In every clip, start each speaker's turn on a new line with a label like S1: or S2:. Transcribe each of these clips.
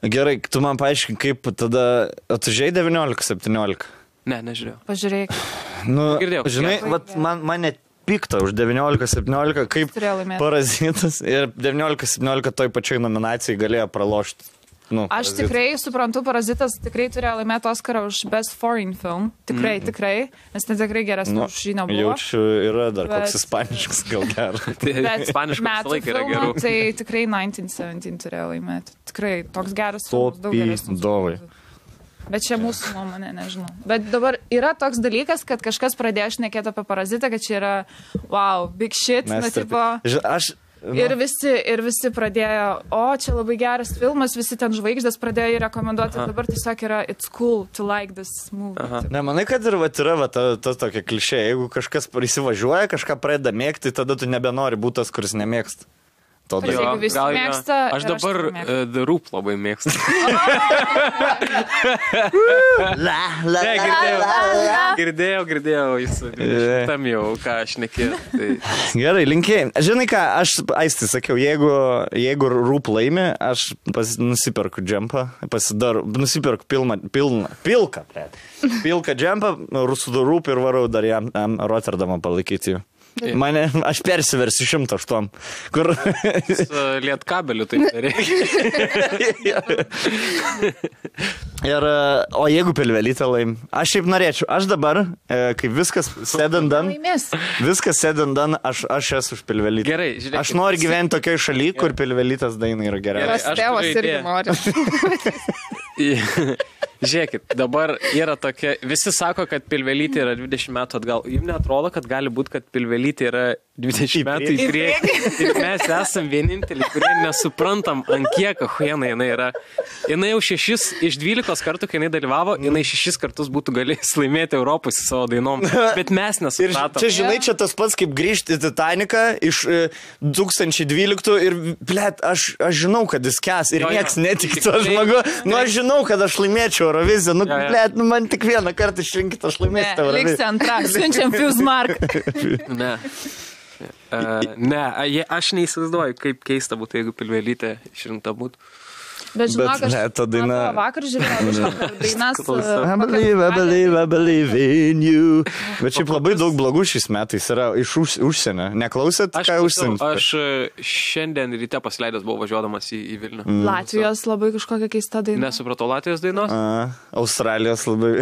S1: Gerai, tu man paaiškink, kaip tada... Tu žiūrėjai 19-17?
S2: Ne, nežiūrėjau.
S3: Pažiūrėk.
S1: Nu,
S2: Girdėjau.
S1: žinai, vat, man net pikta už 19-17, kaip Parazitas ir 19-17 toj pačioj nominacijai galėjo pralošti. Nu,
S3: aš tikrai suprantu, Parazitas tikrai turėjo laimėti Oscarą už Best Foreign Film. Tikrai, nes tai tikrai geresnė už žinią buvo.
S1: Jaučiu, yra dar koks ispaniškas gal geras.
S3: Bet
S2: ispaniškas laik yra gerų.
S3: Tai tikrai 1917 turėjo laimėti. Tikrai toks geras filmas, daug
S1: Topi
S3: geresnis.
S1: dovai.
S3: Bet čia mūsų nuomonė, nežinau. Bet dabar yra toks dalykas, kad kažkas pradėjo šnekėti apie Parazitą, kad čia yra wow, big shit, na tipo. Ir visi pradėjo, čia labai geras filmas, visi ten žvaigždės pradėjo jį rekomenduoti, dabar tiesiog yra it's cool to like this movie.
S1: Ne, manai, kad ir yra ta tokia klišė, jeigu kažkas įsivažiuoja, kažką pradeda mėgti, tada tu nebenori būti tas, kuris nemėgsta.
S3: Jeigu visi mėgsta,
S2: aš dabar The Roop labai mėgstu. Girdėjau, jis tam jau, ką aš nekėjau.
S1: Gerai, linkėjai. Žinai ką, aš Aisti sakiau, jeigu Roop laimi, aš nusiperku džempą, nusiperku pilką džempą, su Roop ir varau dar jam Rotterdamą palaikyti jų. Aš persiversiu 108, kur...
S2: Liet kabelių taip nereikia.
S1: O jeigu Pilvelytė laim, aš šiaip norėčiau, aš dabar, kai viskas said and done, aš esu už Pilvelytę.
S2: Gerai, žiūrėkit.
S1: Aš noriu gyventi tokioj šaly, kur Pilvelytės daina yra geriausia.
S3: Tėvas irgi nori.
S2: Žiūrėkit, dabar yra tokia, visi sako, kad Pilvelytė yra 20 metų atgal. Jums neatrodo, kad gali būti, kad Pilvelytė yra 20 metų į priekį. Ir mes esam vieninteliai, kurie nesuprantam, ant kiek ahuena jinai yra. Jinai jau 6 iš 12 kartų, kai jinai dalyvavo, jinai 6 kartus būtų galėjęs laimėti Europos į savo dainom. Bet mes nesupratom.
S1: Čia, žinai, čia tas pats, kaip grįžti į Titaniką iš 2012 ir, blėt, aš žinau, kad jis kes ir nieks netik to žmogu. Aš žinau, kad aš laimėčiau Euroviziją. Blėt, man tik vieną kartą išrinkit, aš laimėsiu tą Euroviziją.
S3: Liks antrą, siunčiam Fusmark.
S2: Aš neįsivaizduoju, kaip keista būtų, jeigu Pilvelytė išrinkta būtų.
S3: Bet žinok, aš vakar žiūrėjau dainas.
S1: I believe in you. Bet šiaip labai daug blogų šiais metais yra iš užsienio. Neklausėt, ką užsienio?
S2: Aš šiandien ryte pasileidęs buvau važiuodamas į Vilnių.
S3: Latvijos labai kažkokia keista daina.
S2: Nesupratau Latvijos dainos.
S1: Australijos labai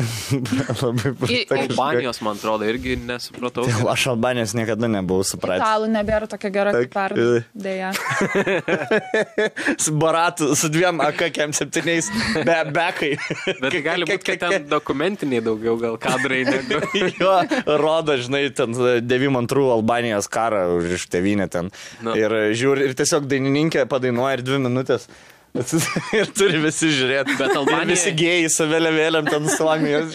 S2: Albanijos, man atrodo, irgi nesupratau.
S1: Aš Albanijos niekada nebuvau supratęs.
S3: Italų nebėra tokia gera kaip pernai. Deja.
S1: Su Baratu, su 2 AK-7 bekai.
S2: Bet gali būti, kad ten dokumentiniai daugiau gal kadrai negu.
S1: Jo, rodo, žinai, ten 92 Albanijos karą už tėvynę ten. Ir žiūri, ir tiesiog dainininkė padainuoja ir 2 minutės. Ir turi visi žiūrėti. Bet Albanija... Ir visi gėjai su vėliavėlėm ten Suomijos.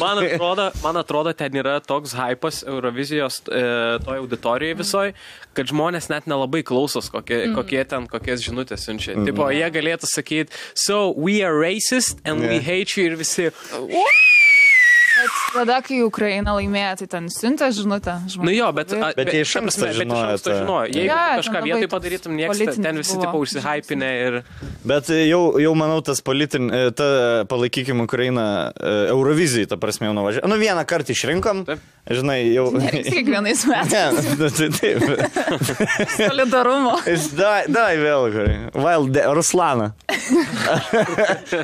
S2: Man atrodo, ten yra toks hypas Eurovizijos toj auditorijai visoj, kad žmonės net nelabai klausos, kokias žinutės siunčia. Tipo, jie galėtų sakyti, so we are racist and we hate you ir visi...
S3: Bet tada, kai Ukraina laimėjo, tai ten siuntė žinutę.
S2: Jo, bet
S1: jie iš anksto žinojo.
S2: Jeigu kažką vietoj padarytum, niekas ten visi tipo užsihypinę ir... Bet
S1: jau manau, ta palaikykim Ukrainą Eurovizijai, ta prasme, jau nuvažiavo. Vieną kartą išrinkom, žinai, jau...
S3: Nereiks kiekvienais metais.
S1: Taip.
S3: Solidarumo.
S1: Dai vėl, Ruslaną.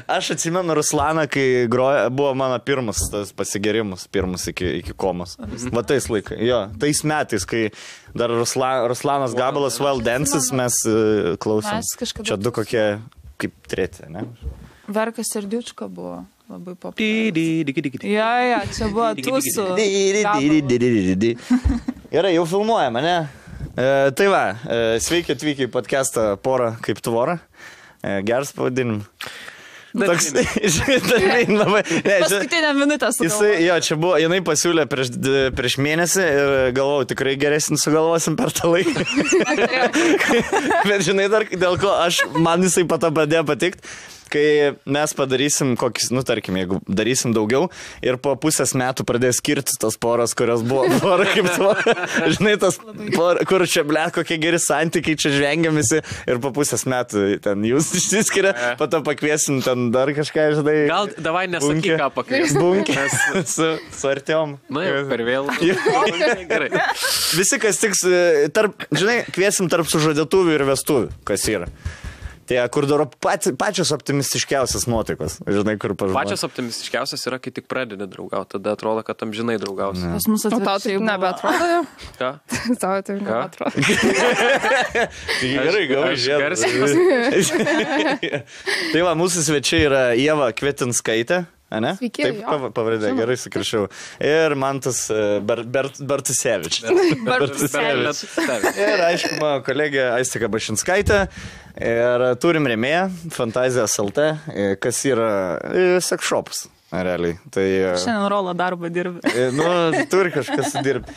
S1: Aš atsimenu Ruslaną, kai buvo mano pirmas tas pasigerimus, pirmus iki komos. Va tais laikai, jo, tais metais, kai dar Ruslanas gabalas Well Dances mes klausom. Čia 2 kokie, kaip 3, ne?
S3: Verkas Serdiučka buvo labai populiarus. Jo, čia buvo tūsų.
S1: Gerai, jau filmuojame, ne? Tai va, sveiki atvykę į podcastą Pora kaip tvora. Geras pavadinimas.
S3: Paskutinę minutę sugalvoju.
S1: Jo, čia buvo, jinai pasiūlė prieš mėnesį ir galvojau, tikrai geresnį sugalvosim per tą laiką. Bet žinai dar, dėl ko man jisai pato pradėjo patikt. kai mes padarysim kokis, tarkim, jeigu darysim daugiau ir po pusės metų pradės skirtis tas poras, kurios buvo pora kaip to, žinai, tas pora, kur čia, kokie geri santykiai, čia žvengiamisi ir po pusės metų ten jūs išsiskiria, po to pakviesim ten dar kažką, žinai.
S2: Gal davai nesakyk, ką pakviesim.
S1: Bunkė su Artiom.
S2: Na jau, per vėl. Gerai.
S1: Visi, kas tiks, žinai, kviesim tarp sužadėtuvių ir vestuvių, kas yra. Tai, kur daro pačios optimistiškiausias nuotaikos. Žinai, kur pažinai.
S2: Pačios optimistiškiausias yra, kai tik pradedi draugauti. Tada atrodo, kad amžinai draugausi.
S3: Pas mus atvirkščiai nebeatrodo jau.
S2: Ką?
S3: Tau tai nebeatrodo.
S1: Gerai, gal žiūrėjau. Tai va, mūsų svečiai yra Ieva Kvetinskaitė. Ne?
S3: Sveiki,
S1: taip, pavardė, gerai sukrašiau. Ir Mantas Bartusevič. Ir aišku, mano kolegė Aistika Bašinskaitė. Ir turim rėmėją, Fantazijos LT, kas yra seksšopas. Realiai. Tai,
S3: šiandien rolą darbą dirbi.
S1: Turi kažkas dirbti.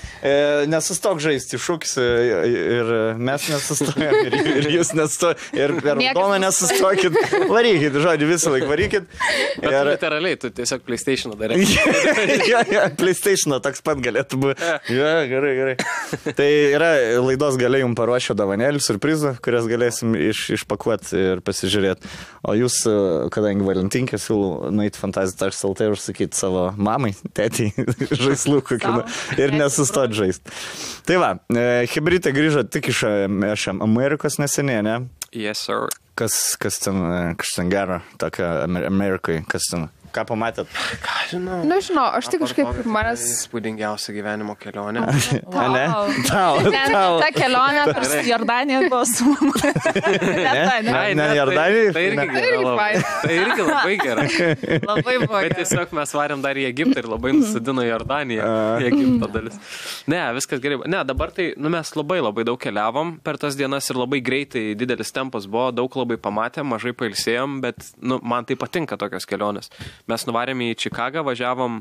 S1: Nesustok žaisti šūkis ir mes nesustojam ir jūs nestojate. Ir per raudoną nesustokit. Varykit, žodį, visą laiką varykit.
S2: Bet literaliai, tu tiesiog PlayStation'ą darai.
S1: PlayStation'ą toks pat galėtų būti. Gerai. Tai yra laidos gale jums paruošio dovanėlių, surprizų, kurias galėsim išpakuoti ir pasižiūrėti. O jūs, kadangi Valentinkę, siūlau nueiti Fantazijos LT ir užsakyti savo mamai, tėtį, žaislų kokių ir nesustot žaisti. Tai va, Hebrytė grįžo tik iš Amerikos neseniai, ne?
S2: Yes, sir.
S1: Kas ten gero, tokia Amerikai, kas ten... Ką pamatėt?
S2: Ką žinau?
S3: Nežinau, aš tik kažkaip manęs...
S2: Spūdingiausia gyvenimo kelionė.
S1: Ne?
S3: Ta kelionė per Jordaniją buvo su mama.
S1: Ne, Jordanija?
S2: Tai irgi labai gerai.
S3: Labai buvo gerai.
S2: Bet tiesiog mes varėm dar į Egiptą ir labai nusidino Jordaniją. Į Egipto dalis. Ne, viskas gerai. Ne, dabar tai, mes labai daug keliavom per tas dienas ir labai greitai didelis tempas buvo, daug labai pamatėm, mažai pailsėjom, bet man tai patinka tokios kelionės. Mes nuvarėm į Čikagą, važiavom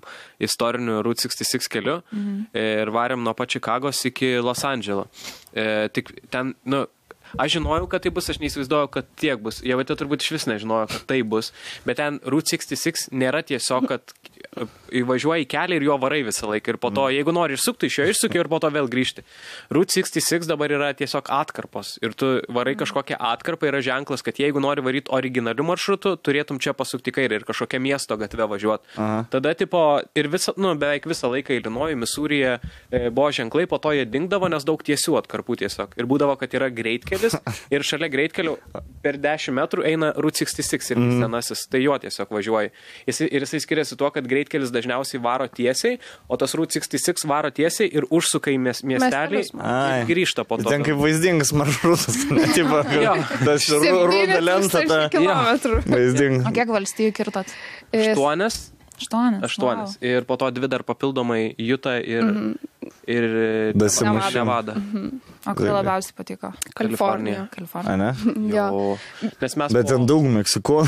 S2: istoriniu Route 66 keliu ir varėm nuo pat Čikagos iki Los Andželo. Tik ten, aš žinojau, kad tai bus, aš neįsivaizduoju, kad tiek bus. Jie turbūt iš vis nežinojo, kad tai bus. Bet ten Route 66 nėra tiesiog, kad įvažiuoji į kelią ir jo varai visą laiką. Ir po to, jeigu nori išsukti, iš jo išsuki ir po to vėl grįžti. Route 66 dabar yra tiesiog atkarpos. Ir tu varai kažkokią atkarpą, yra ženklas, kad jeigu nori varyti originalių maršrutų, turėtum čia pasukti kairę ir kažkokią miesto gatvę važiuoti. Tada, ir beveik visą laiką Ilinojuje, Misūryje buvo ženklai, po to jie dingdavo, nes daug tiesių atkarpų tiesiog. Ir būdavo, kad yra greitkelis ir šalia greitkelio per 10 metrų eina Route 66 ir senasis. Tai jo tiesiog važiuoji. Ir jisai skiriasi tuo, kad greitkelis dažniausiai varo tiesiai, o tas Route 66 varo tiesiai ir užsuka į miestelį ir grįžta po to.
S1: Ten kaip vaizdingas maršrutas. Tas rūda lenta. Vaizdingas.
S3: O kiek valstijų kirtot?
S2: 8. Ir po to 2 dar papildomai Utah ir Nevada.
S3: O kai labiausiai patiko?
S2: Kalifornija.
S1: Ne?
S2: Bet
S1: ten daug Meksiko.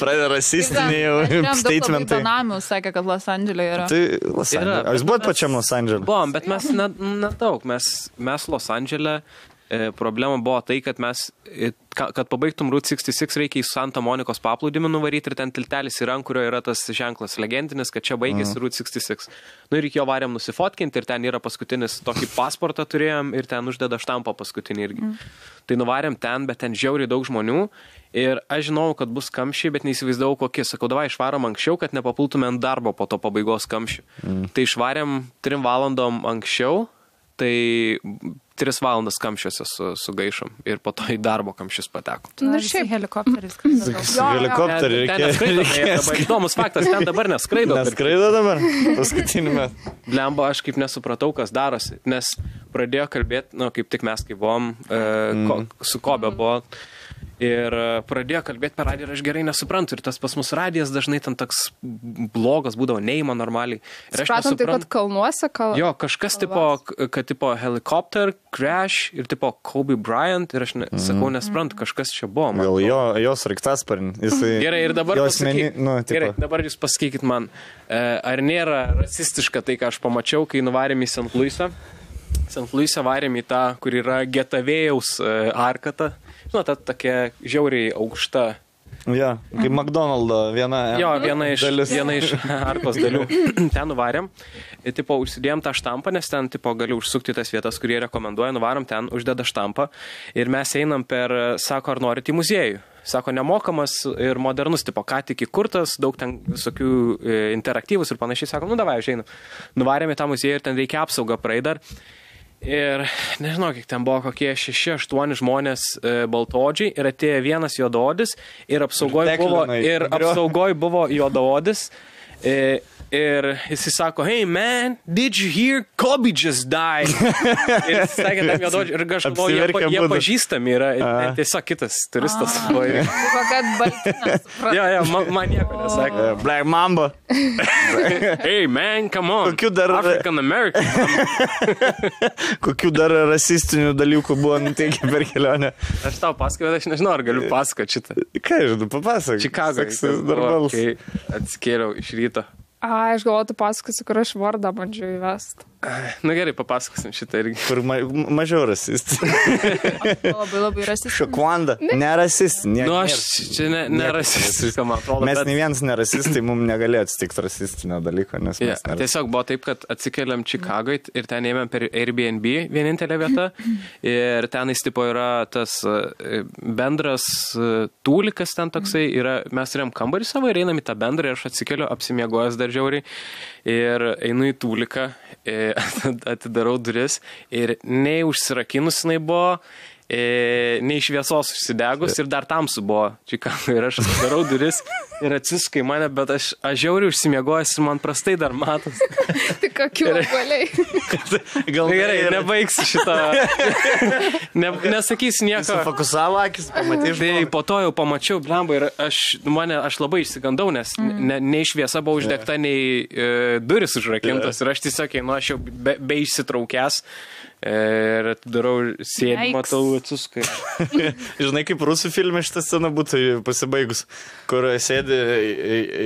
S1: Pradeda rasistiniai statementai.
S3: Benamių sakė, kad Los Andželė yra.
S1: Tai Los Andželė. Jūs buvot pačiam Los Andželė?
S2: Buvom, bet mes nedaug. Mes Los Andželė. Problema buvo tai, kad kad pabaigtum Route 66 reikia į Santa Monikos paplūdimį nuvaryti ir ten tiltelis yra, ant kurio yra tas ženklas legendinis, kad čia baigėsi Route 66. Ir iki jo varėm nusifotkinti ir ten yra paskutinis tokį pasportą turėjom ir ten uždeda štampą paskutinį irgi. Tai nuvarėm ten, bet ten žiauriai daug žmonių ir aš žinau, kad bus kamščiai, bet neįsivaizdavau kokie. Sakau, davai išvarom anksčiau, kad nepapultume ant darbo po to pabaigos kamščių. Tai išvarėm 3 valandom anksčiau, tai 3 valandas kamščiuose sugaišom ir po to į darbo kamščius pateko.
S3: Ir šiaip helikopteris.
S1: Helikopterį reikia.
S2: Įdomus faktas, ten dabar neskraido.
S1: Neskraido dabar? Paskutinį metą.
S2: Blemba, aš kaip nesupratau, kas darosi, nes pradėjo kalbėti, kaip tik mes kaip buvom, su Kobe buvo. Ir pradėjo kalbėti per radiją ir aš gerai nesuprantu. Ir tas pas mus radijas dažnai ten toks blogas būdavo, neįma normaliai.
S3: Supratom, tai kad kalnuose
S2: Jo, kažkas tipo helikopter, crash ir tipo Kobe Bryant. Ir aš sakau, nesuprantu, kažkas čia buvo.
S1: Gal jos raiktasparnis.
S2: Gerai, ir dabar dabar jūs pasakykit man, ar nėra rasistiška tai, ką aš pamačiau, kai nuvarėm į St. Louisą. St. Louisą varėm į tą, kur yra Getavėjaus arkata. Ta tokia žiauriai aukšta
S1: Ja, kaip McDonald's viena
S2: iš arkos dalių. Ten nuvarėm, tipo, užsidėjom tą štampą, nes ten, tipo, gali užsukti tas vietas, kurie rekomenduoja, nuvarom ten, uždeda štampą ir mes einam per, sako, ar norit į muziejų. Sako, nemokamas ir modernus, tipo, ką tik įkurtas, daug ten visokių interaktyvus ir panašiai. Sako, davai, aš einu. Nuvarėm į tą muziejų ir ten reikia apsaugą praeidar. Ir nežinau, kiek ten buvo kokie 6-8 žmonės baltodžiai ir atėjo vienas juodaodis ir apsaugoj buvo juodaodis. Ir jis sako, hey man, did you hear Kobe just died? Ir jis sakė tam juododžiui, ir aš galvoju, jie pažįstami yra, tiesiog kitas turistas.
S3: Kad baltinas.
S2: Jo, man nieko nesakė.
S1: Black Mamba.
S2: Hey man, come on. African American.
S1: Kokių dar rasistinių dalykų buvo nuteikę per kelionę?
S2: Aš tau pasakojau, aš nežinau, ar galiu pasakoti šitą.
S1: Ką žinau, papasakok.
S2: Čikagoje, kai atsikėliau iš ryto.
S3: Aš galvoju, tu pasakosiu, kur aš vardą bandžiau įvesti.
S2: Na gerai, papasakosim šitą irgi.
S1: Kur mažiau rasistai.
S3: Labai rasistai.
S1: Šokwanda, nerasistai.
S2: Nu, aš čia nerasistai, man atrodo.
S1: Mes ne vienas nerasistai, mums negalėjo atsitikti rasistinio dalyko, nes mes nerasistai.
S2: Tiesiog buvo taip, kad atsikeliam Čikagoje ir ten ėmėm per Airbnb vienintelę vietą. Ir tenais tipo yra tas bendras tūlikas ten toksai. Mes turėjom kambarį savo ir einam į tą bendrą ir aš atsikeliu apsimiegojęs dar žiauriai. Ir einu į tūliką. Atidarau duris ir nei užsirakinus jinai buvo, nei šviesos užsidegus ir dar tamsu buvo Čikagoje ir aš atidarau duris ir atsisukai mane, bet aš žiauriai užsimiegojęs ir man prastai dar matos.
S3: Tai kokiu valiai.
S2: Gal gerai, nebaigsiu šitą. Nesakysiu nieko.
S1: Fokusavo akis, pamatai.
S2: Tai po to jau pamačiau blemba ir aš labai išsigandau, nes nei šviesa buvo uždegta, nei duris užrakintos ir aš tiesiog, aš jau be išsitraukęs ir atidarau sėdį, matau atsisukai.
S1: Žinai, kaip rusų filme šitą sceną būtų pasibaigus, kur sėdi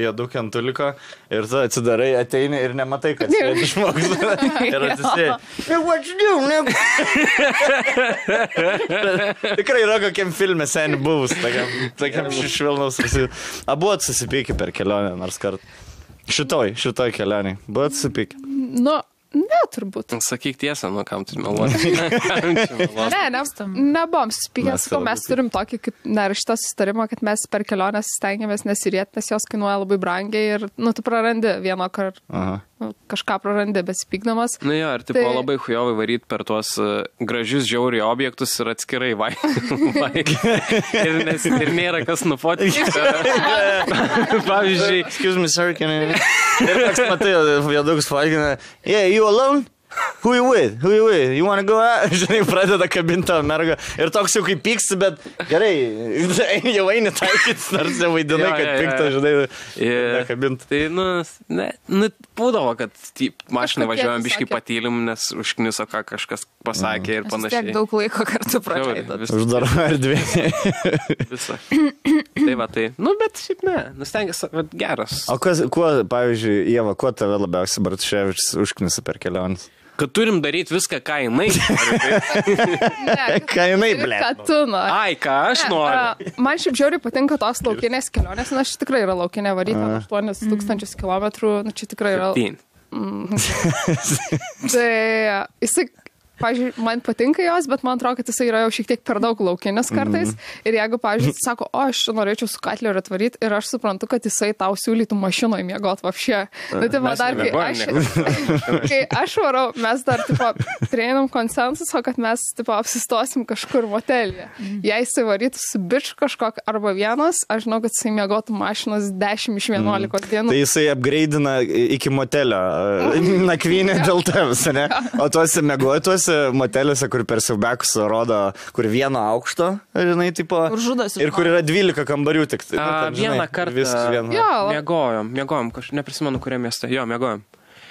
S1: jėdukė ant tuliko ir tu atsidarai, ateini ir nematai, kad sėdi žmogus. Ir atsisėdi. What you do? Tikrai yra kokiam filme seniai buvus, tokiam švelnaus. Abu susipykę per kelionę nors kartą. Šitoj kelionį. Buvo susipykę.
S3: Nu, ne, turbūt.
S2: Sakyk tiesą, kam tu meluoti.
S3: Nebuvom susipykęs, mes turim tokį kaip neraštą sustarimą, kad mes per kelionės stengiamės nesirieti, nes jos kainuoja labai brangiai ir, tu prarandi vieną kartą. Kažką prarandi besipykdamas.
S2: Nu jo, ir tipo labai hujovai varyti per tuos gražius žiauriai objektus ir atskirai ir nėra kas nufotinti. Pavyzdžiui,
S1: excuse me, sir, can I... Ir toks matai, vėdukus fotkina, yeah, you alone? Who you with? You wanna go out? Žinai, pradeda kabinti tą mergą. Ir toks jau kaip pyksti, bet gerai, jau eini taikytis, nors jau vaidinai, kad pikta, žinai, nekabinti.
S2: Tai, būdavo, kad mašinai važiuojam biškai patylim, nes užkniso, ką kažkas pasakė ir panašiai.
S3: Tiek daug laiko kartu praleidot.
S1: Uždaro erdvė.
S2: Visą. Tai va, tai. Bet šiaip ne, stengiasi, geras.
S1: O kuo, pavyzdžiui, Ieva, kuo tave labiausiai Bartuševičius užknisa per keliones?
S2: Kad turim daryti viską, ką jinai.
S1: Ką jinai, ble.
S3: Ką tu nori.
S2: Ai, ką aš noriu.
S3: Man šiaip žiauriai patinka tos laukinės kelionės, nes aš tikrai yra laukinė varyti 8000 kilometrų, čia tikrai yra. Tai jisai, pavyzdžiui, man patinka jos, bet man atrodo, kad jisai yra jau šiek tiek per daug laukinis kartais. Ir jeigu, pavyzdžiui, sako, aš norėčiau su Katleriu atvaryti ir aš suprantu, kad jisai tau siūlytų mašinoje miegot vapšė. Tai va dar, kai aš varau, mes dar, prieinam konsensuso, kad mes, apsistosim kažkur motelį. Jei jisai varytų su biču kažkok arba vienas, aš žinau, kad jisai miegotų mašinos 10 iš 11 dienų.
S1: Tai jisai upgradeina iki motelio nakvynę dėl tavęs, ne? O tuose miegotuose moteliuose, kur per siaubekus rodo, kur vieno aukšto, žinai, tipo, ir kur yra 12 kambarių tik.
S2: Vieną kartą miegojom, neprisimenu, kuriam mieste. Jo, miegojom.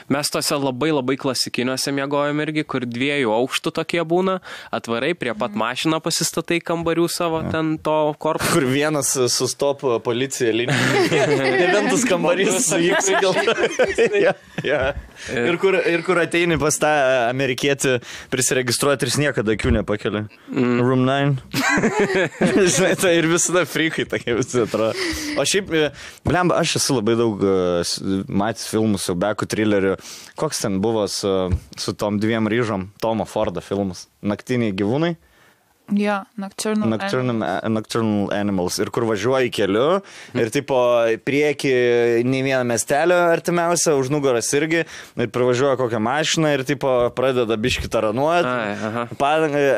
S2: Mes tose labai klasikiniuose miegojom irgi, kur 2 aukštų tokie būna, atvarai prie pat mašiną pasistatai kambarių savo ten to korpuso.
S1: Kur vienas sustop policija linija. Devintas kambarys su X. Ir kur ateini pas tą amerikietį prisiregistruoti ir jis niekada akių nepakelia. Room 9. Žinai, tai ir visada frikai tokie visi atrodo. O šiaip, blemba, aš esu labai daug matęs filmų, siaubekų, trilerių. Koks ten buvo su tom 2 ryžom? Tomo Fordo filmas. Naktiniai gyvūnai.
S3: Jo,
S1: Nocturnal Animals. Ir kur važiuoji keliu ir tipo prieki nei vieną miestelio artimiausią, už nugaras irgi, ir pravažiuoja kokią mašiną ir tipo pradeda biškį taranuoti.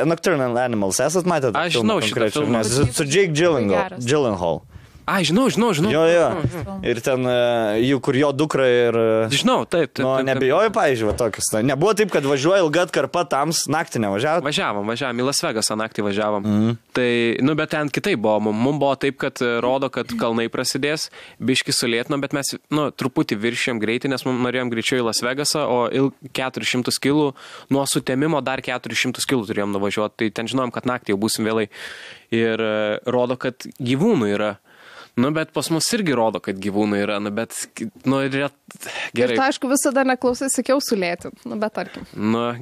S1: Nocturnal Animals, esat matę?
S2: Aš žinau šitą filmą.
S1: Su Jake Gyllenhaal.
S2: Ai, žinau.
S1: Jo. Ir ten, kur jo dukra ir...
S2: Žinau, taip.
S1: Nu, nebijoju, pavyzdžiui, tokius. Nebuvo taip, kad važiuoja ilga atkarpa tams, naktį nevažiavo?
S2: Važiavom, į Las Vegasą naktį važiavom. Tai, bet ten kitaip buvo. Mums buvo taip, kad rodo, kad kalnai prasidės, biški sulėtino, bet mes, truputį viršėm greitį, nes mums norėjom greičiau į Las Vegasą, o 400 kilų, nuo sutemimo dar 400 kilų turėjom nuvažiuoti. Tai ten žinom, kad naktį jau būsim vėlai. Ir rodo, kad gyvūnų yra. Bet pas mus irgi rodo, kad gyvūnai yra, bet, gerai.
S4: Ir tai, aišku, visada neklausai, sakiau sulėti, bet tarkim.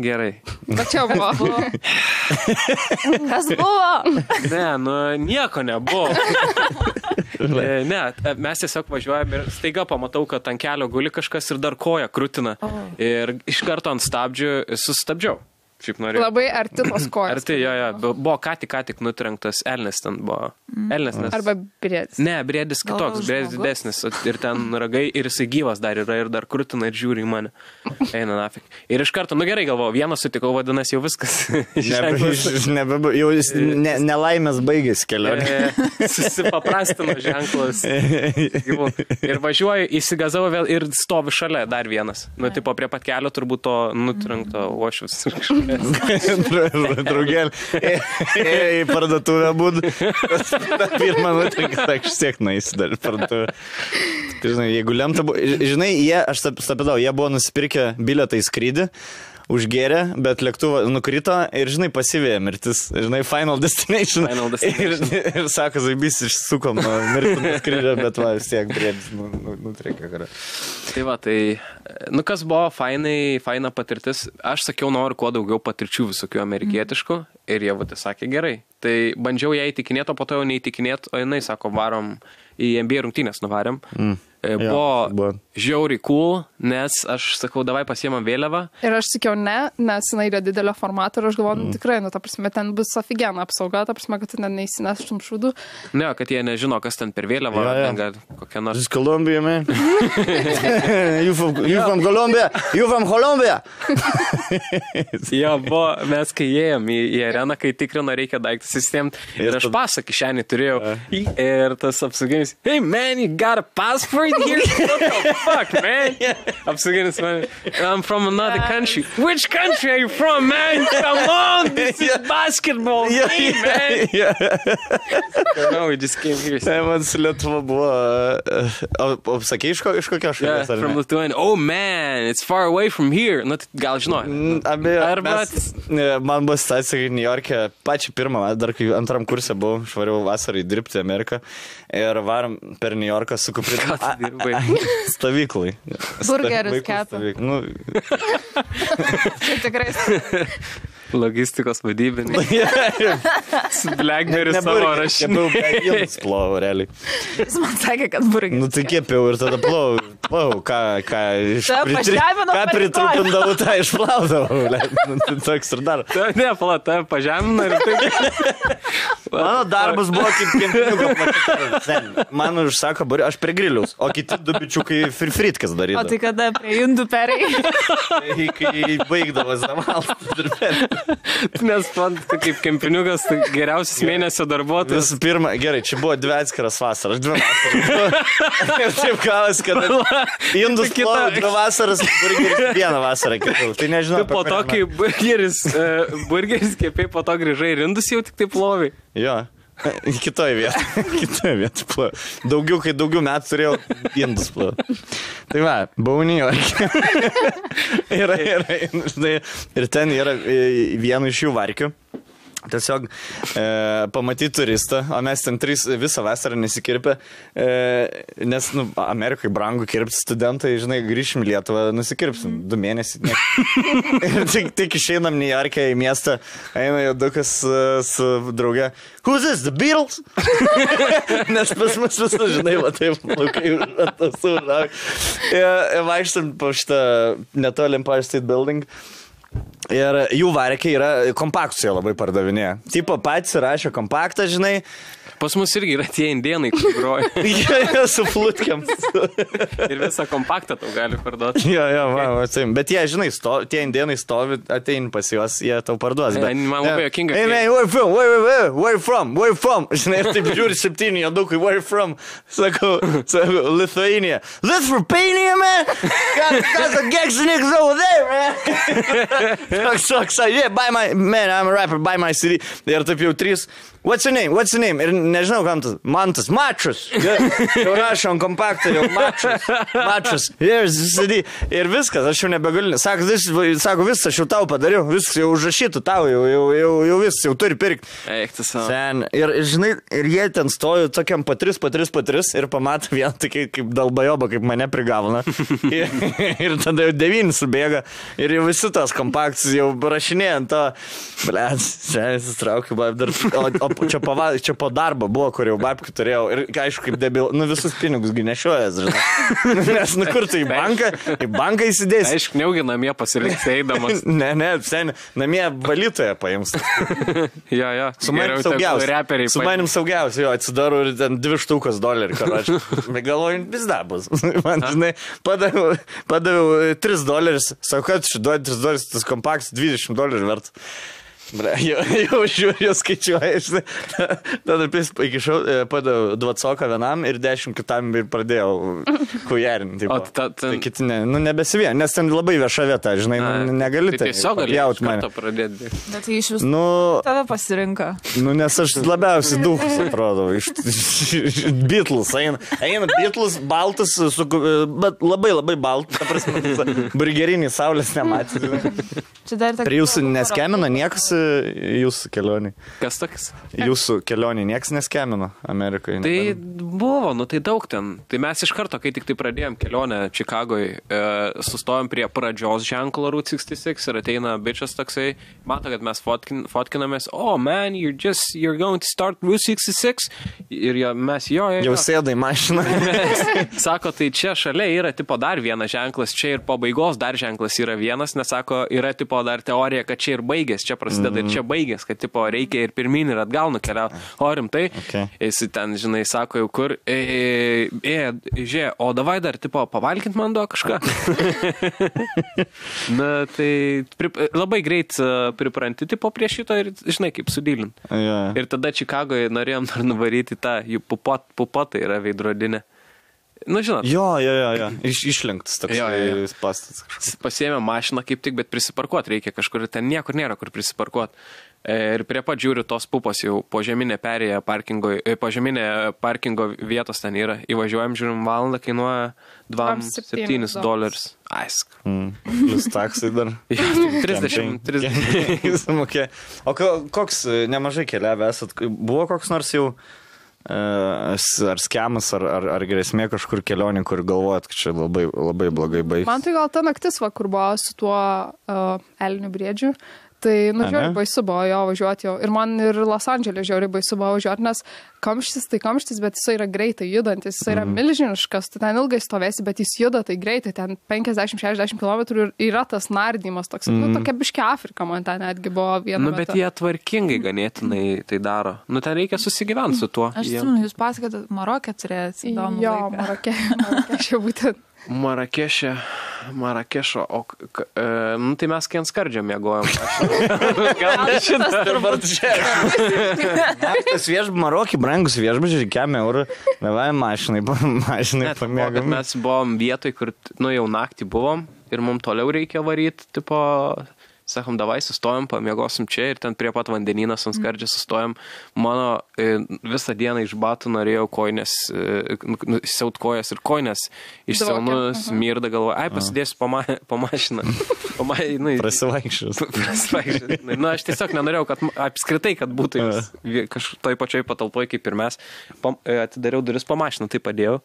S2: Gerai.
S4: Bet čia buvo.
S3: Kas buvo?
S2: Ne, nieko nebuvo. Ne, mes tiesiog važiuojame ir staiga pamatau, kad ant kelio guli kažkas ir dar koja krutina. Ir iš karto ant stabdžių sustabdžiau.
S4: Labai arti tos kojos.
S2: Arti, jo. Buvo ką tik nutrenktas elnis ten buvo. Elnis.
S4: Arba briedis.
S2: Ne, briedis kitoks, briedis didesnis. Ir ten ragai, ir jisai gyvas dar yra, ir dar krutina, ir žiūri į mane. Eina nafik. Ir iš karto, gerai galvoju, vieną sutikau, vadinasi, jau viskas.
S1: Jau nelaimės baigėsi kelionė.
S2: Susipaprastino ženklas. Ir važiuoju, įsigazau vėl ir stovi šalia dar vienas. Tipo prie pat kelio turbūt to nutrenkto uošvis.
S1: Draugelį. Į parduotuvę būd. Pirmą nutrinką, tak šiek naisi dar parduotuvę. Žinai, jeigu lemta buvo... Žinai, aš stapidau, jie buvo nusipirkę bilietą į skrydį, užgėrė, bet lėktuvą nukrito ir, žinai, pasivėja mirtis. Žinai, Final Destination. Ir sako, zaibys, išsukom nuo mirtų skrydžio, bet va, vis tiek briedis nutrenkė karą.
S2: Tai va, kas buvo faina patirtis. Aš sakiau, noriu kuo daugiau patirčių visokių amerikietiškų ir jie sakė gerai. Tai bandžiau ją įtikinėti, o po to jau neįtikinėti, o jinai sako, varom į NBA rungtynės nuvarėm. Buvo žiauriai cool, nes aš sakau, davai pasiemam vėliavą.
S4: Ir aš sakiau ne, nes jinai yra didelio formato ir aš galvoju, tikrai, ta prasme, ten bus ofigiena apsauga, ta prasme, kad tu neįsineštum šūdų.
S2: Ne, kad jie nežino, kas ten per vėliavą, ten gal kokia nors.
S1: This is Colombia, man. You from Colombia? You from Colombia?
S2: Jo, mes kai ėjom į areną, kai tikrino reikia daiktus įsitėmti, ir aš pasą kišenį turėjau. Ir tas apsauginis, hey man, you got a passport here? What the fuck, man? Apsauginis man, I'm from another country. Which country are you from, man? Come on, this is basketball game, man. No, we just came here.
S1: Man su Lietuva buvo... O sakei iš kokio šalies?
S2: Yeah, from Lithuania. Oh man, it's far away from here. Gal žinau.
S1: Man buvo situacija, kai New York'e pačią pirmą, dar kai antram kurse buvau, švariau vasarai dirbti Ameriką ir varom per New Yorką su kuprinė.
S2: Ką tu dirbai?
S1: Stovyklai.
S3: Burgerius kepa. Čia tikrai.
S2: Logistikos vadybiniai. Su Blackberry savo rašiniu.
S1: Jums plovau, realiai.
S3: Jis man sakė, kad burgeris.
S1: Nu tai kėpiau ir tada plovau. Ką pritrupindavau, tą išplaudavau. Toks ir dar.
S2: Ne, tave pažemina ir taip.
S1: Mano darbas buvo kaip kempiniukas. Man užsako burgerį, aš prie griliaus, o kiti du bičiukai fritkas darydavo.
S3: O tai kada prie indų perai?
S1: Kai baigdavo zavaltas.
S2: Nes man kaip kempiniukas tai geriausias mėnesio darbuotojas.
S1: Visų pirma, gerai, čia buvo 2 atskiras vasaras, 2 vasaras. Ir taip kalas, kad indus plovau 2 vasaras, burgeris 1 vasarą kitų. Tai nežinau.
S2: Po to, kai burgeris kėpiai, po to grįžai ir indus jau tik taip plovai.
S1: Jo. Kitoje vietoje plovė. Kai daugiau metų turėjau, indus plovė. Tai va, buvau Niujorke. Ir ten yra vienu iš jų varkių. Tiesiog pamatyti turistą, o mes ten visą vasarą nesikirpę, nes Amerikai brangu kirpti studentai, žinai, grįšim į Lietuvą, nusikirpsim 2 mėnesius. Tik išeinam Niujorke į miestą, eina jodukas su drauge. Who's this, the Beatles? Nes pas mus visą, žinai, va taip, laukai užrauk. Vaikštam po šitą netoli Empire State Building. Ir jų varkiai yra kompaktus, jie labai pardavinėja. Tipo patys rašė kompaktą, žinai.
S2: Pas mus irgi yra tie indėnai, kur groja.
S1: Jie su flutkiam.
S2: Ir visą kompaktą tau gali parduoti.
S1: Jo, bet jie, žinai, tie indėnai stovi, ateini pas juos, jie tau parduos.
S2: Man labai jokinga.
S1: Hey man, where you from? Žinai, ir taip žiūri 7 jodukai, where you from? Sakau, Lithuania. Lithuania, man? Got the Geksiniks over there, man. So, yeah, man, I'm a rapper, buy my CD. Ir taip jau 3. What's your name? Ir nežinau, kam tas. Mantas. Matras. Jau rašom kompaktą, jau matras. Ir viskas, aš jau nebegaliu. Sako, viskas, aš jau tau padariau. Viskas jau užrašytų tau, jau viskas, jau turi pirkti.
S2: Eiktas savo.
S1: Ir žinai, ir jie ten stojo tokiam po 3 ir pamato vieną tokį kaip dalbajoba, kaip mane prigavona. Ir tada jau 9 subėga. Ir jau visi tos kompaktus jau rašinėjant to. Blėt, čia įsitraukiu, dar. O čia po darbo buvo, kur jau babkių turėjau. Ir aišku, kaip debil, visus pinigus nešiojas, žinai. Nes kur tu į banką įsidėsi.
S2: Aišku, neugi namie pasiliks eidamas.
S1: Ne, namie valytoje paims.
S2: Jo.
S1: Su manim saugiausia, jo, atsidaru ir ten $2 karočių. Galvoju, vis dar bus. Man, žinai, padaviau $3. Sakau, kad duodi $3, tas kompaktas $20 vertas. Jau žiūriu, skaičiuoju, žinai. Tada iki šiol padaviau 20 vienam ir 10 kitam ir pradėjau kujerinti. Tai kiti nebesivien, nes ten labai vieša vieta, žinai, negali tai papjaut mane.
S3: Bet tai iš visų tave pasirinka.
S1: Nes aš labiausiai duhus, atrodo, iš Beatles. Eina Beatles, baltas, bet labai baltas, ta prasme, burgerinį saulės nematė. Prie jūsų neskemino niekas jūsų kelionį.
S2: Kas toks?
S1: Jūsų kelionį nieks neskemino Amerikoje.
S2: Tai buvo, tai daug ten. Tai mes iš karto, kai tik tai pradėjom kelionę Čikagoje, sustojom prie pradžios ženklo Route 66 ir ateina bičas toksai, mato, kad mes fotkinamės, man, you're going to start Route 66 ir mes jo.
S1: Jau sėdai mašiną.
S2: Sako, tai čia šalia yra tipo dar vienas ženklas, čia ir pabaigos dar ženklas yra vienas, nes sako, yra tipo dar teorija, kad čia ir baigės, čia prasideda ir čia baigės, kad tipo reikia ir pirmin ir atgal nukeliauti. O rimtai, jis ten, žinai, sako jau kur, žiūrė, o davai dar tipo pavalkint man duo kažką. Na, tai labai greit pripranti tipo prie šito ir, žinai, kaip sudylint. Ir tada Čikagoje norėjom dar nuvaryti tą jų pupotą yra veidrodinė. Nu, žinot.
S1: Jo. Išlenktas toks pastas.
S2: Pasiėmė mašiną kaip tik, bet prisiparkuot reikia kažkur. Ten niekur nėra, kur prisiparkuot. Ir prie pat žiūriu, tos pupos jau požeminė perėja požeminė parkingo vietos ten yra. Įvažiuojam, žiūrim, valandą kainuoja $27. Aisk.
S1: Plus taksai dar. 30. O koks nemažai keliavę esat? Buvo koks nors jau ar skemas, ar grėsmė kažkur kelionė, kur galvojat, kad čia labai blogai baigsis?
S4: Man tai gal ta naktis, kur buvo su tuo elnių briedžiu. Tai, žiauriai baisu buvo jo važiuoti jau. Ir man ir Los Andželė žiauriai baisu buvo važiuoti, nes kamštis tai kamštis, bet jis yra greitai judantis, jis yra milžiniškas, tu ten ilgai stovėsi, bet jis juda tai greitai, ten 50-60 km ir yra tas nardymas toks. Tokia biškia Afrika man ten netgi buvo viena.
S2: Bet jie tvarkingai ganėtinai tai daro. Ten reikia susigyventi su tuo.
S3: Aš atsimenu, jūs pasakėte, Maroke turėjot įdomų
S4: laiką. Jo, Maroke būtent.
S2: Marakešo, tai mes kien skardžio mėgojom.
S1: Tas Marokį brangus viešbučiai, €1, davai mašinai pamėgom.
S2: Mes buvom vietoj, kur jau naktį buvom ir mums toliau reikia varyti, tipo sakom, davai, sustojom, pamiegosim čia ir ten prie pat vandenynas ant skardžio sustojom. Mano visą dieną iš batų norėjau koinės, siaut kojas ir koinės išsiaunu, smirda galvoju, pasidėsiu po mašiną.
S1: Prasivaikščius.
S2: Na, aš tiesiog nenorėjau, kad apskritai, kad būtų toj pačioj patalpoj kaip ir mes. Atidariau duris po mašiną, tai padėjau.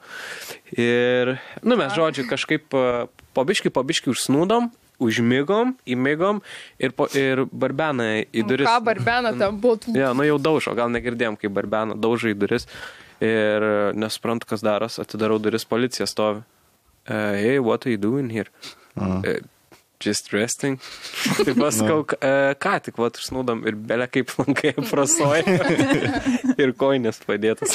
S2: Ir, mes žodžiu, kažkaip po biškį užsnūdom, užmigom, įmigom ir barbeną į duris.
S4: Ką barbeną ten būtų?
S2: Ja, jau daužo, gal negirdėjom, kai barbeną daužo į duris ir nesuprantu, kas daros, atidarau duris, policija stovi. Hey, what are you doing here? Just resting. Tai pasakau, ką tik užsnūdom ir belė kaip lankai prasoja ir koinės padėtas.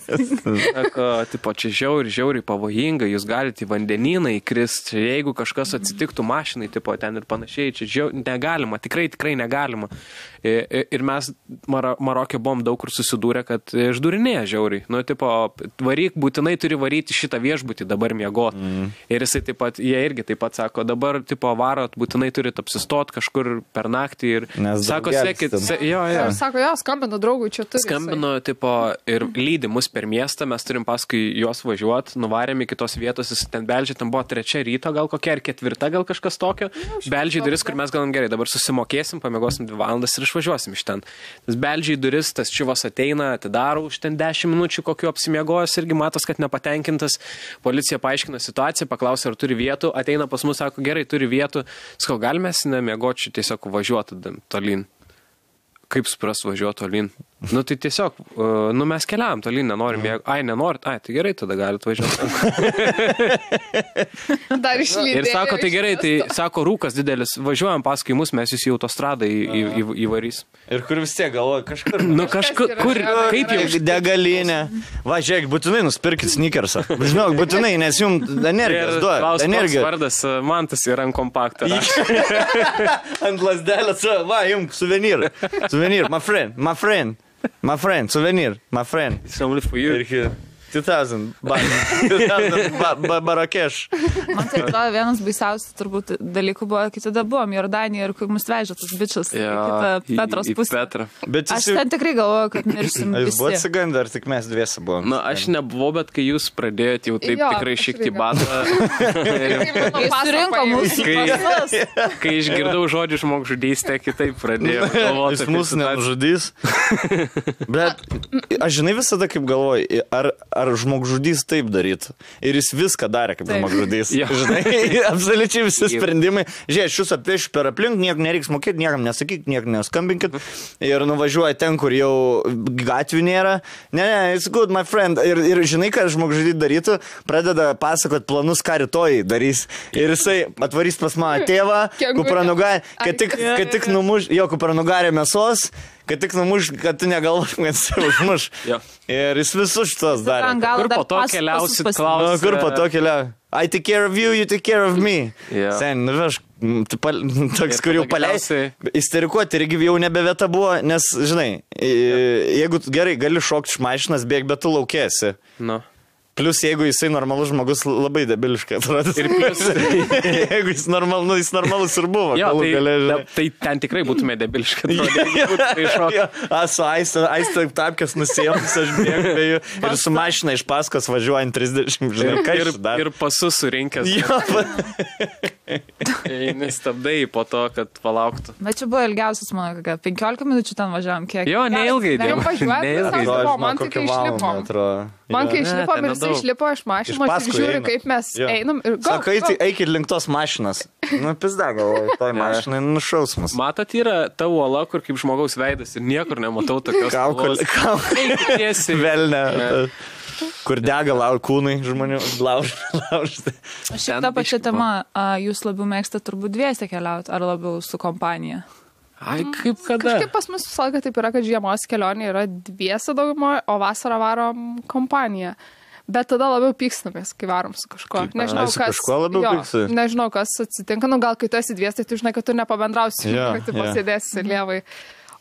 S2: Sako, tipo, čia žiauriai pavojinga, jūs galite į vandenyną įkrist, jeigu kažkas atsitiktų mašinai, tipo, ten ir panašiai, čia negalima, tikrai negalima. Ir mes Marokė buvom daug kur susidūrę, kad išdūrinėja žiauriai. Nu, tipo, būtinai turi varyti šitą viešbutį dabar miegot. Ir jisai taip pat, jie irgi taip pat sako, dabar, tipo, varot, būtinai turit apsistot kažkur per naktį ir sako, sekit,
S4: Sako, skambino draugui, čia turi.
S2: Skambino, tipo, ir lydi mus per miestą, mes turim paskui juos važiuot, nuvarėm į kitos vietos, jis ten beldžia, ten buvo 3 ryto, gal kokia, ar 4, gal kažkas tokio. Beldžia į duris, kur mes galim gerai, dabar susimokėsim, pamiegosim 2 valandas ir išvažiuosim iš ten. Tas beldžia į duris, tas čivas ateina, atidaro už ten 10 minučių, kokiu apsimiegojęs, irgi matos, kad nepatenkintas. Policija paaiškina situaciją, paklausia, ar turi vietų, ateina pas mus, sako, gerai, turi vietų. Sakau, galime nemiegočiau, tiesiog važiuoti tolyn. Kaip supras važiuoti tolyn? Nu, tai tiesiog, mes keliavam tolyn, nenorim mėgoti. Nenorit? Tai gerai, tada galite važiuoti.
S4: Dar išlydėjau.
S2: Ir sako, tai gerai, tai sako, rūkas didelis, važiuojam paskui mus, mes jūs į autostradą įvarys.
S1: Ir kur vis tiek galvoja, kažkur.
S2: Kažkur, kaip jau?
S1: Degalinė. Va, žiūrėk, būtinai nuspirkit sneakersą. Žinok, būtinai, nes jums energijos duoda.
S2: Klausimas vardas, man tas yra ant kompakto.
S1: Ant lasdelės, va, jums suvenyrą. Suvenir, my friend, suvenir, my friend.
S2: It's only for you.
S1: 2000 Barakeš.
S3: Man tai atrodo, vienas baisiausių turbūt dalykų buvo, kai tada buvom Jordanijoje ir kai mus vežė tas bičias į Petros pusę. Aš ten tikrai galvoju, kad mirsim visi.
S1: Jūs buvote sigandę, ar tik mes dviesi buvom?
S2: Na, aš nebuvau, bet kai jūs pradėjote jau taip tikrai šikti batą.
S3: Jis surinko mūsų pasas.
S2: Kai išgirdau žodžių žmogžudystę, kitaip pradėjau galvoti.
S1: Jis mūsų nežudys. Bet aš žinai visada kaip galvoju, ar žmogžudys taip darytų. Ir jis viską darė kaip žmogžudys. Žinai, absoliučiai visi sprendimai. Žiūrėk, šis apiešiu per aplink, nieko nereiks mokėti, niekam nesakyk, niekam neskambinkit. Ir nuvažiuoja ten, kur jau gatvių nėra. Ne, it's good, my friend. Ir žinai, ką žmogžudys darytų, pradeda pasakot planus, ką rytoj darys. Ir jisai atvarys pas mano tėvą, kupranugarį, kad tik numuš, jo kupranugarį mėsos, kad tik numuš, kad tu negalvotum, kad jis užmuš. Ir jis visus šitos darė.
S2: Kur po to keliausit, klausia.
S1: Kur po to keliausit. I take care of you, you take care of me. Sen, aš toks, kur jau paleisi. Isterikuoti irgi jau nebe vieta buvo, nes, žinai, jeigu gerai gali šokti iš mašinas, bėg, bet tu laukėsi. Plius, jeigu jisai normalus žmogus, labai debiliškai atrodo. Ir plius, jeigu jis normalus ir buvo.
S2: Tai ten tikrai būtume debiliškai atrodo.
S1: Su aistą tapkės nusėjoms, aš bėgu ir su mašina iš paskos važiuojant 30, žinai, ką iš dar.
S2: Ir pasus surinkęs. Nestabdai po to, kad palauktų.
S3: Bet čia buvo ilgiausias, mano, 15 minučių ten važiavam, kiek.
S2: Jo, neilgai dėjom.
S4: Man tik išlipom. Man kai išlipom ir jisai išlipo iš mašinos ir žiūri, kaip mes einam ir gal.
S1: Sako, eikit link tos mašinos. Nu, pizda, galvoju, toj mašinai nušausmas.
S2: Matot, yra ta uola, kur kaip žmogaus veidas ir niekur nematau tokios uolos.
S1: Velne. Kur dega kūnai žmonių laužti.
S3: Šitą pačią temą, jūs labiau mėgstate turbūt dviese keliauti, ar labiau su kompanija?
S2: Kaip kada?
S4: Kažkaip pas mus visą laiką taip yra, kad žiemos kelionė yra dviese daugumoje, o vasarą varom kompaniją. Bet tada labiau pykstamės, kai varom su kažko. Nežinau, kas atsitinka. Nu, gal kai tu esi dvies, tai tu žinai, kad tu nepabendrausi, kad tu pasėdėsi lievai.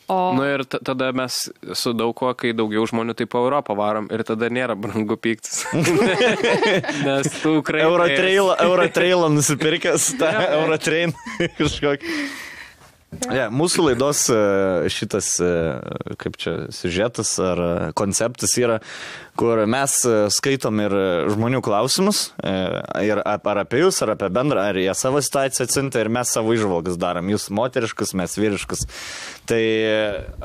S2: Nu ir tada mes su daug ko, kai daugiau žmonių taip po Europą varom ir tada nėra brangu pyktis. Nes tu Ukrainai...
S1: Eurotrailą nusipirkęs, tą Eurotrain kažkokį. Mūsų laidos šitas, kaip čia, siužetas ar konceptas yra, kur mes skaitom ir žmonių klausimus, ir ar apie jūs, ar apie bendrą, ar jie savo situaciją atsinta ir mes savo įžvalgas darom. Jūs moteriškus, mes vyriškus. Tai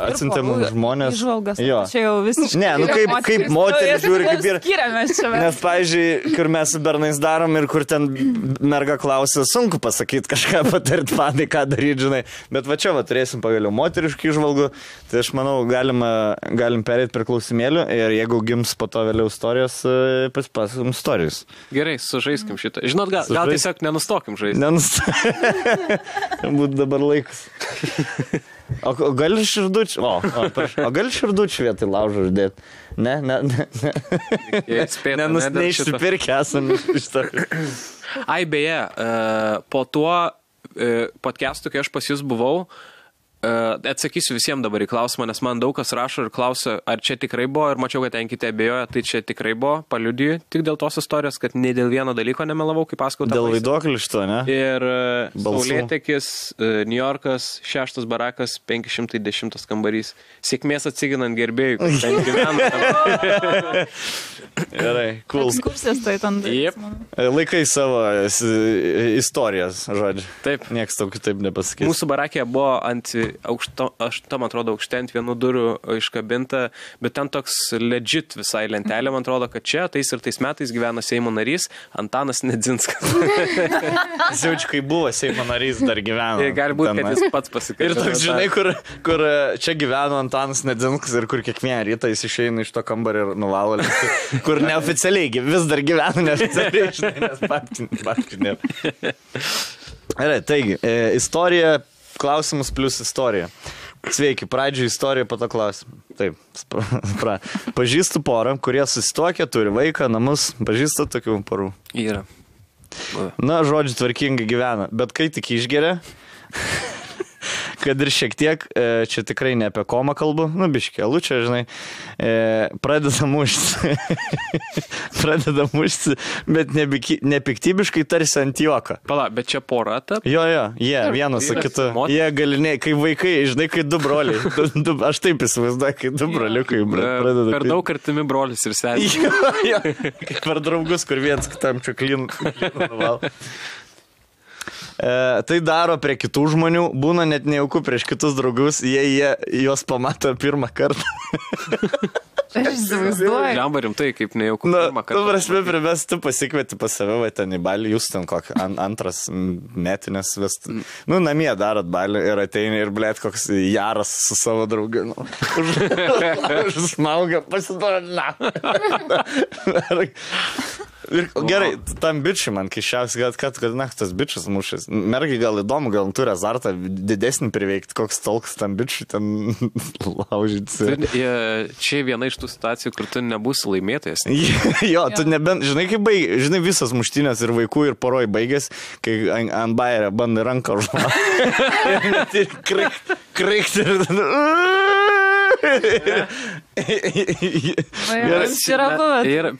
S1: atsinta mums žmonės.
S3: Įžvalgas,
S1: jo.
S3: Čia jau visiškai.
S1: Ne, kaip moteris žiūri, kaip ir...
S3: Skiriamės čia.
S1: Nes, pavyzdžiui, kur mes su bernais darom ir kur ten merga klausia, sunku pasakyti kažką patarti panai, ką daryti, žinai. Bet va čia va turėsim pagaliau moteriškų įžvalgų, tai aš manau, galim perėti prie klausimėlių ir jeigu gims po to vėliau istorijos, pasipasakom istorijos.
S2: Gerai, sužaiskim šitą. Žinot, gal tiesiog nenustokim žaisti.
S1: Būtų dabar laikas. O gali širdučių? O gali širdučių vietoj laužo uždėti? Ne. Neišsipirkę esame iš to.
S2: Ai, beje, po tuo podcastu, kai aš pas jūs buvau, atsakysiu visiems dabar į klausimą, nes man daug kas rašo ir klausia, ar čia tikrai buvo, ir mačiau, kad ten kiti abejoja, tai čia tikrai buvo, paliudiju tik dėl tos istorijos, kad ne dėl vieno dalyko nemelavau, kaip pasakau.
S1: Dėl vaiduoklių šito, ne?
S2: Ir Saulėtekis, New Yorkas, 6 barakas, 510 kambarys. Sėkmės atsiginant gerbėjų, kur ten gyvena.
S1: Gerai, cool.
S3: Ekskursijas tai ten.
S2: Yep.
S1: Laikai savo istorijas, žodžiu.
S2: Taip.
S1: Niekas tau kitaip nepasakys.
S2: Mūsų barakė buvo ant man atrodo, aukšte ant vienų durų iškabinta, bet ten toks legit visai lentelė, man atrodo, kad čia tais ir tais metais gyvena Seimo narys Antanas Nedzinskas.
S1: Jaučiu, kai buvo Seimo narys, dar gyveno.
S2: Gali būti, kad jis pats pasikalbėjo.
S1: Ir toks, žinai, kur čia gyveno Antanas Nedzinskas ir kur kiekvieną rytą jis išeina iš to kambario ir nuvalo, kur neoficialiai vis dar gyvena neoficialiai, žinai, nes faktų nėra. Gerai, taigi, istorija, klausimus plus istorija. Sveiki, pradžioj istorija, po to klausimą. Taip, pažįstu porą, kurie susituokia, turi vaiką, namus, pažįstu tokių porų.
S2: Yra.
S1: Na, žodžiu, tvarkingai gyvena, bet kai tik išgeria, kad ir šiek tiek, čia tikrai ne apie komą kalbu, nu, biškė, lučia, žinai, pradeda mušti, bet nepiktybiškai tarsi ant juoką.
S2: Pala, bet čia pora tap?
S1: Jo, jie vienas su kitu. Jie galiniai, kai vaikai, žinai, kai du broliai. Aš taip įsivaizduoju, kai du broliukai pradeda.
S2: Per daug artimi brolis ir senis.
S1: Jo, kaip per draugus, kur vienas kitam čia klinu nuval. Tai daro prie kitų žmonių, būna net nejauku prieš kitus draugus, jie juos pamato pirmą kartą.
S3: Aš įsivaizduoju.
S2: Lemba rimtai, kaip nejauku pirmą kartą.
S1: Tu prasme, primės, tu pasikvieti pas save, va, ten į balį, jūs ten kokį antras metinės vestų. Nu, namie darot balį ir ateini ir, blėt, koks jaras su savo draugu. Užsmaugia, pasiduoda, Gerai, tam bičiui man kišiausiai, kad tas bičias mušęs. Mergai gal įdomu, gal turi azartą didesnį priveikti, koks tolks tam bičiui ten laužyti.
S2: Čia viena iš tų situacijų, kur tu nebūsi laimėtojas.
S1: Jo, tu nebent, žinai, kaip žinai, visas muštinės ir vaikų ir poroj baigės, kai ant bairio bandai ranką užmauti. Krikt ir...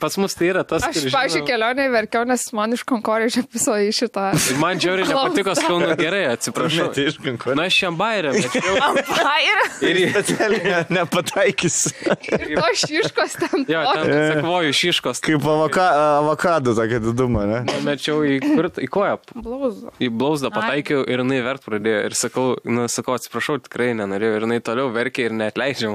S2: Pas mus tai yra tas,
S4: aš, pavyzdžiui, kelionėje verkiau, nes man iš Konkorėžio piso į šitą.
S2: Man džiauriai nepatiko, skaunu, gerai, atsiprašau. Na, aš šiam bairę, bet
S3: ir
S1: specialiai nepataikysiu.
S4: To šiškos ten.
S2: Jo, ten sakvoju šiškos.
S1: Kaip avokado tokia diduma, ne?
S2: Mečiau į koją. Į blauzdą pataikiau ir jinai vert pradėjo. Ir sakau, atsiprašau, tikrai nenorėjau. Ir jinai toliau verkė ir neatleidžia.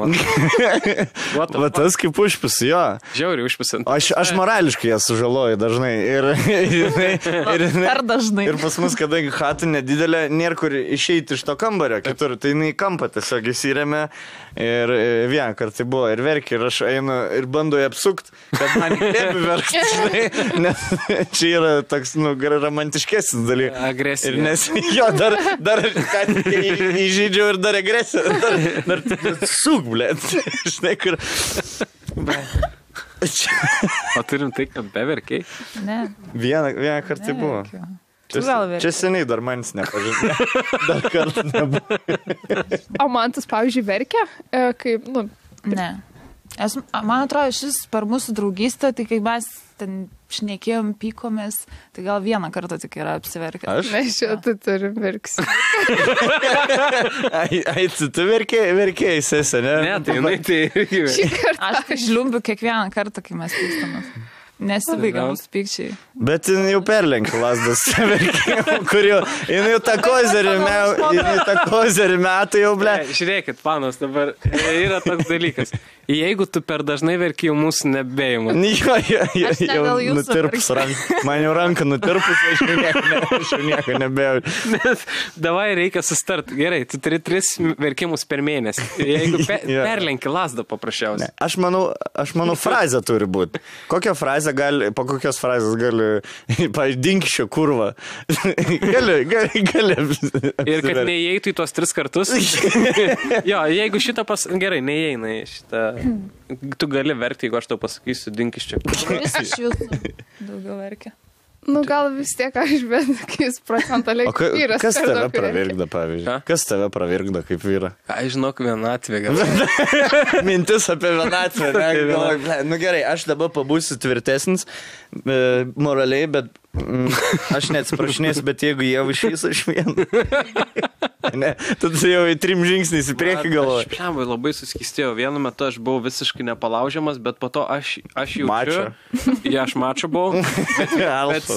S1: Va tas kaip užpis, jo.
S2: Žiauriai užpisant.
S1: Aš morališkai jas sužaloju dažnai.
S3: Per dažnai.
S1: Ir pas mus, kadangi chata nedidelė, nėra kur išeiti iš to kambario kitur. Tai jinai kampą tiesiog įsirėmė. Ir vieną kartą buvo ir verkė. Ir aš einu ir bandau apsukti, kad man įkvėpi verkti. Nes čia yra toks, romantiškesnis dalykas.
S2: Agresija.
S1: Nes jo, dar įžydžiau ir dar agresiją. Dar suk, blėt. Žinai, kur...
S2: O turim tai, kad beverkiai?
S3: Ne.
S1: Vieną kartą buvo. Čia seniai dar manis nepažinė. Dar kartą nebuvo.
S4: O man tas, pavyzdžiui, verkia, kaip, nu...
S3: Ne. Man atrodo, šis per mūsų draugystę, tai kai mes ten šnekėjom, pykomės, tai gal vieną kartą tik yra apsiverkęs.
S1: Aš?
S4: Mes šitą turim verksi.
S1: Tu verkėjai, sesė, ne?
S2: Ne, tai jinai tai irgi.
S3: Aš žliumbiu kiekvieną kartą, kai mes pykstamės. Nesibaigia mūsų pykčiai.
S1: Bet jin jau perlenkė lasdas, kur jau, jin jau tą kozerį metų jau, ble.
S2: Žiūrėkit, panas, dabar yra toks dalykas. Jeigu tu per dažnai verki, jau mūsų nebeimu.
S1: Jau nutirpus ranką. Man jau ranką nutirpus, aš jau nieko nebėjau.
S2: Nes davai reikia sustart. Gerai, tu turi 3 verkimus per mėnesį. Jeigu perlenki lasdą paprasčiausiai.
S1: Aš manau, frazė turi būti. Kokią frazę gali, po kokios frazės gali, pavyzdžiui, dinkščio kurva. Gali.
S2: Ir kad neįeitų į tuos 3 kartus. Jo, jeigu šitą gerai, neįeina į šitą. Tu gali verkti, jeigu aš tau pasakysiu, dinkis čia.
S3: Vis iš jūsų daugiau verkia.
S4: Nu, gal vis tiek aš, bet kai jis procentaliai vyras.
S1: Kas tave pravirkda, pavyzdžiui? Kas tave pravirkda kaip vyra?
S2: Aš žinok, vienatvė gal.
S1: Mintis apie vienatvę. Nu gerai, aš dabar pabūsiu tvirtesnis moraliai, bet aš neatsiprašinėsiu, bet jeigu jie išvys, aš vieną. Ne, tada jau į 3 žingsniais į priekį galvoju.
S2: Aš labai suskistėjau. Vienu metu aš buvau visiškai nepalaužiamas, bet po to aš jaučiu. Ja, aš mačo buvau. Bet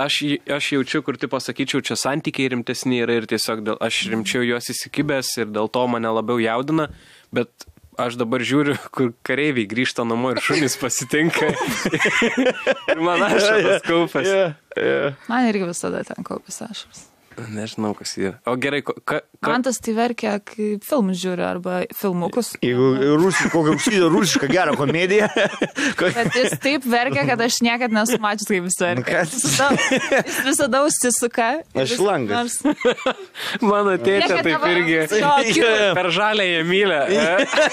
S2: aš jaučiu, kur tipo sakyčiau, čia santykiai rimtesni yra ir tiesiog aš rimčiau juos įsikibęs ir dėl to mane labiau jaudina. Bet aš dabar žiūriu, kur kareiviai grįžta namo ir šunys pasitinka. Ir man ašaras kaupas.
S3: Man irgi visada ten kaupas ašaras.
S2: Nežinau, kas yra. O gerai,
S3: man tas tai verkia, kai filmus žiūri arba filmukus.
S1: Jeigu kokią rusišką gerą komediją.
S3: Bet jis taip verkia, kad aš niekad nesu mačius, kaip jis verkia. Jis visada užsisuka.
S1: Aš langas.
S2: Mano tėčia taip irgi. Per žalę jie mylę.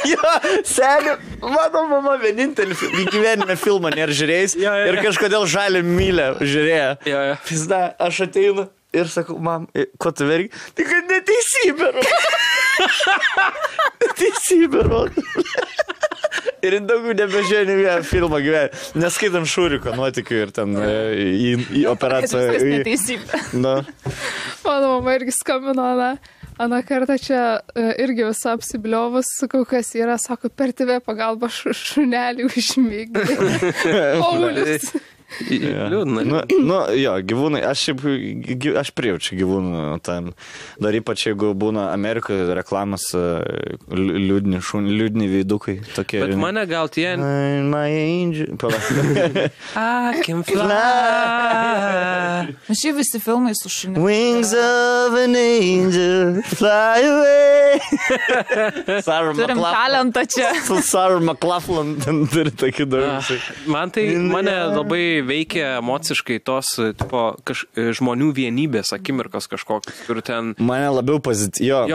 S1: Jo, seniu, mano mama vienintelį gyvenime filmą nėra žiūrėjęs ir kažkodėl žalę mylę žiūrėjo. Pizda, aš ateinu. Ir sakau, mam, ko tu verki? Tai kad neteisybė rodo. Neteisybė rodo. Ir daugiau nebežiūrėjau vieną filmą gyvenime. Neskaitam Šūriko nuotykių ir ten į operaciją.
S3: Viskas neteisybė.
S1: Na.
S4: Mano mama irgi skambino, Ana kartą čia irgi visą apsibliovus, sakau, kas yra, sako, per TV pagalba šunelį užmygdė. Paulius.
S2: Liūdna.
S1: Jo, gyvūnai, aš prijaučiu gyvūnų tam. Dar ypač, jeigu būna Amerikoje reklamas liūdni veidukai. Tokie.
S2: Bet mane gal tie...
S1: My angel.
S2: I can fly.
S3: Šiaip visi filmai su šuniu.
S1: Wings of an angel, fly away.
S3: Turim talentą čia.
S1: Sarah McLachlan turi tokį daug.
S2: Mane labai veikia emociškai tos tipo, žmonių vienybės akimirkos kažkokios, kur ten...
S1: Mane labiau pozityvus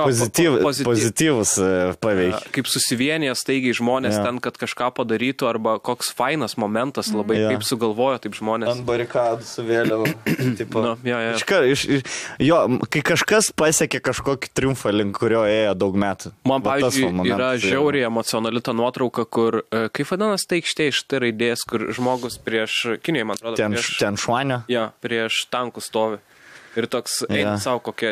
S1: paveikia.
S2: Kaip susivienyje staigiai žmonės ten, kad kažką padarytų, arba koks fainas momentas labai, kaip sugalvojo taip žmonės.
S1: Ant barikadų su vėliava. Kai kažkas pasiekė kažkokį triumfą, link kurio ėjo daug metų.
S2: Man, pavyzdžiui, yra žiauriai emocionali ta nuotrauka, kur, kaip vadinasi ta aikštė iš T raidės, kur žmogus prieš... Kinijai, man atrodo,
S1: ten šuanio?
S2: Ja, prieš tankų stovi. Ir toks, eina savo kokia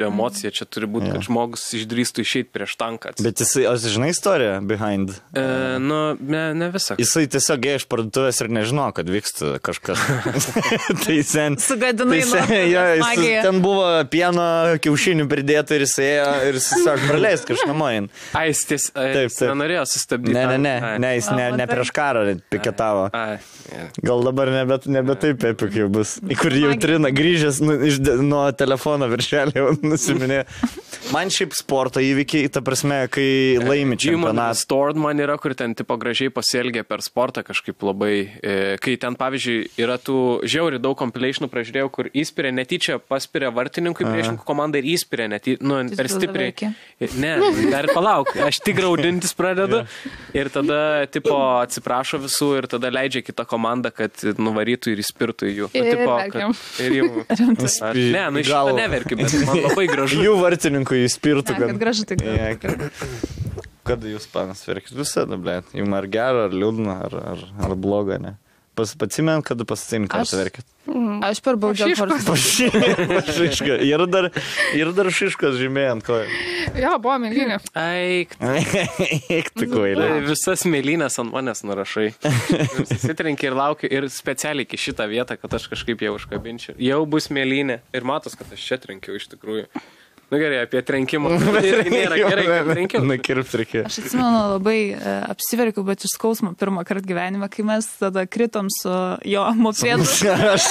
S2: emocija čia turi būti, kad žmogus išdrįstų išeiti prieš tanką.
S1: Bet jisai, žinai istoriją behind?
S2: Ne visą.
S1: Jisai tiesiog ėjo iš parduotuvės ir nežino, kad vyksta kažkas. Tai sen...
S3: Sugadinai
S1: magija. Ten buvo pieno kiaušinių pridėta ir jis ėjo ir tiesiog praleist kažkamoin.
S2: Jis nenorėjo sustabdyti.
S1: Ne, jis ne prieš karą piketavo. Gal dabar nebe taip epik jau bus. Į kur jau trina grįžęs nuo telefono viršelį nusiminė. Man šiaip sporto įvykiai, ta prasme, kai laimi čempionatą.
S2: Stored man yra, kur ten tipo gražiai pasielgia per sportą kažkaip labai, kai ten pavyzdžiui yra tų žiauriai daug compilationų pražiūrėjau, kur įspiria netyčia, paspiria vartininkui priešininkų komandą ir įspiria per stipriai. Ne, dar palauk, aš tik graudintis pradedu ir tada tipo atsiprašo visų ir tada leidžia kitą komandą, kad nuvarytų ir įspirtų jų. Ir jų. Ne, iš šitą neverkiu, bet man labai gražu.
S1: Jų vartininkų įspirtų.
S3: Kad gražu tik.
S1: Kada jūs, panas, verkit visada, blėt? Jums ar gero, ar liūdna, ar bloga, ne? Pacimėm, kada pasitėm, ką verkit?
S3: Aš per baudžiau
S1: Pašiška. Ir dar šiškas žymėjai ant kojų.
S4: Jo, buvo mėlynė.
S2: Eik,
S1: tu kvailė.
S2: Visas mėlynės ant manęs nurašai. Susitrenki ir laukiu ir specialiai iki šitą vietą, kad aš kažkaip jau užkabinčiau. Jau bus mėlynė. Ir matos, kad aš čia trenkiau iš tikrųjų. Nu gerai, apie trenkimą. Irgi nėra gerai, kad trenkiau.
S1: Nakirpt reikėjo.
S3: Aš atsimenu labai apsiverkiau, bet iš skausmo pirmą kartą gyvenime, kai mes tada kritom su jo mopėdu.
S1: Aš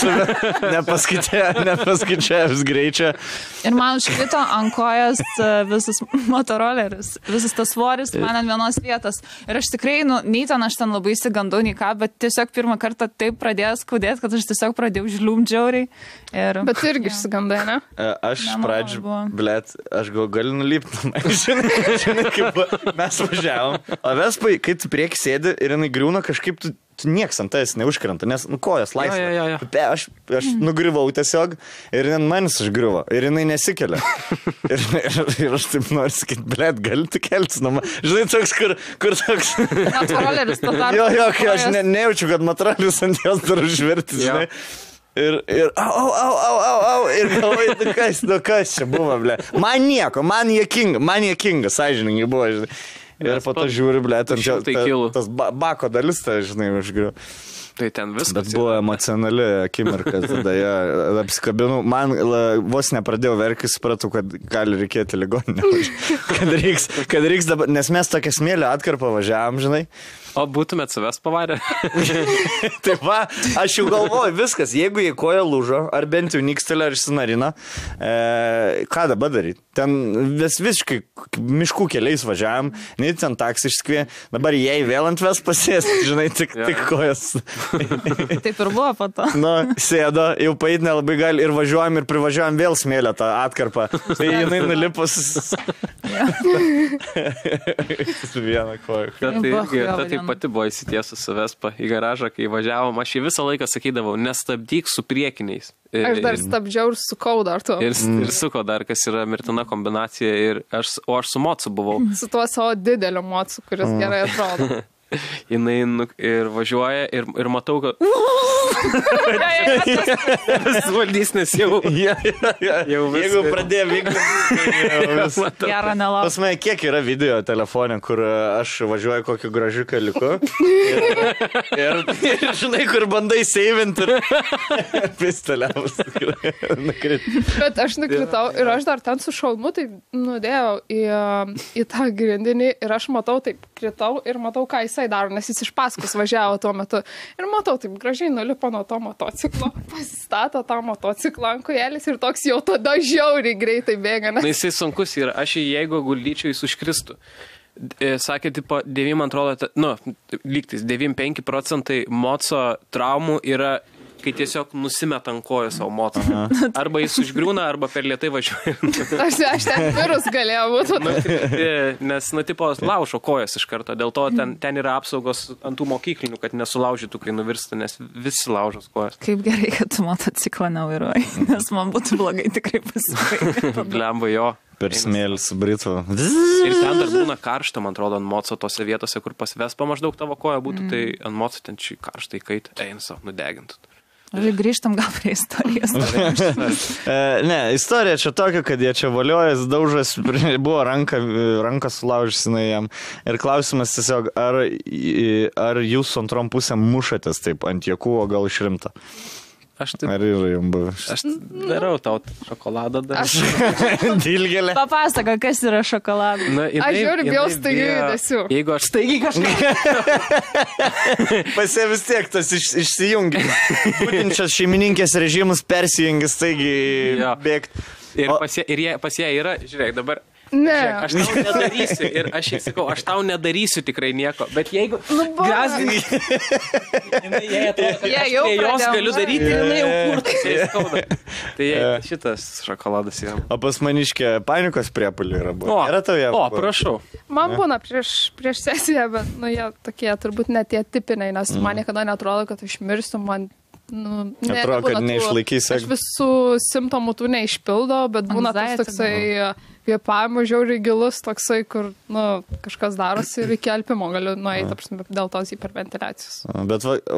S1: nepaskaičiavęs greičio.
S3: Ir man užkrito ant kojas visas motoroleris, visas tas svoris man ant vienos vietos. Ir aš tikrai, nei ten aš ten labai įsigandau, nei ką, bet tiesiog pirmą kartą taip pradėjo skaudėti, kad aš tiesiog pradėjau žliumdžiauriai.
S4: Bet irgi išsigandai, ne?
S1: Aš pradžiu... Blet, aš galiu nulipti. Žinai, kaip mes važiavom. O Vespai, kai tu prieki sėdi ir jinai griūna, kažkaip tu nieks ant tavęs neužkrenta, nes kojas laisvė. Aš nugriuvau tiesiog ir manis užgriuvo. Ir jinai nesikelia. ir aš taip noriu sakyti, blet, gali tu keltis nuo man. Žinai, toks, kur toks...
S3: Motoroleris to tarp.
S1: Jo, kai aš nejaučiu, kad motoroleris ant jos dar užverti, žinai. Ir au, ir galvoju, kas čia buvo, ble. Man nieko, man jėkinga, sąžiningai buvo, žinai. Ir po to žiūri, ble, tas bako dalis, tai, žinai, užgriu.
S2: Tai ten viskas.
S1: Bet buvo emocionali akimirka, tada ją apsikabinau. Man vos nepradėjau verkti, supratau, kad gali reikėti ligoninę. Kad reiks dabar, nes mes tokią smėlio atkarpą važiavam, žinai.
S2: O būtumėt savęs pavarę?
S1: Taip va, aš jau galvoju, viskas, jeigu jie koja lūžo, ar bent jau nikstelė, ar išsinarina, ką dabar daryti? Ten visiškai miškų keliais važiavam, nei ten taksi išskvė, dabar jai vėl ant ves pasės, žinai, tik kojas.
S3: Taip ir buvo po to.
S1: Sėdo, jau paeit nelabai gali ir važiuojam ir privažiuojam vėl smėlę tą atkarpą. Tai jinai nulipus su vieną koją.
S2: Tai pati buvo įsitiesus su Vespa į garažą, kai važiavom. Aš į visą laiką sakydavau, nestabdyk su priekiniais.
S4: Aš dar stabdžiau ir sukau dar to.
S2: Ir suko dar, kas yra mirtina kombinacija. O aš su mocu buvau.
S4: Su tuo savo dideliu mocu, kuris gerai atrodo.
S2: Jinai ir važiuoja ir matau, kad... Vis valdys, nes jau...
S1: Jeigu pradėjo vykti...
S3: Gerą nelauk.
S1: Pas mane kiek yra video telefone, kur aš važiuoju kokiu gražiu keliuku. Ir žinai, kur bandai seivinti ir pisteliavus.
S4: Bet aš nukritau ir aš dar ten su šalmu taip nudėjau į tą grindinį ir aš matau taip kritau ir matau, ką jisai daro, nes jis iš paskos važiavo tuo metu. Ir matau, taip gražiai nulipo nuo to motociklo, pasistato tą motociklą ant kojelės ir toks jau tada žiauriai greitai bėga.
S2: Na, jisai sunkus yra. Aš jeigu guldyčiau, jis užkristų. Sakė, tipo, 9, man atrodo, lygtis, 9-5% moco traumų yra, kai tiesiog nusimeta ant kojų savo motą. Arba jis užgriūna, arba per lėtai važiuoja.
S4: Aš ten virus galėjau būti.
S2: Nes, tipo, laužo kojas iš karto. Dėl to ten yra apsaugos ant tų mokyklinių, kad nesulaužytų, kai nuvirsta, nes visi laužos kojas.
S3: Kaip gerai, kad tu motociklą nevairuoji, nes man būtų blogai tikrai pasibaigti.
S2: Blemba jo.
S1: Per smėlį su Britu.
S2: Ir ten dar būna karšta, man atrodo, ant moco tose vietose, kur pas Vespa maždaug tavo koja būtų, tai ant moco ten šį karštą įkaitą. Eina savo, nudegintų.
S3: Grįžtam gal prie istorijos.
S1: Ne, istorija čia tokia, kad jie čia valiojas, daužas, buvo rankas sulaužysinai jam. Ir klausimas tiesiog, ar jūs su antrom pusėm mušatės taip ant jėkų, o gal išrimta? Ar yra jums buvęs?
S2: Aš darau tau šokoladą dar.
S1: Dilgelė.
S3: Papasaka, kas yra šokoladas.
S4: Aš žiūriu, bijau staigiai judesiu.
S2: Jeigu aš staigiai kažką...
S1: Pasie vis tiek tas išsijungia. Būtent šias šeimininkės režimus persijungia staigiai bėgti.
S2: Ir pas ją yra, žiūrėk, dabar...
S4: Ne.
S2: Žiūrėk, aš tau nedarysiu ir aš jai sakau, aš tau nedarysiu tikrai nieko, bet jeigu grasdinai, jai atrodo, kad aš prie jos galiu daryti, jinai jau kurtas, jai skauda. Tai šitas šokoladas yra.
S1: O pas maniškė panikos priepulių yra buvo.
S2: Prašau.
S4: Man būna prieš sesiją, bet, jie tokie turbūt net tie tipiniai, nes man niekada netrodo, kad aš mirsiu, man...
S1: atrodo, kad neišlaikysi.
S4: Aš visų simptomų tų neišpildo, bet būna tas toksai kvėpavimo žiauriai gilus, toksai, kur kažkas darosi ir iki alpimo galiu nueiti, dėl tos hiperventiliacijos.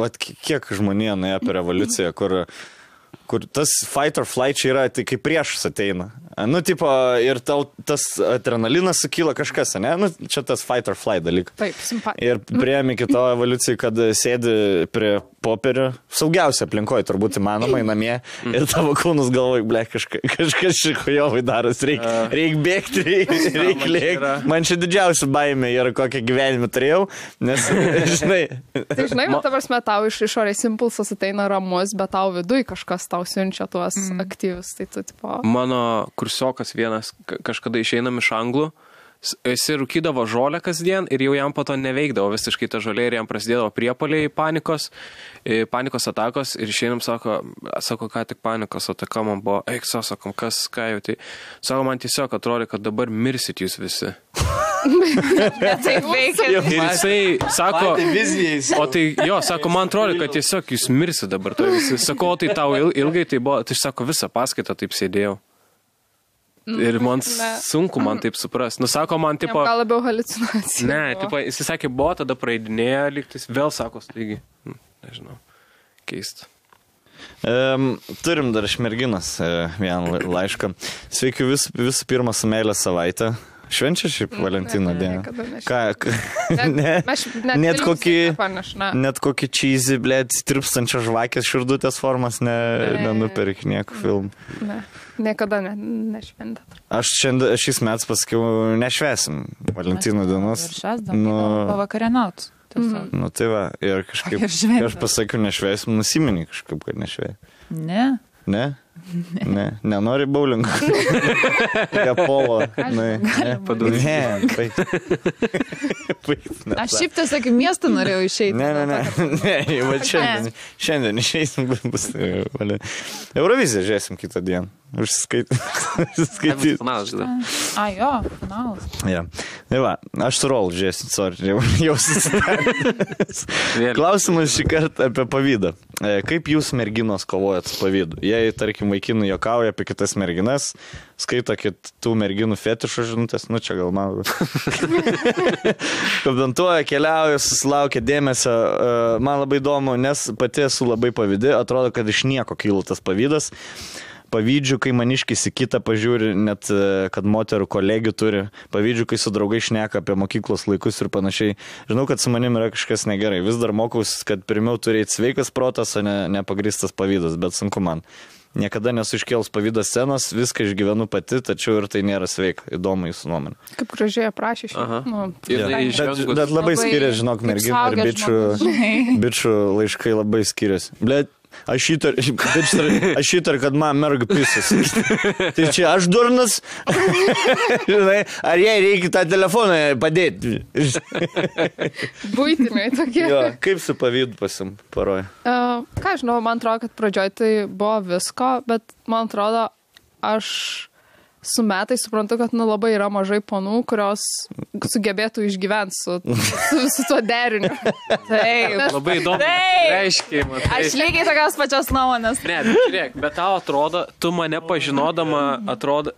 S1: Bet kiek žmonija nuėjo per revoliuciją, kur tas fight or flight čia yra, tai kaip priešas ateina. Ir tau tas adrenalinas sukyla kažkas, ne? Čia tas fight or flight dalykas.
S4: Taip, simpatija.
S1: Ir priėmė kito evoliucijai, kad sėdi prie popierio, saugiausia aplinkoje, turbūt įmanomai namie, ir tavo kūnus galvoj, kažkas šikujovai daras, reik bėgti, reik lėkti. Man čia didžiausia baimė yra, kokią gyvenimą turėjau, nes, žinai...
S4: Tai žinai, ta prasme, tau iš išorės impulsas ateina ramus, bet tau viduj kažkas tau siunčia tuos aktyvius. Tai tu, tipo...
S2: Mano kursiokas vienas kažkada išeinam iš Anglų, jis rūkydavo žolę kasdien ir jau jam po to neveikdavo visiškai ta žolė ir jam prasidėdavo priepuoliai panikos atakos ir išeinam, sako, ką tik panikos ataka man buvo, sakom, ką jau tai, sako, man tiesiog atrodo, kad dabar mirsit jūs visi.
S3: Tai veikia.
S2: Ir jisai sako, sako, man atrodo, kad tiesiog jūs mirsit dabar. Sako, tai tau ilgai tai buvo, tai sako, visą paskaitą taip sėdėjau. Ir man sunku man taip supras. Sako man, tipo...
S4: Gal labiau haliucinacija.
S2: Ne, tipo, jis sakė, buvo, tada praeidinėjo, lygtis, vėl sako, taigi, nežinau, keista.
S1: Turim dar iš merginos vieną laišką. Sveiki visų pirma su meilė savaitę. Švenčia šiaip Valentino dieną. Net kokį cheesy, tirpstančią žvakės širdutės formas nenupirk nieko filmų.
S4: Ne, niekada nešventė.
S1: Aš šiais metais pasakiau, nešvesim Valentino dienos.
S3: Pavakarienauts.
S1: Tai va, ir kažkaip, aš pasakiau, nešvesim, nusiminį kažkaip, kad nešvei.
S3: Ne.
S1: Ne? Ne, nenori bowlingo. Polo. Ne,
S3: aš šiaip tiesiog į miestą norėjau išeiti.
S1: Ne, šiandien išeisim. Euroviziją žiūrėsim kitą dieną. Užsiskaityti.
S2: Finalas, žinai.
S3: Finalas.
S1: Tai va, aš su Rol žiūrėsim, sorry, jau susidaręs. Klausimas šį kartą apie pavydą. Kaip jūs merginos kovojat su pavydu? Jei, tarkim, vaikinų juokauja apie kitas merginas, skaito kitų merginų fetišo žinutės, čia gal man. Komentuoja, keliauja, susilaukia dėmesio. Man labai įdomu, nes pati esu labai pavydi, atrodo, kad iš nieko kyla tas pavydas. Pavydžiu, kai maniškis į kitą pažiūri, net kad moterų kolegių turi. Pavydžiu, kai su draugai šneka apie mokyklos laikus ir panašiai. Žinau, kad su manim yra kažkas negerai. Vis dar mokaus, kad pirmiau turėti sveikas protas, o ne nepagristas pavydas, bet sunku man. Niekada nesu iškėlus pavydas scenos, viską išgyvenu pati, tačiau ir tai nėra sveika. Įdomu jūsų nuomonė.
S4: Kaip gražiai aprašė šį.
S1: Bet labai skiriasi, žinok, merginų ir bičių laiškai labai skiriasi. Blet, aš įtar, kad man merga pisas. Tai čia aš durnas. Ar jai reikia tą telefoną padėti?
S4: Buitiniai tokie.
S1: Kaip su pavydu paroja?
S4: Ką žinau, man atrodo, kad pradžioj tai buvo visko, bet man atrodo, aš su metai suprantu, kad labai yra mažai ponų, kurios sugebėtų išgyventi su tuo deriniu.
S3: Taip.
S2: Labai įdomu. Reiškia, matai.
S3: Aš lygiai tokios pačios nuomonės.
S2: Ne, žiūrėk, bet tau atrodo, tu mane pažinodama, atrodo,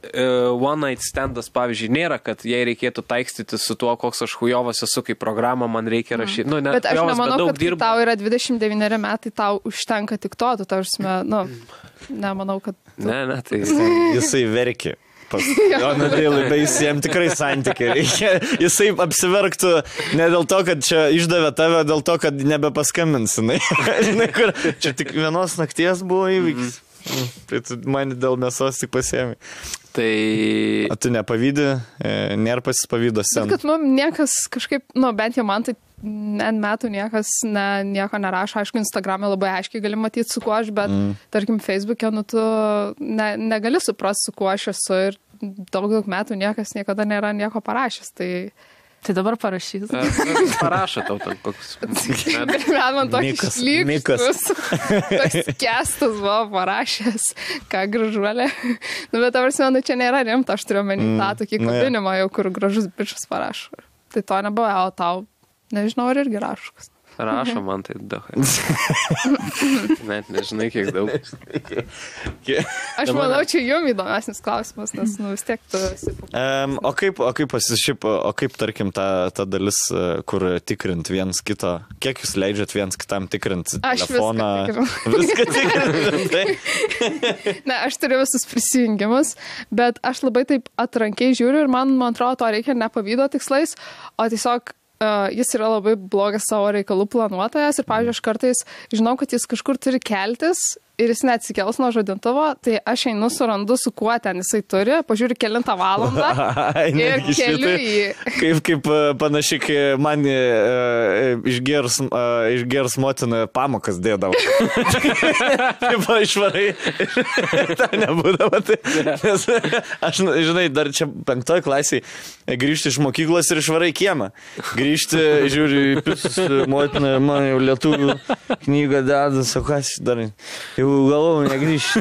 S2: one night standas, pavyzdžiui, nėra, kad jei reikėtų taikstyti su tuo, koks aš hujovas esu, kaip programą man reikia rašyti.
S4: Bet aš nemanau, kad tau yra 29 metai, tau užtenka tik to, tu tarsime, nemanau, kad...
S2: Ne, tai...
S1: Jisai verkia. Jam tikrai santykiai reikia. Jisai apsiverktų ne dėl to, kad čia išdavė tave, dėl to, kad nebepaskambinsinai. Čia tik vienos nakties buvo įvykis. Tai tu mane dėl mėsos tik pasiėmė.
S2: Tai...
S1: O tu nepavydį, nėra pasispavydo sen.
S4: Bet kad niekas kažkaip, bent jau man tai metų niekas nieko nerašo. Aišku, Instagram'e labai aiškiai gali matyti, su kuo aš, bet tarkim, Facebook'e, tu negali suprasti, su kuo aš esu ir daug metų niekas niekada nėra nieko parašęs. Tai dabar parašys.
S2: Parašo tau ten koks.
S4: Man toks šlykštus. Toks kestas buvo parašęs, ką gražuolė. Bet tavars, čia nėra rimta, aš turiu menį tą tokį kabinimą, jau kur gražus bičas parašo. Tai to nebuvo, o tau, nežinau, ar irgi rašokas.
S2: Rašo man tai daug. Net nežinai, kiek daug.
S4: Aš manau, čia jums įdomesnis klausimas, nes vis tiek tu esi.
S1: O kaip, tarkim, ta dalis, kur tikrint viens kito, kiek jūs leidžiat viens kitam tikrint telefoną?
S4: Viską tikrinti. Ne, aš turiu visus prisijungimus, bet aš labai taip atrankiai žiūriu ir man atrodo, to reikia ne pavydo tikslais, o tiesiog jis yra labai blogas savo reikalų planuotojas ir, pavyzdžiui, aš kartais žinau, kad jis kažkur turi keltis ir jis neatsikels nuo žadintuvo, tai aš einu surandu, su kuo ten jisai turi, pažiūriu kelintą valandą ir keliu jį.
S1: Kaip panašiai, kai man išgers motina pamokas dėdavo. Taip, išvarai. Ta nebūdavo. Nes aš, žinai, dar čia 5 klasiai grįžti iš mokyklos ir išvarai kiemą. Grįžti, žiūri, motina, man jau lietuvių knygą deda, sakas, dar jau galvau negrįžti.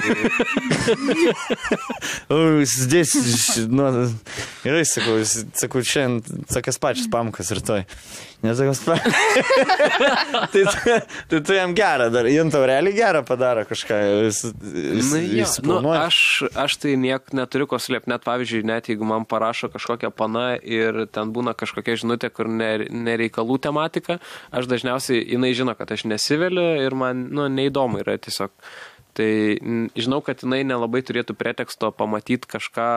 S1: Zdės, gerai, sakau, šiandien sakas pačias pamokas rytoj. Nesakas pamokas. Tai tu jam gerą dar, jam tau realiai gerą padaro kažką.
S2: Aš tai niek neturiu ko slėpti, net pavyzdžiui, net jeigu man parašo kažkokią pana ir ten būna kažkokia žinutė, kur nereikalų tematika, aš dažniausiai, jinai žino, kad aš nesiveliu ir man, neįdomu yra tiesiog. Tai žinau, kad jinai nelabai turėtų preteksto pamatyti kažką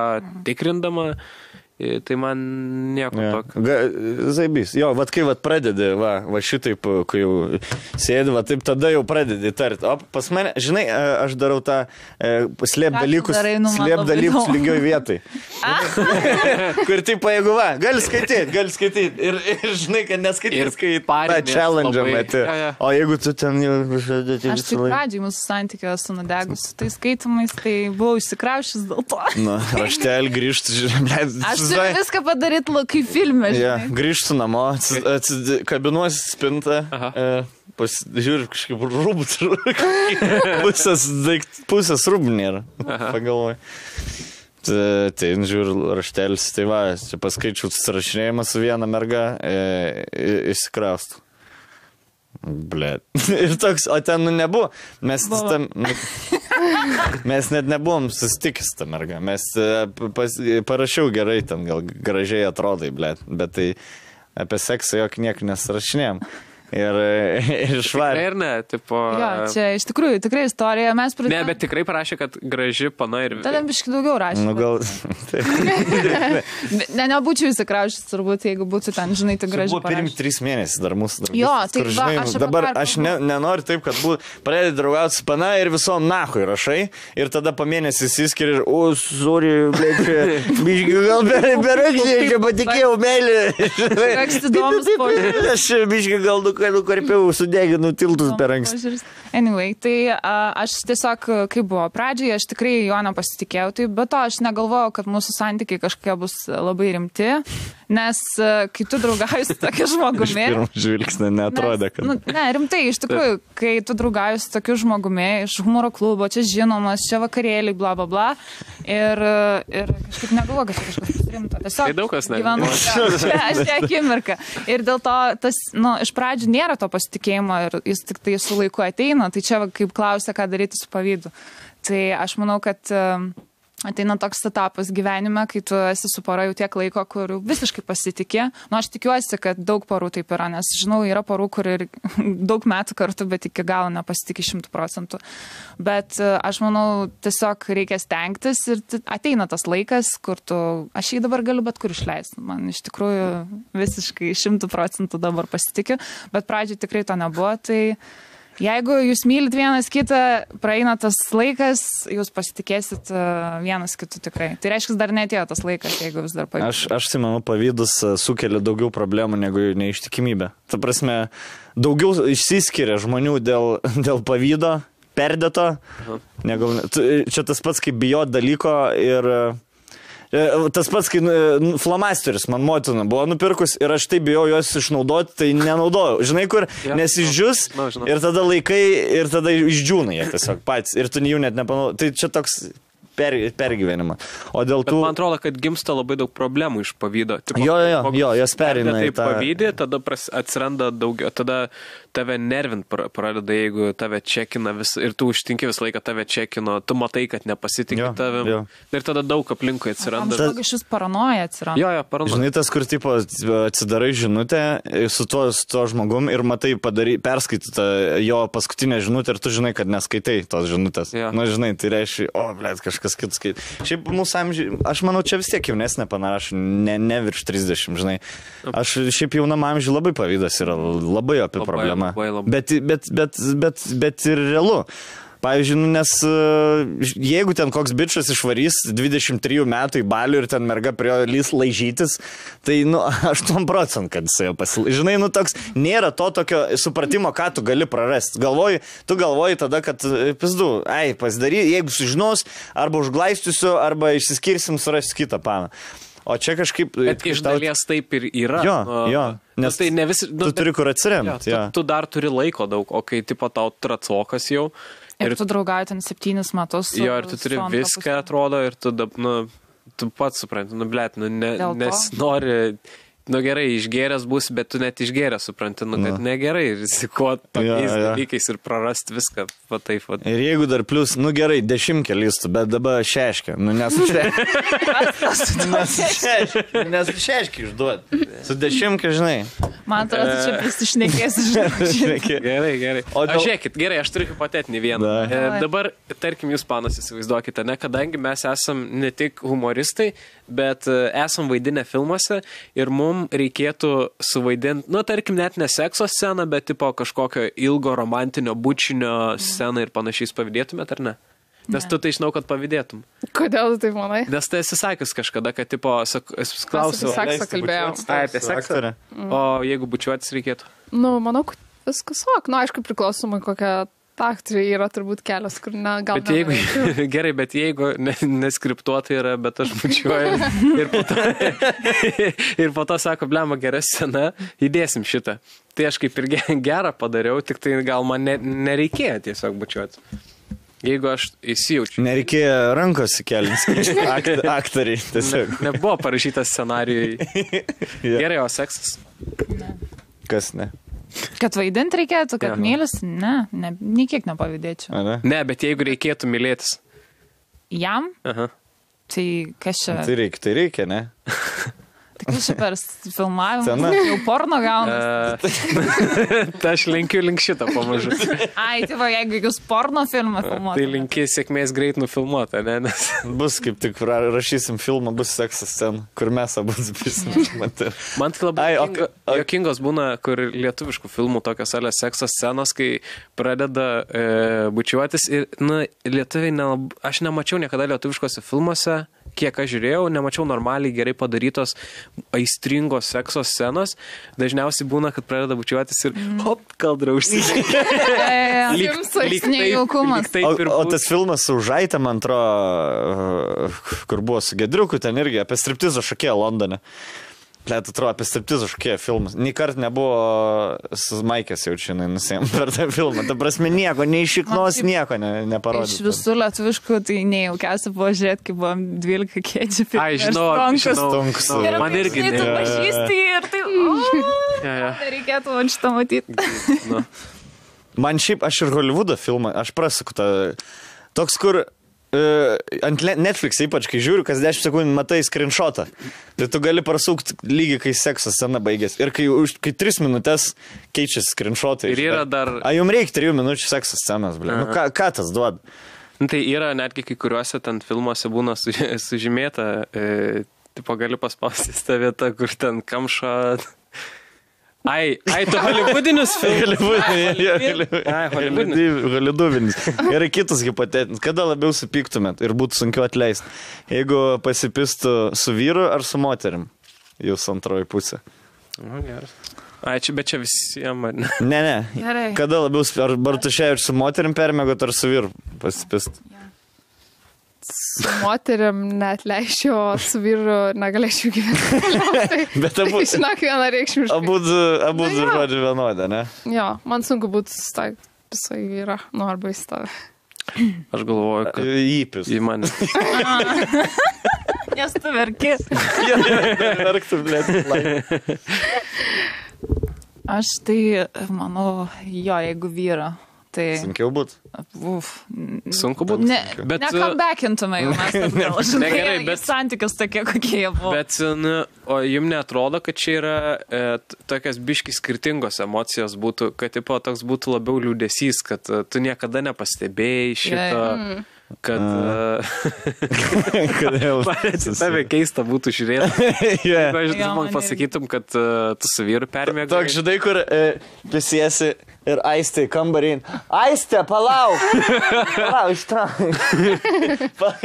S2: tikrindama, tai man nieko tokio.
S1: Zaibys. Jo, kai pradedi, šitaip, kai jau sėdi, taip tada jau pradedi tarti. O pas mane, žinai, aš darau tą slėp dalykus lygioj vietai. Kur taip, jeigu gali skaityti. Ir žinai, kad neskaityti, kai challenge meti. O jeigu tu ten jau...
S3: Aš tai pradžiai mūsų santykio su nudegus. Tai skaitimais, tai buvau išsikraušęs dėl to.
S1: Raštelį grįžti, žiūrėjau.
S3: Aš turiu viską padaryti kaip filme, žinai.
S1: Grįžtu namo, kabinuosi spintą, žiūriu kažkaip rūbus, pusės rūbų nėra, pagalvoju. Tai žiūriu raštelis, tai čia paskaičiau susirašinėjimą su viena merga, įsikraustų. Blet. Ir toks, o ten nebuvo. Mes net nebuvom susitikęs tą mergą. Mes parašiau gerai, ten gal gražiai atrodai, blet. Bet tai apie seksą jok niek nesirašinėjom. Ir švarė.
S2: Ir ne, tipo...
S3: Jo, čia iš tikrųjų, tikrai istorija. Mes pradėjome...
S2: Ne, bet tikrai parašė, kad graži pana ir...
S3: Tada biškai daugiau rašė.
S1: Gal...
S3: Nebūčiau įsikraušęs, turbūt, jeigu būtų ten, žinai, tai graži parašė.
S1: Buvo pirmi 3 mėnesiai dar mūsų darbas.
S3: Jo, tai
S1: dabar aš nenoriu taip, kad pradėti draugauti su pana ir visom nahui rašai. Ir tada po mėnesį įsiskiri ir, sorry, biškai gal berakščiai, čia patikėjau meilį.
S3: Koks įdomus požiūris.
S1: Aš biškai gal nukarpiau, sudeginu tiltus per anksti.
S3: Anyway, tai aš tiesiog, kaip buvo pradžioje, aš tikrai jo nepasitikėjau, tai be to aš negalvojau, kad mūsų santykiai kažkokie bus labai rimti, nes kai tu draugauji su tokiu žmogumi...
S1: Iš pirmo žvilgsnio neatrodė, kad...
S3: Ne, rimtai, iš tikrųjų, kai tu draugauji su tokiu žmogumi iš humoro klubo, čia žinomas, čia vakarėliai, bla, bla, bla, ir kažkaip negalvoju, kad čia kažkas rimto. Tiesiog
S2: tai daug kas
S3: gyvenu, aš čia akimirką. Ir dėl to tas, iš pradžių nėra to pasitikėjimo ir jis tik tai su laiku ateina, tai čia kaip klausia, ką daryti su pavydu. Tai aš manau, kad ateina toks etapas gyvenime, kai tu esi su pora jau tiek laiko, kur visiškai pasitikė. Aš tikiuosi, kad daug porų taip yra, nes žinau, yra porų, kur ir daug metų kartu, bet iki galo nepasitikė 100%. Bet aš manau, tiesiog reikia stengtis ir ateina tas laikas, kur aš jį dabar galiu bet kur išleisti. Man iš tikrųjų visiškai 100% dabar pasitikiu, bet pradžiai tikrai to nebuvo, tai Jeigu jūs mylit vienas kitą, praeina tas laikas, jūs pasitikėsit vienas kitu tikrai. Tai reiškia, dar netėjo tas laikas, jeigu vis dar pavyzdys.
S1: Aš tai manau, pavydas sukelia daugiau problemų negu neištikimybė. Ta prasme, daugiau išsiskiria žmonių dėl pavydo, perdėto. Čia tas pats, kaip bijot dalyko ir... Tas pats, kai flamasteris man motina buvo nupirkus ir aš tai bijau juos išnaudoti, tai nenaudojau. Žinai, kur nesižius ir tada laikai ir tada išdžiūna jie tiesiog patys ir tu jų net nepanaudoji. Tai čia toks pergyvenimą. O dėl tų...
S2: Bet man atrodo, kad gimsta labai daug problemų iš pavydo.
S1: Jo, jos perina į tą...
S2: Pavydį, tada atsiranda daugiau, tada tave nervint pradeda, jeigu tave čekina ir tu užtinki visą laiką tave čekino, tu matai, kad nepasitikė tavim. Ir tada daug aplinkui atsiranda.
S3: Daug iš vis paranoja atsiranda.
S2: Jo, paranoja.
S1: Žinai, tas, kur tipo atsidarai žinutę su tuo žmogum ir matai perskaitytą jo paskutinę žinutę ir tu žinai, kad neskaitai tos žinutės. Na, žinai, tai reiškia, kažkas kitas skait. Šiaip mūsų amžiai, aš manau, čia vis tiek jaunesnė panašu, ne virš 30, žinai. Aš šiaip jaunam amžiai labai pavydas yra labai apie problemą. Bet ir realu. Pavyzdžiui, nes jeigu ten koks bičas išvarys 23 metų į balių ir ten merga prie jo lys laižytis, tai, 8%, kad jis jau pasilaižys. Žinai, toks, nėra to tokio supratimo, ką tu gali prarasti. Tu galvoji tada, kad, pizdu, pasidary, jeigu sužinos, arba užglaistysiu, arba išsiskirsim, surasiu kitą paną. O čia kažkaip...
S2: Bet iš dalies taip ir yra.
S1: Jo. Nes
S2: tai ne visi...
S1: Tu turi kur atsiremti.
S2: Tu dar turi laiko daug, o kai tipo tau tracokas jau...
S3: Ir tu draugauji ten 7 metus.
S2: Jo, ir tu turi viską, atrodo, ir tu pats supranti, nesinori... Gerai, išgėręs bus, bet tu net išgėręs supranti, kad negerai rizikuoti tokiais dalykais ir prarasti viską. Taip.
S1: Ir jeigu dar plus, gerai, 10 listų, bet dabar šeškia. Nes šeškia išduoti. Su 10, žinai.
S3: Man atrodo, čia prisišnekėsi.
S2: Gerai. O žiūrėkit, gerai, aš turiu hipotetinį vieną. Dabar, tarkim, jūs panas įsivaizduokite, kadangi mes esam ne tik humoristai, bet esam vaidinę filmuose ir mums reikėtų suvaidinti, tarkim, net ne sekso sceną, bet tipo kažkokio ilgo romantinio bučinio sceną ir panašiais pavydėtumėt, ar ne? Nes tu tai žinau, kad pavydėtum.
S4: Kodėl tu taip manai?
S2: Nes tai esi sakęs kažkada, kad tipo, klausiau.
S4: Apie seksą kalbėjau.
S2: Apie seksą. O jeigu bučiuotis reikėtų?
S4: Manau, kad viskas aišku, priklausomai kokią aktoriai yra turbūt kelios, kur gal...
S2: Gerai, bet jeigu neskriptuotai yra, bet aš bučiuoju ir po to sako, blema, gera scena, įdėsim šitą. Tai aš kaip ir gerą padariau, tik tai gal man nereikėjo tiesiog bučiuoti. Jeigu aš įsijaučiu.
S1: Nereikėjo rankos įkelinti aktoriai.
S2: Nebuvo parašytas scenarijui. Gerai, o seksas?
S3: Ne.
S1: Kas ne?
S3: Kad vaidinti reikėtų, kad mylis? Ne, niekiek nepavydėčiau.
S2: Ne, bet jeigu reikėtų mylėtis.
S3: Jam?
S2: Aha.
S3: Tai kas čia?
S1: Tai reikia, ne?
S3: Tai kas čia per filmavimą? Jau porno gaunas.
S2: Tai aš linkiu link šitą pamažu.
S3: Tai va, jeigu jūs porno filmą filmuotumėte.
S2: Tai linkiu sėkmės greit nufilmuotą, ne? Nes...
S1: Bus kaip tik rašysim filmą, bus seksas scena, kur mes abu prisimėtume.
S2: Man tai labai jokingos būna, kur lietuviškų filmų tokios sekso scenos, kai pradeda bučiuotis ir, lietuviai, aš nemačiau niekada lietuviškose filmuose, kiek aš žiūrėjau, nemačiau normaliai gerai padarytos aistringos sekso scenos. Dažniausiai būna, kad pradeda bučiuotis ir hop, kaldra užsidėti.
S3: Lyg nejaukumas.
S1: O tas filmas su Žaitė, man atrodo, kur buvo su Gedriuku, ten irgi apie striptizo šokėją Londone. Plėt, atrodo, apie striptizo šokėją filmas. Nį kart nebuvo su Maikės jaučianai nusėm per tą filmą. Ta prasme, nieko, nei šiknos, nieko neparodė.
S3: Iš visų lietuviškų, tai nejaukiausia buvo žiūrėti, kai buvom 12 kėdžių.
S2: Žinau.
S1: Man
S3: irgi ne. Ir tu pažįsti ir tai, nereikėtų man šitą matyti.
S1: Man šiaip, aš ir Hollywoodo filmą, aš prasuku tą, toks, kur ant Netflix ypač, kai žiūriu, kas 10 sekundžių matai screenshotą, tai tu gali prasukti lygiai, kai sekso scena baigės. Ir kai 3 minutės keičiasi screenshotai.
S2: Ir yra dar...
S1: Jums reikia 3 minučių sekso scenos, blė. Ką tas duoda?
S2: Tai yra netgi kai kuriuose ten filmuose būna sužymėta, tipo gali paspausti tą vietą, kur ten kamšą... Ai, tu hollywoodinius filmus?
S1: Hollywoodinis. Yra kitas hipotetinis. Kada labiau supyktumėt ir būtų sunkiau atleisti? Jeigu pasipistų su vyru ar su moterim? Jūs antroji pusė.
S2: Geras. Ai, bet čia visiems.
S1: Ne.
S3: Gerai.
S1: Kada labiau, ar Bartušė ir su moterim permėgot, ar su vyru pasipist?
S4: Su moterim net leisčiau, o su vyru negalėčiau gyventi.
S1: Bet abu.
S4: Žinok, vieną reikšmiškai.
S1: Abu žodžiu vienodą, ne?
S4: Jo, man sunku būtų susitaikyti visai vyrą, arba į stovę.
S2: Aš galvoju, kad...
S1: Įpis.
S2: Į mane.
S3: Nes tu verki.
S1: Verktum, blėt.
S3: Aš tai, manau, jeigu vyra. Tai...
S1: Sunkiau būt.
S2: Sunku būt.
S3: Nekambekintume jau mes atgal. Žinai, bet santykius tokie, kokie jie buvo.
S2: Bet, o jums neatrodo, kad čia yra tokias biški skirtingos emocijos būtų, kad tipo, toks būtų labiau liūdesys, kad tu niekada nepastebėjai šito... Kad...
S1: Kodėl?
S2: Tave keista būtų žiūrėti. Jeigu aš man pasakytum, kad tu su vyru permėgai.
S1: Toks, žinai, kur prisiesi ir Aistė kambarį. Aistė, palauk! Palauk, ištrauk.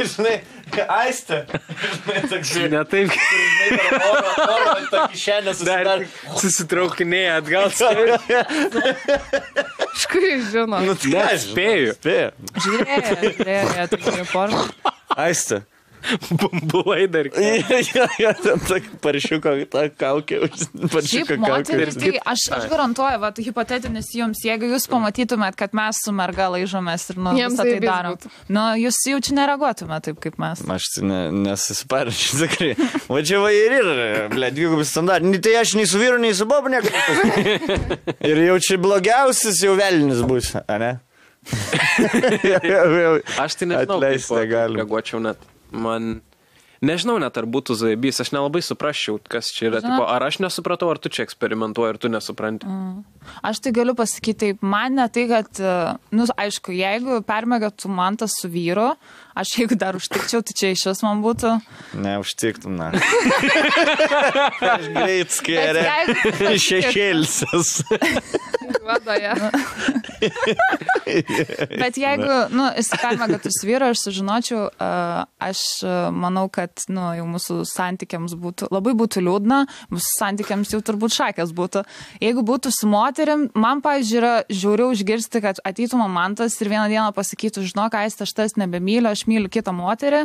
S1: Žinai, Aistė.
S2: Ne taip.
S1: Oro tokį šiandien susidar.
S2: Susitraukinėja atgal.
S4: Škai žino.
S2: Spėju.
S3: Žiūrėjo, tokie porno.
S1: Aistė.
S2: Bumbulai dar.
S1: Jo, ten paršiuko tą kaukę.
S3: Šiaip moteris, tai aš garantuoju, va, hipotetinis jums, jeigu jūs pamatytumėt, kad mes su merga laižomės ir visą tai darom, jūs jau čia nereaguotumėt taip, kaip mes.
S1: Aš nesisiparinčiau, tikrai. Va čia va ir yra, dvigubis standartai. Tai aš nei su vyru, nei su bobu nekalbėsiu. Ir jau čia blogiausias jau velnis bus, ne?
S2: Aš tai nežinau, kaip reaguočiau net. Man, nežinau net, ar būtų zaibys, aš nelabai suprasčiau, kas čia yra. Tipo, ar aš nesupratau, ar tu čia eksperimentuoji, ar tu nesupranti.
S3: Aš tai galiu pasakyti taip, man ne tai, kad, aišku, jeigu permėgatų man tas su vyru, aš jeigu dar užtikčiau, tai čia iš vis man būtų.
S1: Ne, užtiktum, na. Aš greit skėrė. Šešėlsis.
S4: Vadoje.
S3: Bet jeigu, jis permėgatų su vyru, aš sužinočiau, aš manau, kad, jau mūsų santykiams būtų, labai būtų liūdna, mūsų santykiams jau turbūt šakės būtų. Jeigu būtų su moterim, man, pavyzdžiui, yra žiauriau išgirsti, kad ateitų mantas ir vieną dieną pasakytų, žinok, Aistė, aš tas nebemyliu, aš myliu kitą moterį,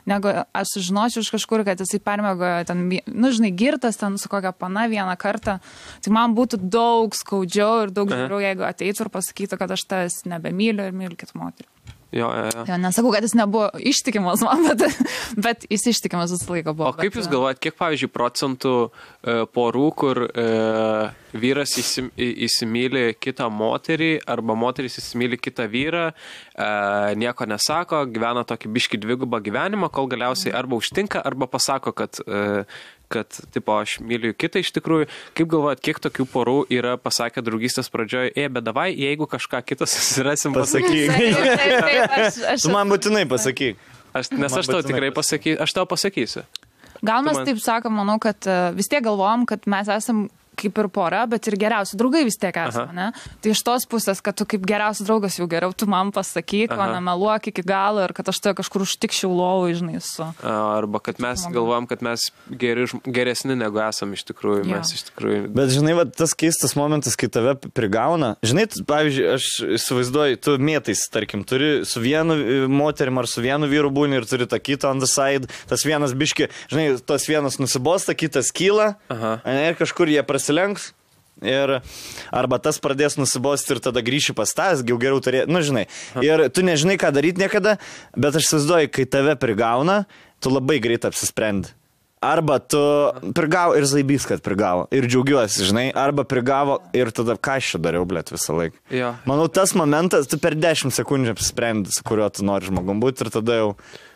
S3: negu aš sužinočiau iš kažkur, kad jisai permėgojo ten, žinai, girtas ten su kokia pana vieną kartą. Tai man būtų daug skaudžiau ir daug žiauriau, jeigu ateitų ir pasakytų, kad aš tas nebemyliu ir myliu kitą moterį.
S2: Jo.
S3: Nesakau, kad jis nebuvo ištikimas man, bet jis ištikimas visą laiką buvo.
S2: O kaip jūs galvojat, kiek, pavyzdžiui, procentų porų, kur vyras įsimyli kitą moterį arba moteris įsimyli kitą vyrą, nieko nesako, gyvena tokį biškį dvigubą gyvenimą, kol galiausiai arba užtinka, arba pasako, kad tipo, aš myliu kitą iš tikrųjų. Kaip galvojat, kiek tokių porų yra pasakę draugystės pradžioje, bet davai, jeigu kažką kitą susirasim, pasakyk.
S1: Tu man būtinai pasakyk.
S2: Nes aš tau tikrai pasakysiu, aš tau pasakysiu.
S3: Gal mes taip sakom, manau, kad vis tiek galvojam, kad mes esam kaip ir pora, bet ir geriausi draugai vis tiek esame, ne? Tai iš tos pusės, kad tu kaip geriausias draugas jau geriau, tu man pasakyk, o nemeluok iki galo ir kad aš tai kažkur užtikščiau lovų, žinai, su...
S2: Arba kad mes galvojam, kad mes geresni negu esam iš tikrųjų, mes iš tikrųjų...
S1: Bet žinai, va, tas keistas momentas, kai tave prigauna, žinai, pavyzdžiui, aš įsivaizduoju, tu mėtais, tarkim, turi su vienu moterim ar su vienu vyru būni ir turi tą kitą on the side, tas vienas biški, žinai, tas vienas nusibosta, kitas kyla, ir kažkur jie prasilenks ir arba tas pradės nusibosti ir tada grįši pas tas, jau geriau turėti, žinai. Ir tu nežinai, ką daryti niekada, bet aš įsivaizduoju, kai tave prigauna, tu labai greit apsisprendi. Arba tu prigavo ir zaibys, kad prigavo. Ir džiaugiuosi, žinai, arba prigavo ir tada ką aš čia dariau, blėt, visą laiką.
S2: Jo.
S1: Manau, tas momentas, tu per 10 sekundžių apsisprendi, su kuriuo tu nori žmogum būti ir tada jau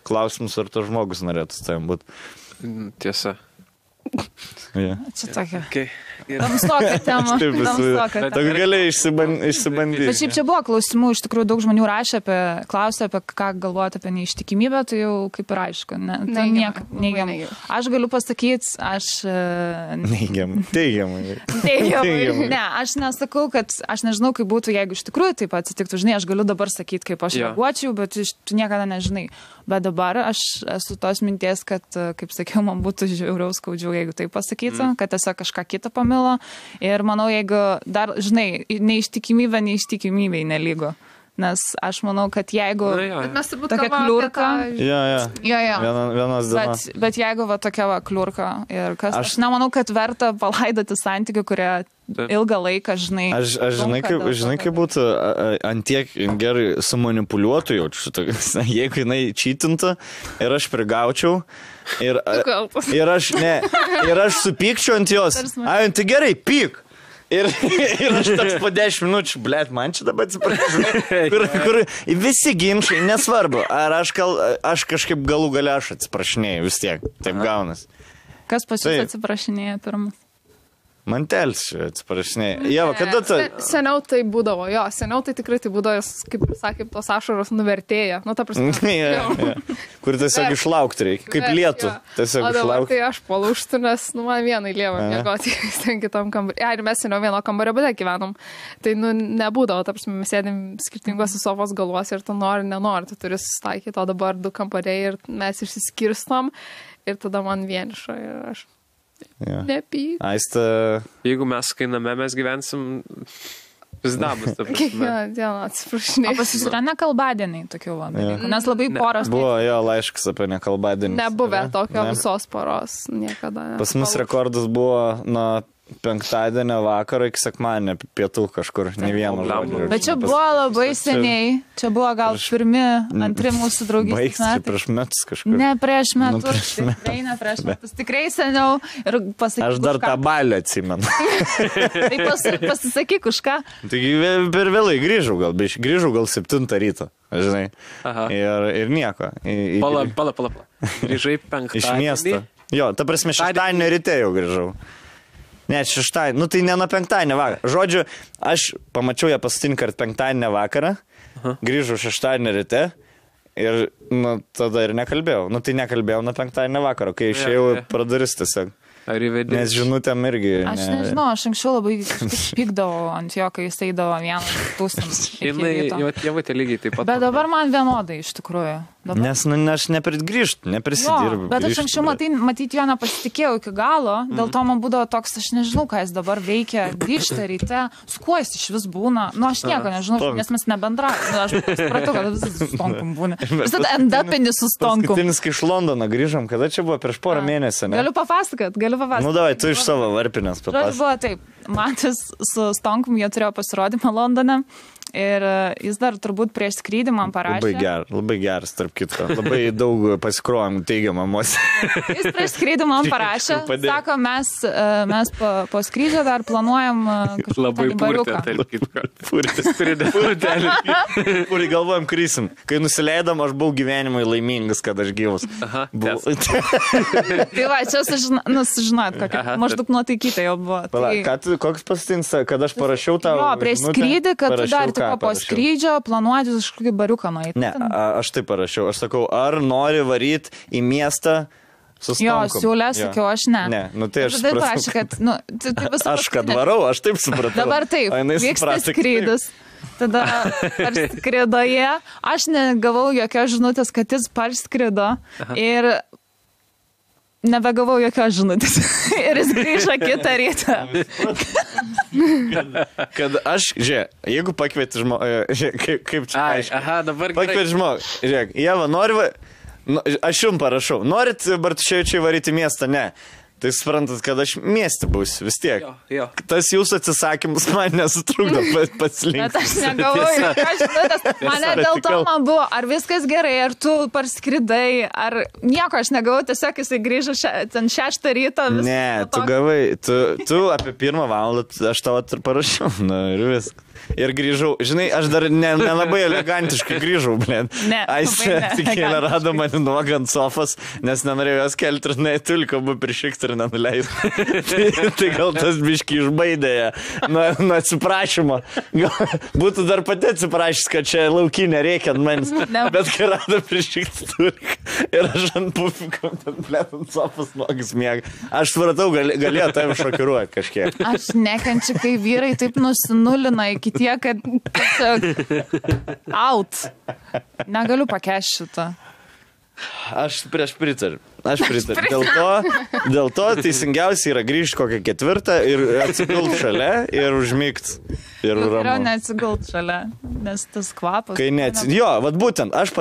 S1: klausimus, ar to žmogus norėtų su tavim būti.
S2: Tiesa.
S1: Yeah.
S3: Čia tokia.
S2: Okay.
S3: Tamsoka tema.
S1: Tu gali išsibandyti.
S3: Bet šiaip čia buvo klausimų, iš tikrųjų daug žmonių klausė apie ką galvoti apie neištikimybę, tai jau kaip ir aišku. Tai neigiamai. Aš galiu pasakyti,
S1: Neigiamai. Teigiamai.
S3: Ne, aš nesakau, kad aš nežinau, kaip būtų, jeigu iš tikrųjų taip atsitiktų. Žinai, aš galiu dabar sakyti, kaip aš reaguočiau, bet tu niekada nežinai. Bet dabar aš esu tos minties, kad, kaip sakiau, man būtų žiauriau skaudžiau, jeigu tai pasakytų, kad tiesiog kažką kitą pamilo. Ir manau, jeigu dar, žinai, neištikimybei nelygu. Nes aš manau, kad jeigu tokia kliurka...
S1: Vienas dienas.
S3: Bet jeigu tokia kliurka ir kas... Aš nemanau, kad verta palaidoti santykių, kurie ilgą laiką, žinai...
S1: Aš žinai, kaip būtų antiek gerai sumanipuliuotų jaučiu šitą. Jeigu jinai čytintų ir aš prigaučiau ir aš supykčiau ant jos. Tai gerai, pyk. Ir aš toks po 10 minučių, blėt, man čia dabar atsiprašau. Kur visi ginčiai, nesvarbu, ar aš kažkaip galų gale aš atsiprašinėjau, vis tiek, taip gaunas.
S3: Kas pas jūs atsiprašinėja pirmas?
S1: Mantelis atsiprašinėjai. Jeva, kada tu...
S4: Seniau tai būdavo, seniau tai tikrai tai būdavo, kaip sakė, tos ašaros nuvertėja. Nu, ta prasme.
S1: Kur tiesiog išlaukti reikia, kaip lietų. Tiesiog
S4: išlaukti. O dabar tai aš palūštų, nes, man vienai lieva mėgoti ten kitam kambarį. Ir mes seniau vieno kambario bute gyvenom. Tai, nebūdavo, ta prasme, mes sėdėm skirtingose sofos galuose ir tu nori, nenori, tu turi susitaikyti, o dabar 2 kambariai ir mes išsiskirstom ir tada man vieniša ir aš... Nepyk.
S1: Aiste.
S2: Jeigu mes, kai name mes gyvensim, pizdabus, ta prasme.
S4: Kiekvieną dieną atsiprašinėjau.
S3: O pas jūs yra nekalbadieniai tokių dalykų, nes labai poros...
S1: Buvo laiškas apie nekalbadienį.
S4: Nebuvę tokio visos poros, niekada.
S1: Pas mus rekordas buvo nuo penktadienio vakaro iki sekmadienio pietų kažkur, ne vieno žodžio.
S3: Bet čia buvo labai seniai, čia buvo gal pirmi, antri mūsų draugystės metai.
S1: Prieš metus kažkur.
S3: Ne prieš metus, tikrai ne prieš metus, tikrai seniau. Ir pasakyk,
S1: aš dar tą balį atsimenu.
S3: Tai pasisakyk už ką.
S1: Taigi per vėlai grįžau gal 7 ryto, žinai. Ir nieko.
S2: Pala. Grįžai penktadienį.
S1: Iš miesto. Jo, ta prasme, šeštadienio ryte jau grįžau. Ne, šeštadienį, tai ne nuo penktadienio vakarą. Žodžiu, aš pamačiau ją paskutinį kartą penktadienio vakarą, grįžau šeštadienio ryte ir tada ir nekalbėjau. Tai nekalbėjau nuo penktadienio vakaro, kai išėjau pradaris tiesiog. Nes žinutėm irgi...
S3: Aš nežinau, aš anksčiau labai pykdavau ant jo, kai jis eidavo vieną tūkstantį.
S2: Jo tėvai lygiai taip pat.
S3: Bet dabar man vienodai iš tikrųjų.
S1: Nes aš neprisidirbu.
S3: Bet aš anksčiau matyti jo nepasitikėjau iki galo, dėl to man būdavo toks, aš nežinau, ką jis dabar veikia, grįžta ryte, su kuo jis iš vis būna. Aš nieko nežinau, nes mes nebendravome. Aš supratau, kad vis su Stonkum būna. Visada endapinį su Stonkum.
S1: Paskutinis, kai iš Londono grįžom, kada čia buvo prieš porą mėnesių, ne?
S3: Galiu papasakot.
S1: Davai, tu iš savo varpinės papasakot.
S3: Buvo taip, Matis su Stonkum, jie turėjo pasirodymą Londone. Ir jis dar turbūt prieš skrydį man parašė.
S1: Labai geras, tarp kitko. Labai daug pasikrovėm teigiamą emociją.
S3: Jis prieš skrydį man parašė. Sako, mes po skrydžio dar planuojam kažkokį bariuką.
S1: Puri galvojam, krysim. Kai nusileidom, aš buvau gyvenimui laimingas, kad aš gyvas.
S3: Tai va, čia sužinot, maždaug nuotaikyta jau buvo.
S1: Koks paskutinis, kad aš parašiau tau?
S3: Jo, prieš skrydį, kad tu dar po skrydžio planuoti kažkokį bariuką nueiti.
S1: Ne, aš taip parašiau. Aš sakau, ar nori varyti į miestą su Stonkum?
S3: Jo, siūlė, sakiau, aš ne.
S1: Ne, tai aš supratau. Aš kad varau, aš taip supratau.
S3: Dabar taip, vyksta skrydis. Tada parskridoje. Aš negavau jokios žinutės, kad jis parskrido. Ir nebegavau jokios žinutės. Ir jis grįžo kitą rytą.
S1: Kad aš, jeigu pakvieti žmogų, kaip čia aišku.
S2: Dabar
S1: pakvieti žmogų, žiūrėk, Jeva, aš jums parašau, norit Bartuševičiai varyti miestą? Ne. Tai suprantat, kad aš mieste būsiu vis tiek.
S2: Jo.
S1: Tas jūsų atsisakymus man nesutrukdo paslinkti.
S3: Bet aš negavau, mane dėl to man buvo, ar viskas gerai, ar tu parskridai, ar nieko aš negavau, tiesiog jisai grįžo ten 6 ryto.
S1: Ne, tu gavai, tu apie 1 valandą aš tavo parašiau, ir viskas. Ir grįžau, žinai, aš dar nelabai elegantiškai grįžau, blėt. Aistė tik kėlė rado mane nuogą ant sofos, nes nenorėjau jos kelti ir tulko buvo prišikti ir dar nenuleis. Tai gal tas biški išbaidė nuo atsiprašymo. Būtų dar pati atsiprašys, kad čia laukinė reikia ant manęs. Bet kai rado prišikti turi. Ir aš ant pufiko, ant sofas nogis miega. Aš supratau, galėjo tavim šokiruoti kažkiek.
S3: Aš nekenčiu, kai vyrai taip nusinulina iki tiek, kad out. Negaliu pakęsti šitą.
S1: Aš pritariu. Dėl to teisingiausia yra grįžti kokią 4 ir atsigult šalia ir užmigt. Ir
S3: geriau neatsigult šalia, nes tas kvapas.
S1: Jo, vat būtent, aš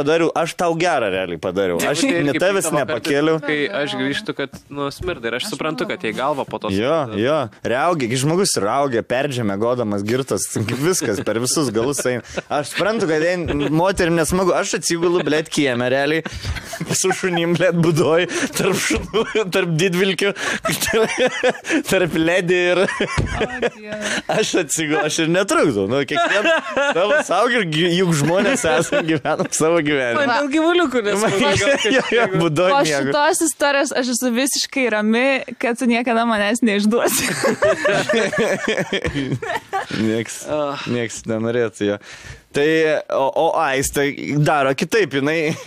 S1: tau gerą realiai padariau. Aš ne tavęs nepakėliau.
S2: Kai aš grįžtu, kad smirda ir aš suprantu, kad jai galva po to.
S1: Jo, raugia, žmogus raugia, perdžiame, godamas, girtas, viskas per visus galus eina. Aš suprantu, kad moterim nesmagu, aš atsigulu, blėt, kieme realiai, su šunim, blėt, budoj. Tarp šunų, tarp didvilkių, tarp ledį ir aš atsigau, aš ir netrukdau. Kiekvieną savo saugį ir juk žmonės esame gyvenam savo gyvenimą.
S2: Man dėl gyvuliukų nesmagu.
S1: Po
S3: šitos istorijos aš esu visiškai rami, kad tu niekada manęs neišduosi.
S1: Nieks nenorėtų jo. Tai, o Aistė daro kitaip,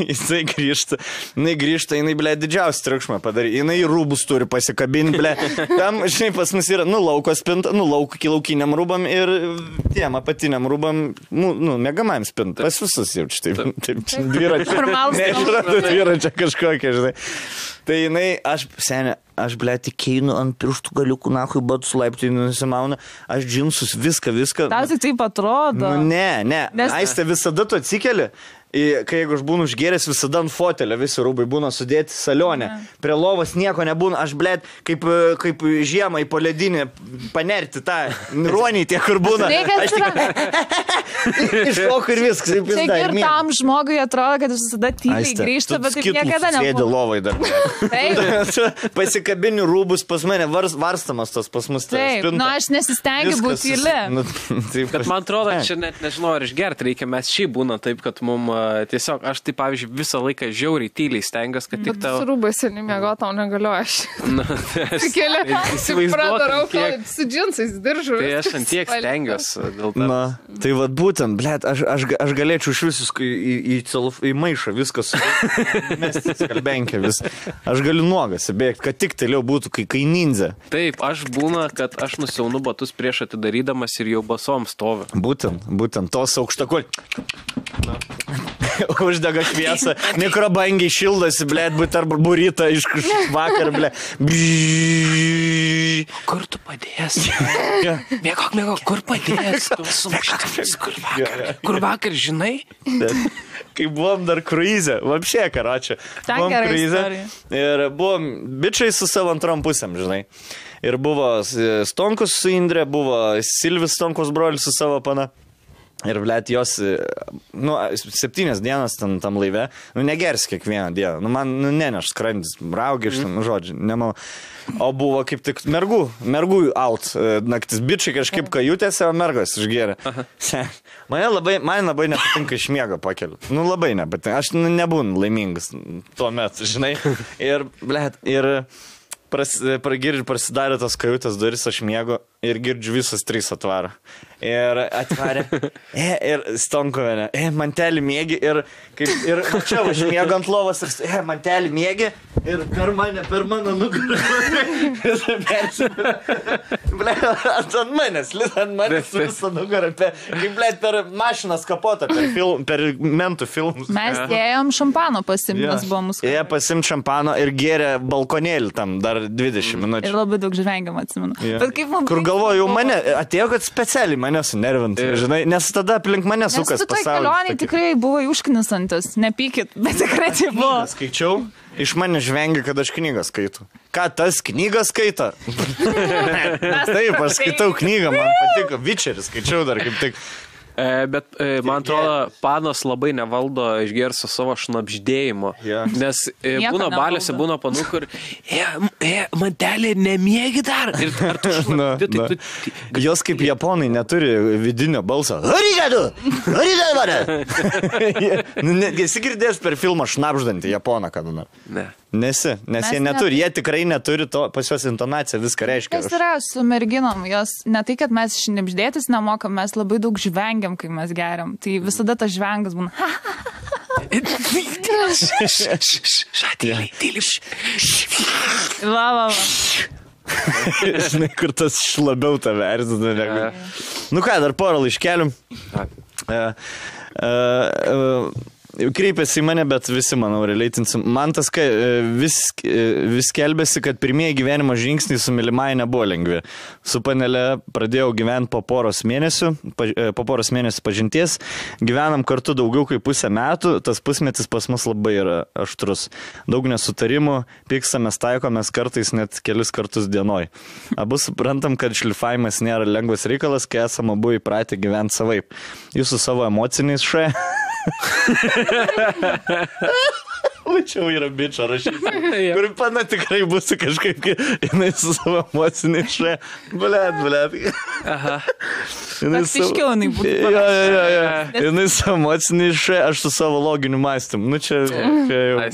S1: jisai grįžta, jinai, ble, didžiausią triukšmą padarė, jinai rūbus turi pasikabinti, ble, tam, žinai, pas mus yra, lauko spinta, laukiniam rūbam ir tiem apatiniam rūbam, mėgamajam spinta, pas visus jau čia, taip, dviračia kažkokia, žinai. Tai jinai, aš, ble, tik einu ant pirštų galiukų, nahui, batus laiptai nusimauna, aš džinsus, viską.
S3: Tau tik taip atrodo.
S1: Ne. Aistė, visada tu atsikeli, kai jeigu aš būnu užgėręs, visada ant fotelio visi rūbai būna sudėti salionė. Prie lovos nieko nebūna, aš, blėt, kaip žiemą į poledinį panerti tą ruonį tie, kur būna. Aš tik iššoku ir viskas.
S3: Čia ir tam žmogui atrodo, kad visada tyliai grįžta, bet taip niekada nebūna.
S1: Sėdė lovai dar. Pasikabinių rūbus pas mane varstamas tas pas mus.
S3: Taip, aš nesistengiu būti tyli.
S2: Bet man atrodo, čia net nežinau, ar išgerti reikia, mes šį būna taip, kad mums tiesiog, aš tai, pavyzdžiui, visą laiką žiauriai tyliai stengiuosi, kad tik tau...
S4: Bet su rūbais ir nemiego tau negaliu aš.
S2: Įsivaizduotum,
S4: kiek... Su džinsais diržu.
S2: Tai aš ant tiek stengiuosi dėl to.
S1: Tai vad būtent, blėt, aš galėčiau iš visus į maišą viskas mesti skalbenkę vis. Aš galiu nuogas įbėgti, kad tik toliau būtų, kai ninja.
S2: Taip, aš būna, kad aš nusiaunu batus prieš atidarydamas ir jau basom stovi.
S1: Būtent, tos aukštakol. Uždega šviesą, mikrobangiai šildosi, blėt, būt arba burita iš vakar, blėt.
S2: Kur tu padės? Mėgok, kur padės? Kur vakar, žinai?
S1: Kai buvom dar kruizė, vapšė, karočią. Buvom kruizė ir buvom bičiai su savo antrom pusėm, žinai. Ir buvo Stonkus su Indrė, buvo Silvis Stonkus brolis su savo pana. Ir, blėt, jos, 7 dienas tam laive, negers kiekvieną dieną. Man, neneš skrandis, raugiš, žodžiu, nemanau. O buvo kaip tik mergų out naktis. Bičiai kažkaip kajutėse, o mergos išgėrė. Man labai nepatinka iš miego pakeliu. Labai nepatinka. Aš nebūnu laimingas tuo metu, žinai. Ir, blėt, prasidarė tos kajutės duris, aš miego ir girdžiu visas 3 atvaro. Ir atvarė, ir Stonkuvienė, mantelį mėgi, ir čia aš miegu ant lovos, ir mantelį mėgi, ir per mano nugarą. Ant manęs visą nugarą, per mašinas kapotą, per mentų filmus.
S3: Mes dėjom šampano pasimtas buvo mūsų.
S1: Jie pasimt šampano ir gėrė balkonėlį tam dar 20 minučių.
S3: Ir labai daug žvengiam atsimenu.
S1: Kur galvoju, mane atėjo, kad specialiai mane sunervint, žinai, nes tada aplink mane sukas pasaulis.
S3: Nes tu toj kelionėj tikrai buvo užknisantis, nepykit, bet tikrai tai buvo.
S1: Skaičiau, iš mane žvengia, kad aš knygą skaitų. Ką tas knygą skaito? Taip, aš skaitau knygą, man patiko, Witcherį skaičiau dar kaip tik.
S2: Bet man atrodo, panos labai nevaldo išgerso savo šnapždėjimo. Nes būna baliuose, būna panų, kur mantelė nemiegi dar.
S1: Jos kaip japonai neturi vidinio balso. Arigadu! Esi girdėjęs per filmą šnapždantį japoną kada nors?
S2: Ne.
S1: Nes jie neturi, jie tikrai neturi to, pas juos intonacija viską reiškia.
S3: Kas yra su merginom, jos ne tai, kad mes šnipždėtis nemokam, mes labai daug žvengiam, kai mes geriam. Tai visada tas žvengas būna.
S2: Šatėlį, tyliš.
S3: Va.
S1: Žinai, kur tas labiau tave erzina negu. Nu ką, dar porą laiškelių. Kreipėsi į mane, bet visi, manau, releitinsim. Man tas vis kelbėsi, kad pirmieji gyvenimo žingsniai su mylimai nebuvo lengvi. Su panelė pradėjau gyventi po poros mėnesių pažinties. Gyvenam kartu daugiau kaip pusę metų, tas pusmetis pas mus labai yra aštrus. Daug nesutarimų, pyksamės, taikomės kartais net kelis kartus dienoj. Abu suprantam, kad šlifavimas nėra lengvas reikalas, kai esame abu įpratę gyventi savaip. Jūs su savo emociniais Čia yra bičio rašyti. Kur pana tikrai bus kažkaip, jinai su savo emociniai Blet.
S3: Aha. Piškiau jinai būtų.
S1: Jinai su emociniai aš su savo loginiu mąstymu. Nu čia jau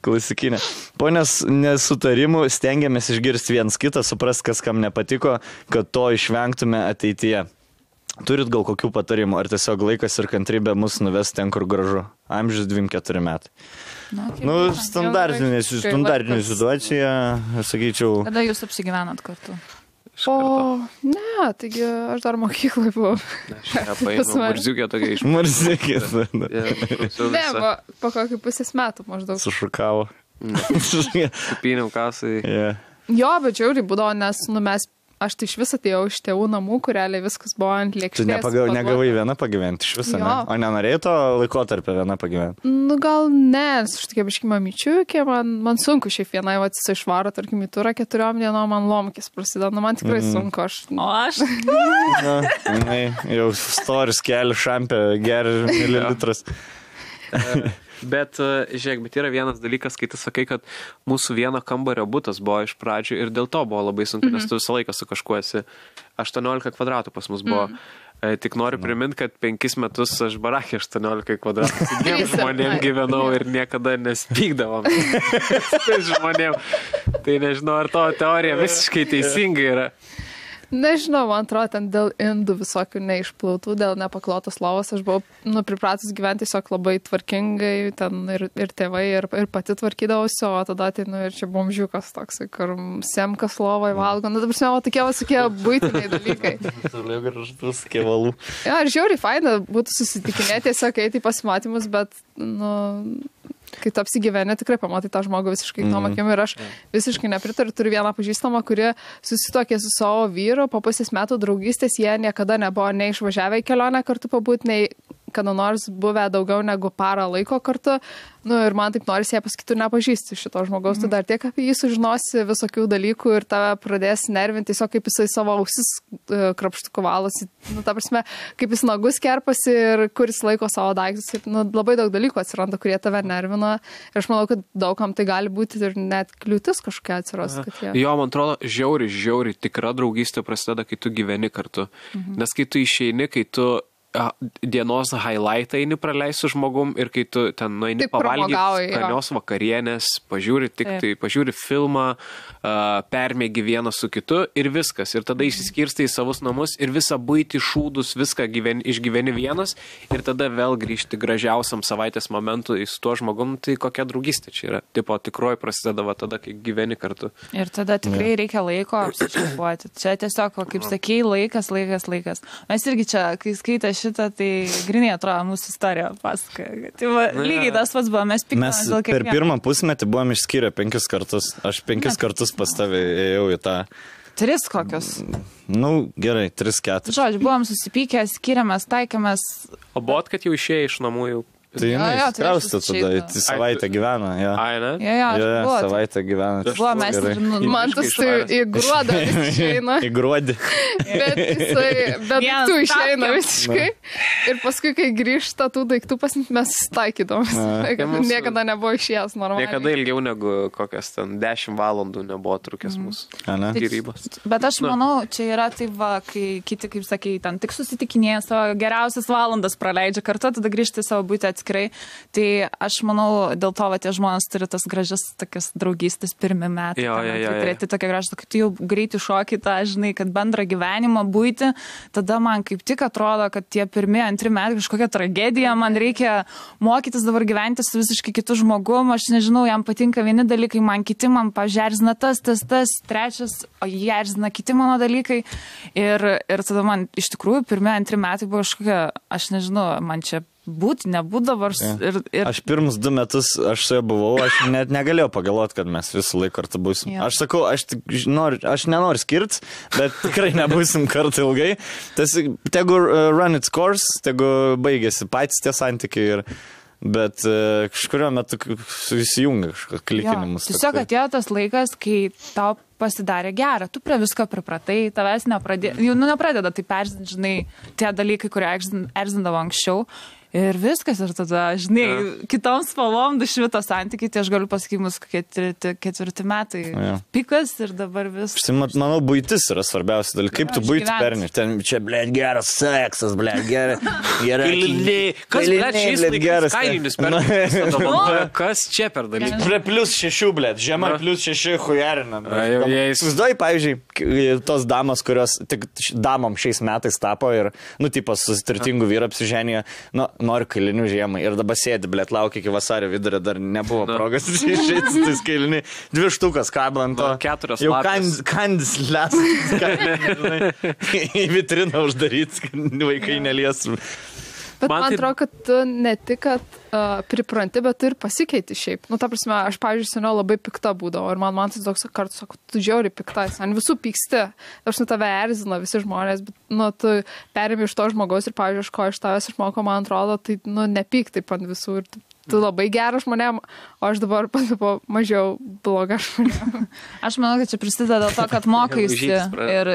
S1: klasikinė. Po nesutarimų stengiamės išgirsti viens kitą, suprast, kas kam nepatiko, kad to išvengtume ateityje. Turit gal kokių patarimų, ar tiesiog laikas ir kantrybė mus nuves ten, kur gražu? Amžius 24 metai. Standartinė situacija, sakyčiau.
S3: Kada jūs apsigyvenat kartu?
S4: Ne, taigi aš dar mokyklai buvau.
S2: Marziukė tokia iš
S1: Marziukė.
S4: Ne, po kokį pusės metų maždaug.
S1: Sušukavo.
S2: Kupiniau kasai.
S4: Jo, bet žiauriai būdavo, nes aš tai iš vis atėjau iš tėvų namų, kur realiai viskas buvo ant lėkštės.
S1: Tu negavai viena pagyventi iš viso, ne? O nenorėjai to laikotarpio viena pagyventi?
S4: Nu gal ne, aš tokia biškai mamyčiukė, man sunku šiaip vienai jisai išvaro, tarkim, į turą 4 dienom, man lomkis prasideda, man tikrai sunku.
S3: O aš?
S1: Jau storis keli šampę, geri mililitras.
S2: Bet, žiūrėk, yra vienas dalykas, kai tu sakai, kad mūsų vieno kambario butas buvo iš pradžių ir dėl to buvo labai sunku, nes tu visą laiką su kažkuo esi. 18 kvadratų pas mus buvo. Tik noriu priminti, kad 5 metus aš barakė 18 kvadratų. Dviem žmonėm gyvenau ir niekada nespykdavom. Tai žmonėm. Tai nežinau, ar to teorija visiškai teisinga yra.
S4: Nežinau, man atrodo, ten dėl indų visokių neišplautų, dėl nepaklotos lovos, aš buvau pripratus gyventi tiesiog labai tvarkingai, ten ir tėvai, ir pati tvarkydavausi, o tada ir čia bomžiukas toks, kur semkas lovai valgo, dabar o tokie visokie buitiniai dalykai.
S1: Toliau gražus kevalų.
S4: Ja, ir žiauriai faina būtų susitikinėti, tiesiog eiti į pasimatymus, bet, kai tu apsigyveni, tikrai pamatai tą žmogų visiškai tom akim ir aš visiškai nepritariu. Turiu vieną pažįstamą, kuri susituokė su savo vyru, po pusės metų draugystės jie niekada nebuvo nei išvažiavę į kelionę kartu pabūti, nei kada nors buvę daugiau negu parą laiko kartu. Ir man taip norisi ją pasakyti, tu nepažįsti šito žmogaus, tu dar tiek apie jį sužinosi visokių dalykų ir tave pradės nervinti, tiesiog kaip jisai savo ausis krapštukų valosi, ta prasme, kaip jis nagus kerpasi ir kuris laiko savo daiktus. Ir, labai daug dalykų atsiranda, kurie tave nervina. Ir aš manau, kad daugam tai gali būti ir net kliūtis kažkokia atsiras.
S2: Jo, man atrodo, žiauriai tikra draugystė prasideda, kai tu gyveni kartu. Nes kai tu išeini, kai tu dienos highlightą eini praleisi su žmogum ir kai tu ten nueini pavalgyti skanios vakarienės, pažiūri filmą, permėgi vieną su kitu ir viskas. Ir tada išsiskirstai į savus namus ir visą buitį šūdus, viską išgyveni vienas ir tada vėl grįžti gražiausiam savaitės momentu su tuo žmogum, tai kokia draugystė čia yra. Tipo, tikroji prasideda tada, kai gyveni kartu.
S3: Ir tada tikrai reikia laiko apsičiupuoti. Čia tiesiog, kaip sakei, laikas. Mes irgi čia, kai skaitė šitą, tai grinai atrodo mūsų istorija pasakoja. Tai lygiai tas pats buvo, mes piktamės dėl kiekvieno.
S1: Per pirmą pusmetį buvom išskyrę 5 kartus. Aš 5 kartus pas tavę ėjau į tą.
S3: 3 kokios?
S1: Gerai, 3-4.
S3: Žodžiu, buvom susipykę, skiriamės, taikėmės.
S2: O buvot, kad jau išėjai iš namų jau?
S1: Tai jinai kraustė tada, savaitę gyvena.
S2: Ai, ne?
S3: Jo,
S1: savaitę gyvena.
S3: Buvo, mes
S4: man tas tai į gruodą išeina.
S1: Į gruodį.
S4: Bet tu išeina visiškai. Ir paskui, kai grįžta tų daiktų mes taikydom. Niekada nebuvo išėjęs normaliai.
S2: Niekada ilgiau negu kokias ten 10 valandų nebuvo trukęs mūsų gyrybos.
S3: Bet aš manau, čia yra tai va, kai kiti, kaip sakei, ten tik susitikinėja savo geriausias valandas praleidžia kartu, tada grįžti savo būti atskirti. atskirai. Tai aš manau, dėl to, tie žmonės turi tas gražias tokias draugystės pirmi metai. Tai tokia gražia, kad tu jau greitai šoki tą, žinai, kad bendrą gyvenimą būti, tada man kaip tik atrodo, kad tie pirmi, antri metai kažkokia tragedija, man reikia mokytis dabar gyventi su visiškai kitu žmogum, aš nežinau, jam patinka vieni dalykai, man kiti, man pažerzina tas, trečias, o jie erzina kiti mano dalykai. Ir tada man iš tikrųjų pirmi, antri metai buvo kažkokia, aš nežinau, man čia būti, nebūt dabar.
S1: Aš pirmus 2 metus, aš su ja buvau, aš net negalėjau pagalvoti, kad mes visą laiką kartu būsim. Aš sakau, aš nenoriu skirtis, bet tikrai nebūsim kartu ilgai. Tegu run its course, tegu baigėsi patys tie santykiai bet kažkurio metu susijungia kažkokios klikinimus.
S3: Tiesiog atėjo tas laikas, kai tau pasidarė gera, tu prie visko pripratai, tavęs nepradeda taip erzinti, žinai, tie dalykai, kurie erzindavo anksčiau. Ir viskas, ir tada, žinai, kitom spalvom dušvito santykiai, tai aš galiu pasakyti, mūsų 4 metai pikas ir dabar viskas.
S1: Manau, buitis yra svarbiausia dalykai. Kaip tu buitį perni? Ten čia, blėt, geras seksas, blėt, gerai.
S2: Kas, blėt, šiais laikais kailinis perni? Kas čia per dalykai?
S1: +6, blėt, žiema +6 hujarinam. Susiduoji, pavyzdžiui, tos damos, kurios tik damom šiais metais tapo ir, tipas susitartingų vyrų apsiženė, noriu kailinių žiemai. Ir dabar sėdi, blėt, laukia iki vasario vidurio, dar nebuvo progos išėti tais kailiniai. 2 štukas kablant to.
S2: 4
S1: jau kandis lesas. Į vitriną uždaryti, kad vaikai nelies.
S4: Bet man atrodo, kad tu ne tik, kad pripranti, bet tu ir pasikeiti šiaip. Ta prasme, aš, pavyzdžiui, seniau labai pikta būdavo. Ir man tai toks kartu sako, tu žiauriai pikta. Ant visų pyksti. Aš tave erzina visi žmonės, bet tu perimi iš to žmogaus ir, pavyzdžiui, ko iš tavęs išmoko, man atrodo, tai nepyk taip ant visų. Ir tu labai geras žmonėm, o aš dabar pasipo mažiau bloga žmonėm.
S3: Aš manau, kad čia prisideda dėl to, kad mokaisi ir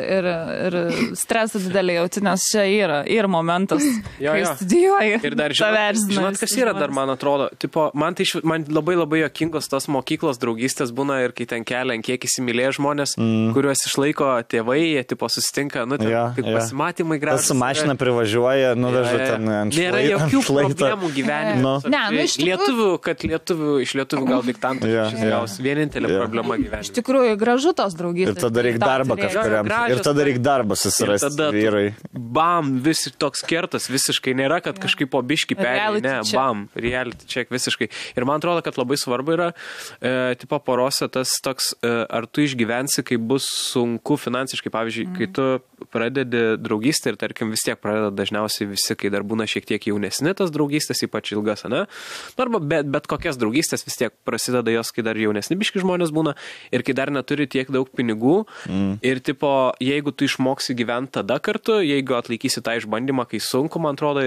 S3: stresą didelį jauti, nes čia yra momentas, kai studijuoji.
S2: Ir dar žinot, kas yra dar, man atrodo, man labai labai jokingos tos mokyklos draugystės būna ir kai ten kelia, kiek įsimylėję žmonės, kuriuos išlaiko tėvai, jie susitinka, kaip pasimatymai gražus.
S1: Su mašina privažiuoja, nuveža ten ant šlaito.
S2: Nėra jokių problemų gyvenime. Iš lietuvių gal diktantų gaus vienintelė problema gyvenime.
S3: Iš tikrųjų, gražu tos draugystės.
S1: Ir tada reikia darbą kažkuriam. Ir tada reikia darbą susirasti vyrai.
S2: Bam, visi toks kertas visiškai nėra, kad kažkaip po biškį perėjai. Ne, bam, reality check visiškai. Ir man atrodo, kad labai svarbu yra, porose tas toks, ar tu išgyvensi, kai bus sunku finansiškai. Pavyzdžiui, kai tu pradedi draugystę ir, tarkim, vis tiek pradeda dažniausiai visi, kai dar būna šiek tiek jaunesni tas draugystės, ypač ilgas, ne? Arba bet kokias draugystės vis tiek prasideda jos, kai dar jaunesni biški žmonės būna ir kai dar neturi tiek daug pinigų ir jeigu tu išmoksi gyventi tada kartu, jeigu atlaikysi tą išbandymą, kai sunku, man atrodo,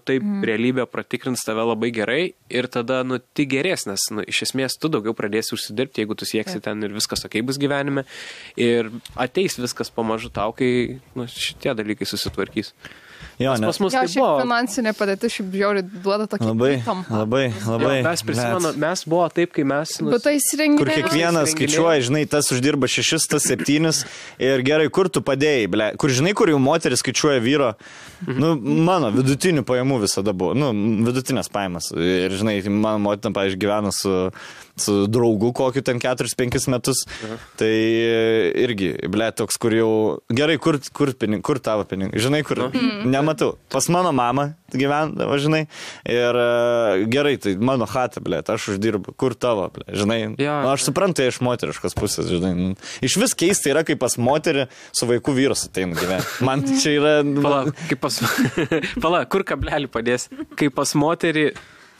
S2: taip realybė pratikrins tave labai gerai ir tada, tik gerės, nes, iš esmės tu daugiau pradėsi užsidirbti, jeigu tu sieksi ten ir viskas okei bus gyvenime ir ateis viskas pamažu tau, kai šitie dalykai susitvarkys.
S1: Jo,
S2: pas mus tai
S4: buvo. Finansinė padėtis šiaip žiauriai duoda tokį
S1: labai.
S2: Mes prisimenu, mes buvo taip, kai mes...
S1: Kur kiekvienas skaičiuoja, žinai, tas uždirba 6, tas 7 ir gerai, kur tu padėjai, ble. Kur žinai, kur jau moteris skaičiuoja vyro, mano vidutinių pajamų visada buvo, vidutinės pajamas. Ir žinai, mano motina, pavyzdžiui, gyvena su draugu kokiu ten 4-5 metus, tai irgi, ble, toks, kur jau, gerai, kur tavo pinigai, žinai, kur, nematau, pas mano mamą gyvendavo, žinai, ir gerai, tai mano chata, ble, aš uždirbu, kur tavo, ble, žinai, aš suprantu, iš moteriškos pusės, žinai, iš vis keista yra, kaip pas moterį su vaikų vyras ateina gyventi, man čia yra...
S2: Pala, kur kablelį padės, kaip pas moterį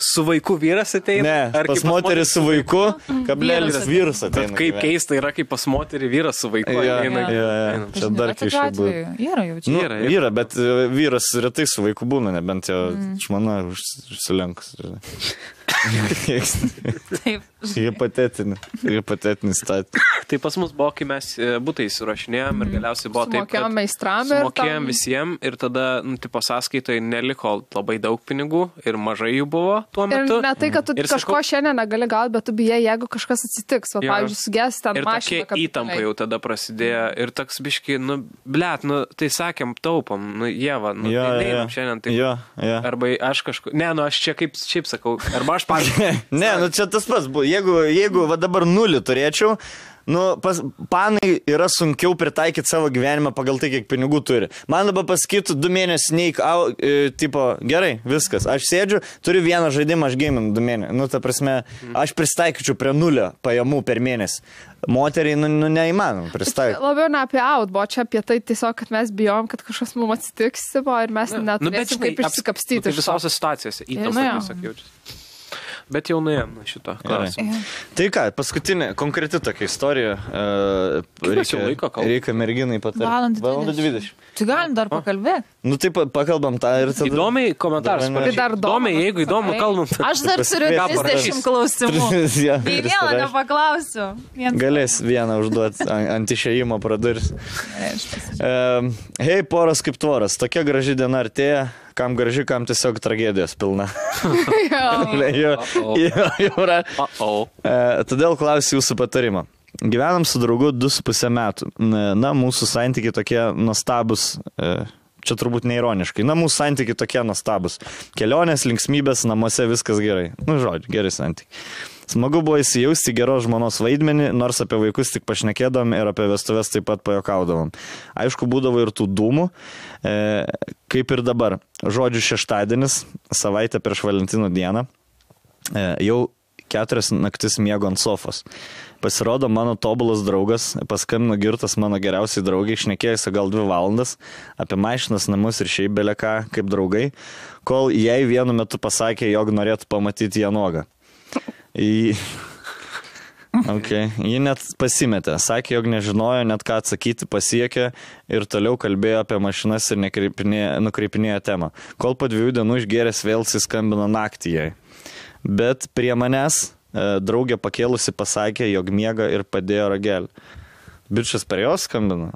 S2: su vaiku vyras ateina?
S1: Ne, pas moterį su vaiku, kablelis vyras ateina.
S2: Kaip keista yra, kaip pas moterį vyras su vaiku ateina.
S1: Čia dar keiščiau būtų.
S3: Yra jau čia.
S1: Yra, bet vyras retai su vaiku būna, nebent jo žmona užsilenkus.
S3: Taip.
S1: Hipotetinis statė.
S2: Tai pas mus buvo, kai mes būtai įsirašinėjom ir galiausiai buvo taip, kad sumokėjom visiems ir tada, tipo, sąskaitoje neliko labai daug pinigų ir mažai jų buvo tuo metu.
S4: Ir ne tai, kad tu kažko šiandien negali gauti, bet tu bijai, jeigu kažkas atsitiks. Va, pavyzdžiui, suges ten mašiną.
S2: Ir tokia įtampa jau tada prasidėjo. Ir toks biški, tai sakėm, taupom, Ieva, tai šiandien taip. Arba aš kažkur, aš čia kaip šiaip sakau, arba aš pavyzdžiui.
S1: Ne, čia tas pats buvo. Jeigu va dabar 0 turėčiau, panai yra sunkiau pritaikyti savo gyvenimą pagal tai, kiek pinigų turi. Man dabar pasakytų 2 mėnesius neik, tipo, gerai, viskas. Aš sėdžiu, turiu vieną žaidimą, aš gaminu 2 mėnesius. Ta prasme, aš pristaikyčiau prie 0 pajamų per mėnesį. Moteriai, neįmanom pristaikyti.
S4: Labiau ne apie buvo čia apie tai tiesiog, kad mes bijom, kad kažkas mums atsitiks ir mes neturėsim kaip išsikapstyti.
S2: Tai visose situacijose įtampa tiesiog jaučiasi. Bet jau nuėjom šito klausimą.
S1: Tai ką, paskutinė, konkreti tokia istorija. Reikia merginai patarti. Valandą 20.
S3: Tai galim dar pakalbėti.
S1: Taip, pakalbam tą ir tada.
S2: Įdomiai komentaras. Įdomiai, jeigu įdomu, kalbam.
S3: Aš dar turiu 30 klausimų. Tai vieną nepaklausiu.
S1: Galės vieną užduoti ant išėjimo pradurs. Hei, poras kaip tvoras. Tokia graži diena artėja. Kam graži, kam tiesiog tragedijos pilna. Todėl klausiu jūsų patarimą. Gyvenam su draugu 2,5 metų. Mūsų santykiai tokie nuostabus, čia turbūt neironiškai, mūsų santykiai tokie nuostabus. Kelionės, linksmybės, namuose viskas gerai. Žodžiu, geri santykiai. Smagu buvo įsijausti geros žmonos vaidmenį, nors apie vaikus tik pašnekėdavom ir apie vestuves taip pat pajokaudavom. Aišku, būdavo ir tų dūmų, kaip ir dabar. Žodžiu, šeštadienis, savaitę prieš Valentino dieną, jau 4 naktis miego ant sofos. Pasirodo, mano tobulas draugas, paskambino girtas mano geriausiai draugai, šnekėjusi gal 2 valandas apie mašinas, namus ir šiaip beleką kaip draugai, kol jai vienu metu pasakė, jog norėtų pamatyti ją nuogą. Ji net pasimetė, sakė, jog nežinojo net ką atsakyti, pasiekė ir toliau kalbėjo apie mašinas ir nukreipinėjo temą. Kol po 2 dienų išgėręs vėl skambino naktį jai. Bet prie manęs draugė pakėlusi pasakė, jog miega ir padėjo ragelį. Bičias per jos skambino?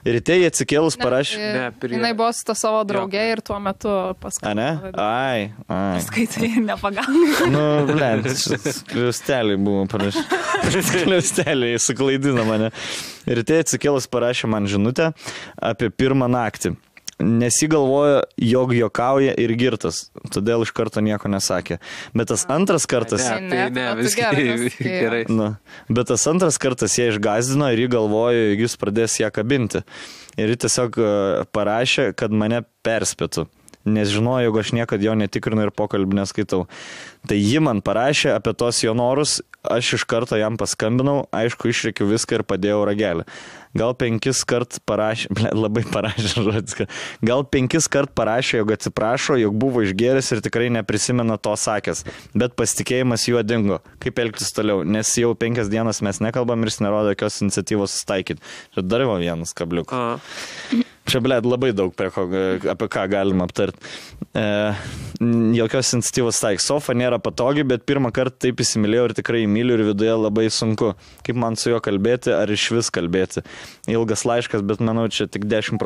S1: Ryte jie atsikėlus parašė.
S4: Jinai buvo su ta savo draugė ir tuo metu paskambino.
S1: Ai.
S3: Skaitai ir nepagauna.
S1: Kliusteliai buvo parašę. Kliusteliai suklaidino mane. Ryte atsikėlus parašė man žinutę apie 1 naktį. Nesigalvojo, jog jokauja ir girtas, todėl iš karto nieko nesakė. Bet tas antras kartas...
S2: Gerai.
S1: Bet tas antras kartas ją išgazdino ir jį galvojo, jog jis pradės ją kabinti. Ir jį tiesiog parašė, kad mane perspėtų. Nes žinojo, jog aš niekad jo netikrinu ir pokalbį neskaitau. Tai ji man parašė apie tos jo norus, aš iš karto jam paskambinau, aišku, išreikiu viską ir padėjau ragelį. Gal 5 kart parašė, labai parašė žodis, gal 5 kart parašė, jog atsiprašo, jog buvo išgėręs ir tikrai neprisimena to sakęs, bet pasitikėjimas juo dingo. Kaip elgtis toliau, nes jau 5 dienas mes nekalbam ir jis nerodo jokios iniciatyvos sustaikyti. Čia dar buvo vienas kabliukas. Čia, labai daug apie ką galima aptarti. Jokios iniciatyvos taik. Sofa nėra patogi, bet 1 kartą taip įsimylėjau ir tikrai myliu ir viduje labai sunku. Kaip man su juo kalbėti, ar iš vis kalbėti. Ilgas laiškas, bet manau, čia tik 10%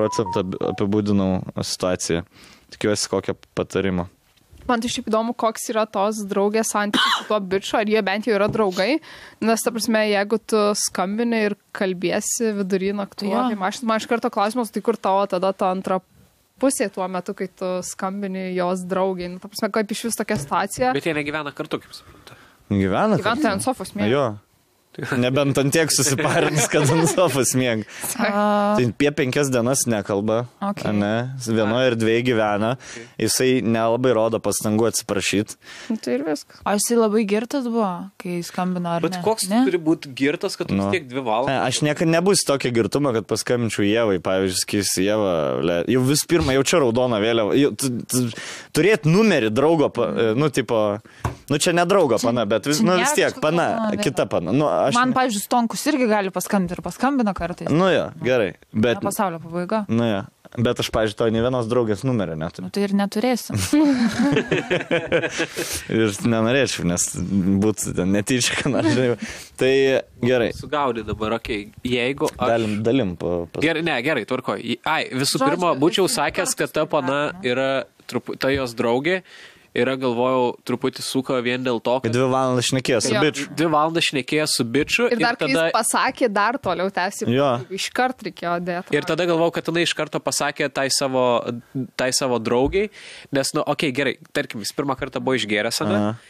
S1: apibūdinau situaciją. Tikiuosi kokio patarimo.
S4: Man tai šiaip įdomu, koks yra tos draugės santykis su tuo biču, ar jie bent jau yra draugai, nes ta prasme, jeigu tu skambini ir kalbėsi vidury naktų, tai man iš karto klausimas, tai kur tavo tada ta antra pusė tuo metu, kai tu skambini jos draugai, ta prasme, kaip iš vis tokia situacija.
S2: Bet jie negyvena kartu, kaip suprantu.
S1: Gyvena
S4: ant sofos miega.
S1: Jo. Nebent ant tiek susiparins, kad ant sofos miega. Tai apie 5 dienas nekalba, vienoje ir 2 gyvena, jisai nelabai rodo pastangų atsiprašyti.
S4: Tai ir viskas.
S3: O jisai labai girtas buvo, kai skambino, ar ne?
S2: Bet koks turi būti girtas, kad tu tiek 2 valandas?
S1: Aš niekada nebus tokia girtuma, kad paskambinčiau Ievai, pavyzdžiui, skirsi Ievą, jau vis pirma, jau čia raudona vėliava. Turėti numerį draugo, čia ne draugo pana, bet vis tiek pana, kita pana.
S3: Man, pavyzdžiui, Stonkus irgi gali paskambinti ir paskambina kartais.
S1: Jo, gerai. Bet...
S3: Pasaulio pabaiga.
S1: Bet aš, pavyzdžiui, to ne vienos draugės numerio neturiu.
S3: Tai ir neturėsim.
S1: Ir nenorėčiau, nes būtų ten netyčia, ką nors. Tai gerai.
S2: Sugaudai dabar, okei. Jeigu aš...
S1: Dalim.
S2: Gerai, tvarko. Visų pirma, būčiau sakęs, kad ta pana yra ta jos draugė. yra, galvojau, truputį suko vien dėl to, kad...
S1: 2 valandas šnekėjo su bičiu.
S2: 2 valandas šnekėjo su bičiu.
S4: Ir dar, kai tada... jis pasakė, dar toliau tęsi. Iškart reikėjo dėti.
S2: Ir tada galvojau, kad jinai iš karto pasakė tai savo draugiai, nes, nu, okei, gerai, tarkim, jis pirmą kartą buvo išgėręs,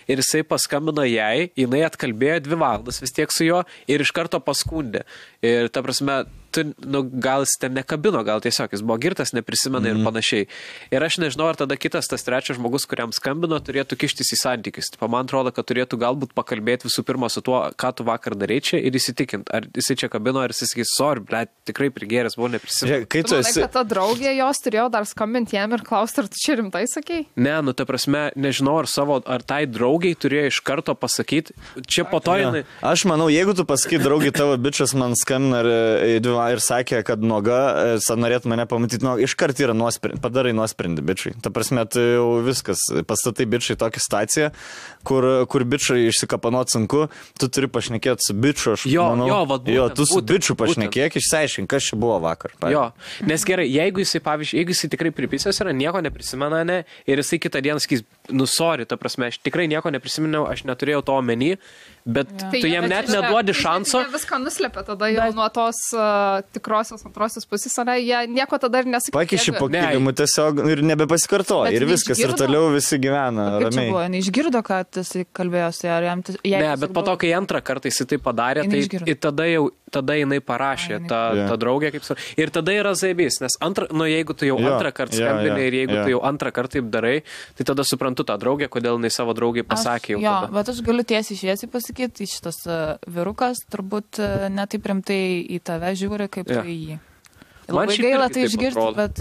S2: ir jisai paskambino jai, jinai atkalbėjo 2 valandas vis tiek su juo ir iš karto paskundė. Ir, ta prasme, gal jis ten nekabino, gal tiesiog jis buvo girtas, neprisimena ir panašiai. Ir aš nežinau, ar tada kitas, tas trečias žmogus, kuriam skambino, turėtų kištis į santykius. Man atrodo, kad turėtų galbūt pakalbėti visų pirma su tuo, ką tu vakar darei čia ir įsitikinti, ar jisai čia kabino, ar jis sakys, sorry, blet, tikrai prigėręs, buvo neprisimena.
S4: Tu manai, kad ta draugė jos turėjo dar skambinti jam ir klausti, ar tu čia rimtai sakei?
S2: Ne, nu, ta prasme, nežinau, ar tai draugiai turėjo iš karto pasakyti. Čia po to jinai...
S1: Aš manau, jeigu tu pasakai, draugai, tavo bičias man skambina ir sakė, kad nuoga, norėtų mane pamatyti, iškart yra padarai nuosprendį bičiai. Ta prasme, tai jau viskas, pastatai bičiai tokią situaciją, kur bičiai išsikapanot sunku, tu turi pašnekėti su bičiu, aš manau. Tu su bičiu pašnekėk, išsiaiškink, kas čia buvo vakar.
S2: Nes gerai, jeigu jisai tikrai pripisęs yra, nieko neprisimena, ne, ir jisai kitą dieną sakys, sorry, ta prasme, aš tikrai nieko neprisiminiau, aš neturėjau to omeny, bet tu jam net neduodi šanso.
S4: Jie viską nuslėpia tada jau nuo tos tikrosios antrosios pusės, jie nieko tada ir nesakė.
S1: Pakiši po kilimu tiesiog ir nebepasikartoja ir viskas, ir toliau visi gyvena ramiai.
S3: Kaip čia buvo, neišgirdo, kad jisai kalbėjo su ją, ar jam...
S2: Ne, bet po to, kai antrą kartą jisai tai padarė, tai tada jinai parašė tą draugę, kaip su... Ir tada yra zaibys, nes jeigu tu jau antrą kartą skambinai ir jeigu tu jau antrą kartą taip darai, tai tada suprantu tą draugę, kodėl jinai savo draugai pasakė jau tada.
S3: Bet aš galiu tiesiai šviesiai pasakyti, šitas vyrukas turbūt netaip rimtai į tave žiūri, kaip tu į jį. Labai gaila tai išgirsti, bet...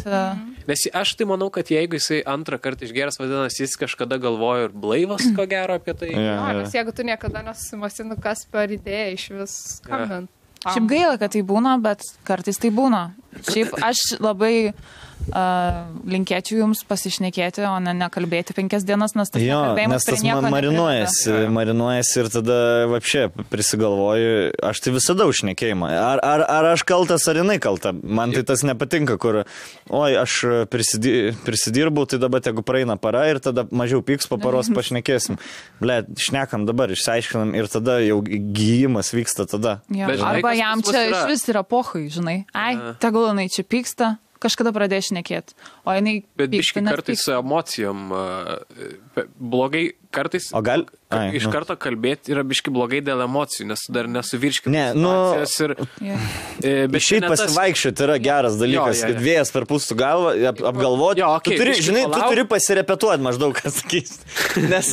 S2: Nes aš tai manau, kad jeigu jisai antrą kartą išgeras, vadinasi, jis kažkada galvojo ir blaivas, ko gero apie tai.
S4: Nes jeigu tu niekada nesusimąstinu, kas per idėją iš vis skambint.
S3: Šiaip gaila, kad tai būna, bet kartais tai būna. Šiaip aš labai linkėčiau jums pasišnekėti, o ne nekalbėti 5 dienas, nes tas
S1: nes tas marinuojasi ir tada vapšė prisigalvoju, aš tai visada užšnekėjimą. Ar aš kaltas, ar jinai kalta. Man tai tas nepatinka, kur, aš prisidirbau, tai dabar jeigu praeina para ir tada mažiau pyks, po paros pašnekėsim. Ble, šnekam dabar, išsiaiškinam ir tada jau gyjimas vyksta tada.
S3: Arba jam čia iš vis yra pohai, žinai. Tegul jinai čia pyksta. Kažkada pradėjo šnekėti, o jinai...
S2: Bet biški kartais su emocijom blogai, kartais iš karto kalbėti yra biški blogai dėl emocijų, nes dar nesuvirškina situacijos ir...
S1: Šiaip pasivaikščioti yra geras dalykas, kad vėjas per pustų galvą, apgalvoti. Tu turi pasirepetuoti maždaug, kas sakys. Nes,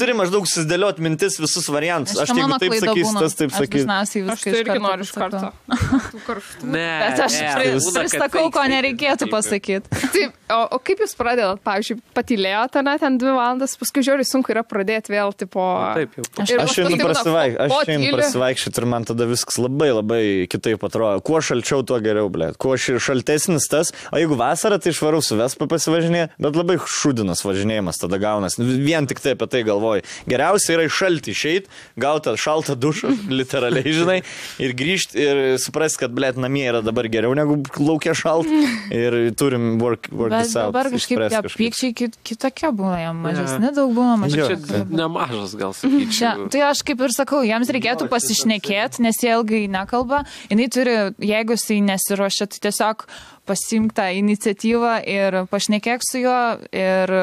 S1: turi maždaug susidėlioti mintis visus variantus. Aš jeigu taip sakys, tas taip sakys.
S4: Aš tai irgi noriu iš karto.
S3: Bet aš pristakau, ko nereikėtų pasakyti.
S4: Taip, o kaip jūs pradėt, pavyzdžiui, patylėjote ten 2 valandas, paskui žiūrėjau, sunku yra pradėti vėl, tipo...
S1: Aš einu prasivaikščioti ir man tada viskas labai, labai kitaip atrodo. Kuo šalčiau, tuo geriau, blėt. Kuo šaltesnis tas, o jeigu vasarą, tai išvarau su Vespa pasivažinėje, bet labai šūdinas važinėjimas tada gaunas. Vien tik tai apie tai galvoju. Geriausia yra iš šaltį išeit, gauti šaltą dušą, literaliai, žinai, ir grįžti ir suprasti, kad, blėt, namie yra dabar geriau negu laukia šalt ir turim work this out.
S3: Dabar kažkaip tie pykčiai kitokie būna, jam mažesni daug būna, mažesni.
S2: Čia nemažas gal sakyčiau.
S3: Tai aš kaip ir sakau, jiems reikėtų pasišnekėti, nes jie ilgai nekalba. Jinai turi, jeigu jisai nesiruošia, tai tiesiog pasimk tą iniciatyvą ir pašnekėk su juo ir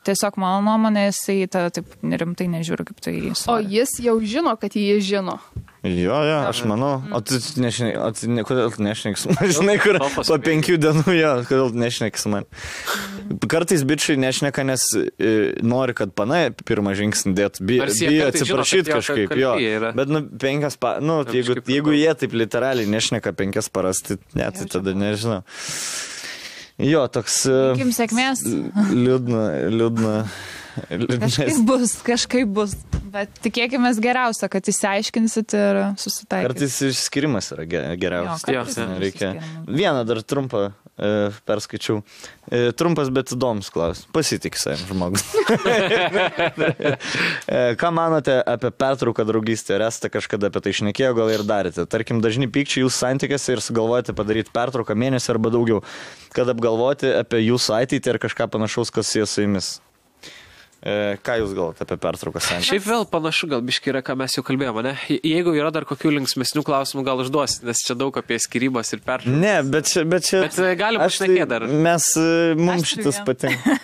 S3: tiesiog mano nuomonė, jisai taip rimtai nežiūri, kaip tai jis.
S4: O jis jau žino, kad jį žino.
S1: Jo, aš manau. O tu kodėl tu nešneki su man? Žinai, kur po 5 dienų, kodėl tu nešneki su man? Kartais bičiai nešneka, nes nori, kad pana pirmą žingsnį dėtų. Bijo atsiprašyti kažkaip, jo. Bet 5 jeigu jie taip literaliai nešneka 5 paras, tai tada nežinau. Jo, toks...
S3: Likim sėkmės.
S1: Liūdna.
S3: Kažkaip bus. Bet tikėkime geriausia, kad įsiaiškinsit ir susitaikysite.
S1: Kartais išskirimas yra geriausias. Reikia. Vieną dar trumpą perskaičiau. Trumpas, bet įdomus klausimas. Pasitik savim žmogus. Ką manote apie pertrauką draugystę? Ar esate kažkada apie tai šnekėjo, gal ir darėte? Tarkim, dažni pykčiai jūsų santykiuose ir sugalvojate padaryti pertrauką mėnesį arba daugiau, kad apgalvoti apie jūsų ateitį ir kažką panašaus, kas jie su jumis. Ką jūs galvote apie pertrauką santykių?
S2: Šiaip vėl panašu, gal biškai yra, ką mes jau kalbėjome, ne? Jeigu yra dar kokių linksmesnių klausimų, gal užduosit, nes čia daug apie skyrybas ir pertrauką.
S1: Ne, bet
S2: gali būti šnekėti dar.
S1: Mums šitas patinka.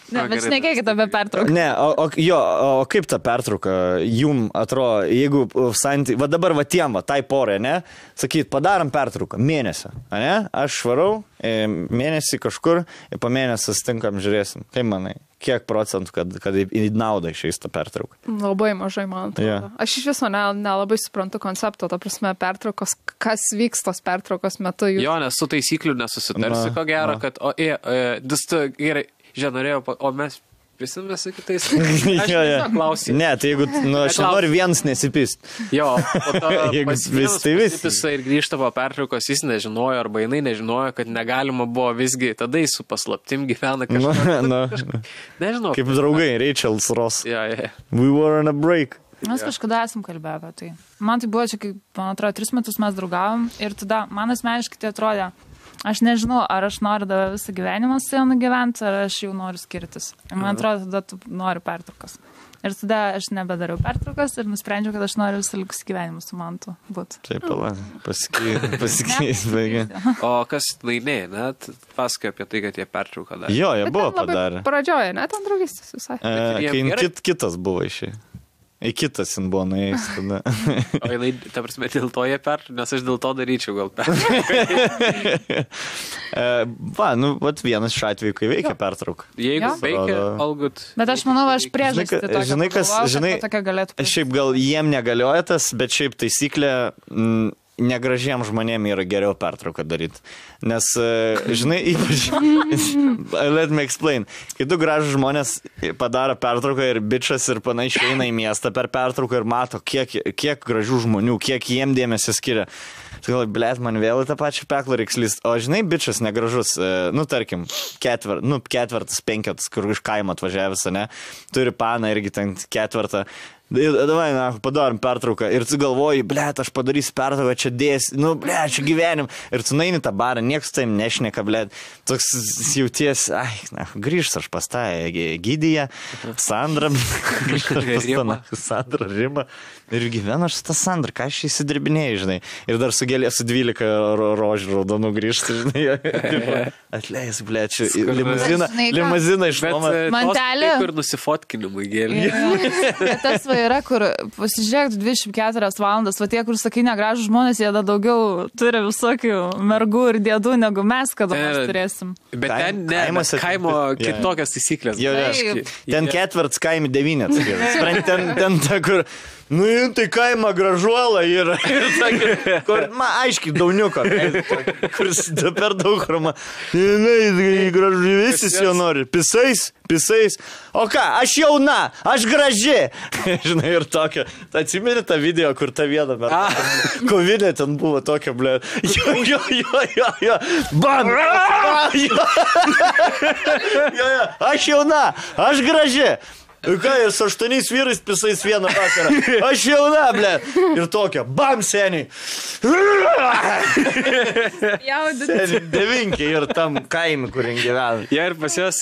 S3: Ne, bet šnekėkite apie pertrauką.
S1: Ne, o kaip ta pertrauka jum atrodo, jeigu santykiai, va dabar va tiem, va, tai porai, ne? Sakyt, padarom pertrauką, mėnesio, ne? Aš švarau, mėnesį kažkur ir po mėnesio stinkam, žiūrėsim. Kaip manai? Kiek procentų, kad į naudą išeis tą pertrauką?
S4: Labai mažai, man atrodo. Yeah. Aš iš viso nelabai suprantu koncepto, ta prasme, pertraukos, kas vyks tos pertraukos metu.
S2: Jo, nes su taisyklių nesusitarsi, ko gero, kad, gerai, norėjau, o mes prisimės su kitais. Aš klausiu.
S1: Ne, tai jeigu, aš noriu vienas nesipist.
S2: Jo, po to
S1: pasipisa
S2: ir grįžta po pertraukos, jis nežinojo, arba jinai nežinojo, kad negalima buvo visgi, tada jis su paslaptim gyvena kažką. Nežinau.
S1: Kaip draugai, Rachel's Ross.
S2: Yeah.
S1: We were on a break.
S3: Mes kažkada esam kalbėję apie tai. Man tai buvo čia, kaip, man atrodo, 3 metus mes draugavom ir tada man asmeniškai tai atrodė, aš nežinau, ar aš noriu dar visą gyvenimą su jonu gyventi, ar aš jau noriu skirtis. Ir man atrodo, tada tu nori pertraukos. Ir tada aš nebedariau pertraukos ir nusprendžiau, kad aš noriu visą likusį gyvenimą su mantu būti.
S1: Taip, pasikeis, baigia.
S2: O kas laimėjo, net pasakoja apie tai, kad jie pertrauką darė.
S1: Jo, jie buvo padarę.
S4: Pradžioje, net ant draugystės visai.
S1: Kai kitas buvo išėjai. Į kitas jin buvo nuėjęs tada.
S2: O jinai, ta prasme, dėl to jie pertrauką, nes aš dėl to daryčiau gal pertrauką.
S1: Vat vienas iš atveju, kai veikia pertrauką.
S2: Jeigu veikia, all good.
S3: Bet aš manau, aš priežastį tokią pagalvojau, kad tokia galėtų.
S1: Šiaip gal jiem negalioja tas, bet šiaip taisyklė negražiem žmonėm yra geriau pertrauką daryti. Nes, žinai, ypač, let me explain, kai du gražus žmonės padaro pertrauką ir bičas ir panašiai eina į miestą per pertrauką ir mato, kiek gražių žmonių, kiek jiem dėmesio skiria. Tai gal, blėt, man vėl į tą pačią peklą reiks lyst. O žinai, bičas negražus, tarkim, ketvertas, penketas, kur iš kaimo atvažiavęs, ne, turi paną irgi ten ketvertą. Davai, padarom pertrauką ir tu galvoji, blėt, aš padarysiu pertrauką, čia dėsi, blėt, čia gyvenim. Ir tu naini tą barą, niekas taim nešneka, blėt. Toks jauties, grįžt aš pas tą Gydyje, Sandrą, Sandrą Rimą. Ir gyvenu aš su tą Sandrą, ką aš įsidirbinėjai, žinai. Ir dar su 12 rožių raudonų grįžti, žinai. Atleis, blėt, čia limuziną išnuomą.
S3: Mantelė.
S2: Kur nusifotkinimui gėlė.
S3: Tas yra, kur pasižiūrėk 24 valandas, va tie, kur sakai negražų žmonės, jie daugiau turi visokių mergų ir dėdų, negu mes kada nors turėsim.
S2: Bet ten kaimo kitokias taisyklės.
S1: Ten ketvirts kaimi 9. Ten ta, kur... tai kaima gražuola yra. Kur, aiškiai, dauniuko. Kuris per daug rama. Gražu, visi jo nori. Pisais. O ką, aš jauna, aš graži. Žinai, ir tokia. Atsimeni tą video, kur ta viena kovinė ten buvo tokia, blė. Jo. Bam! Aš jauna, aš graži. Ką, ir su 8 vyrais pisais vieną vakarą. Aš jauna, blė. Ir tokia, bam, seniai. Seniai, 9 ir tam kaimi, kur gyvena.
S2: Ja, ir pas jos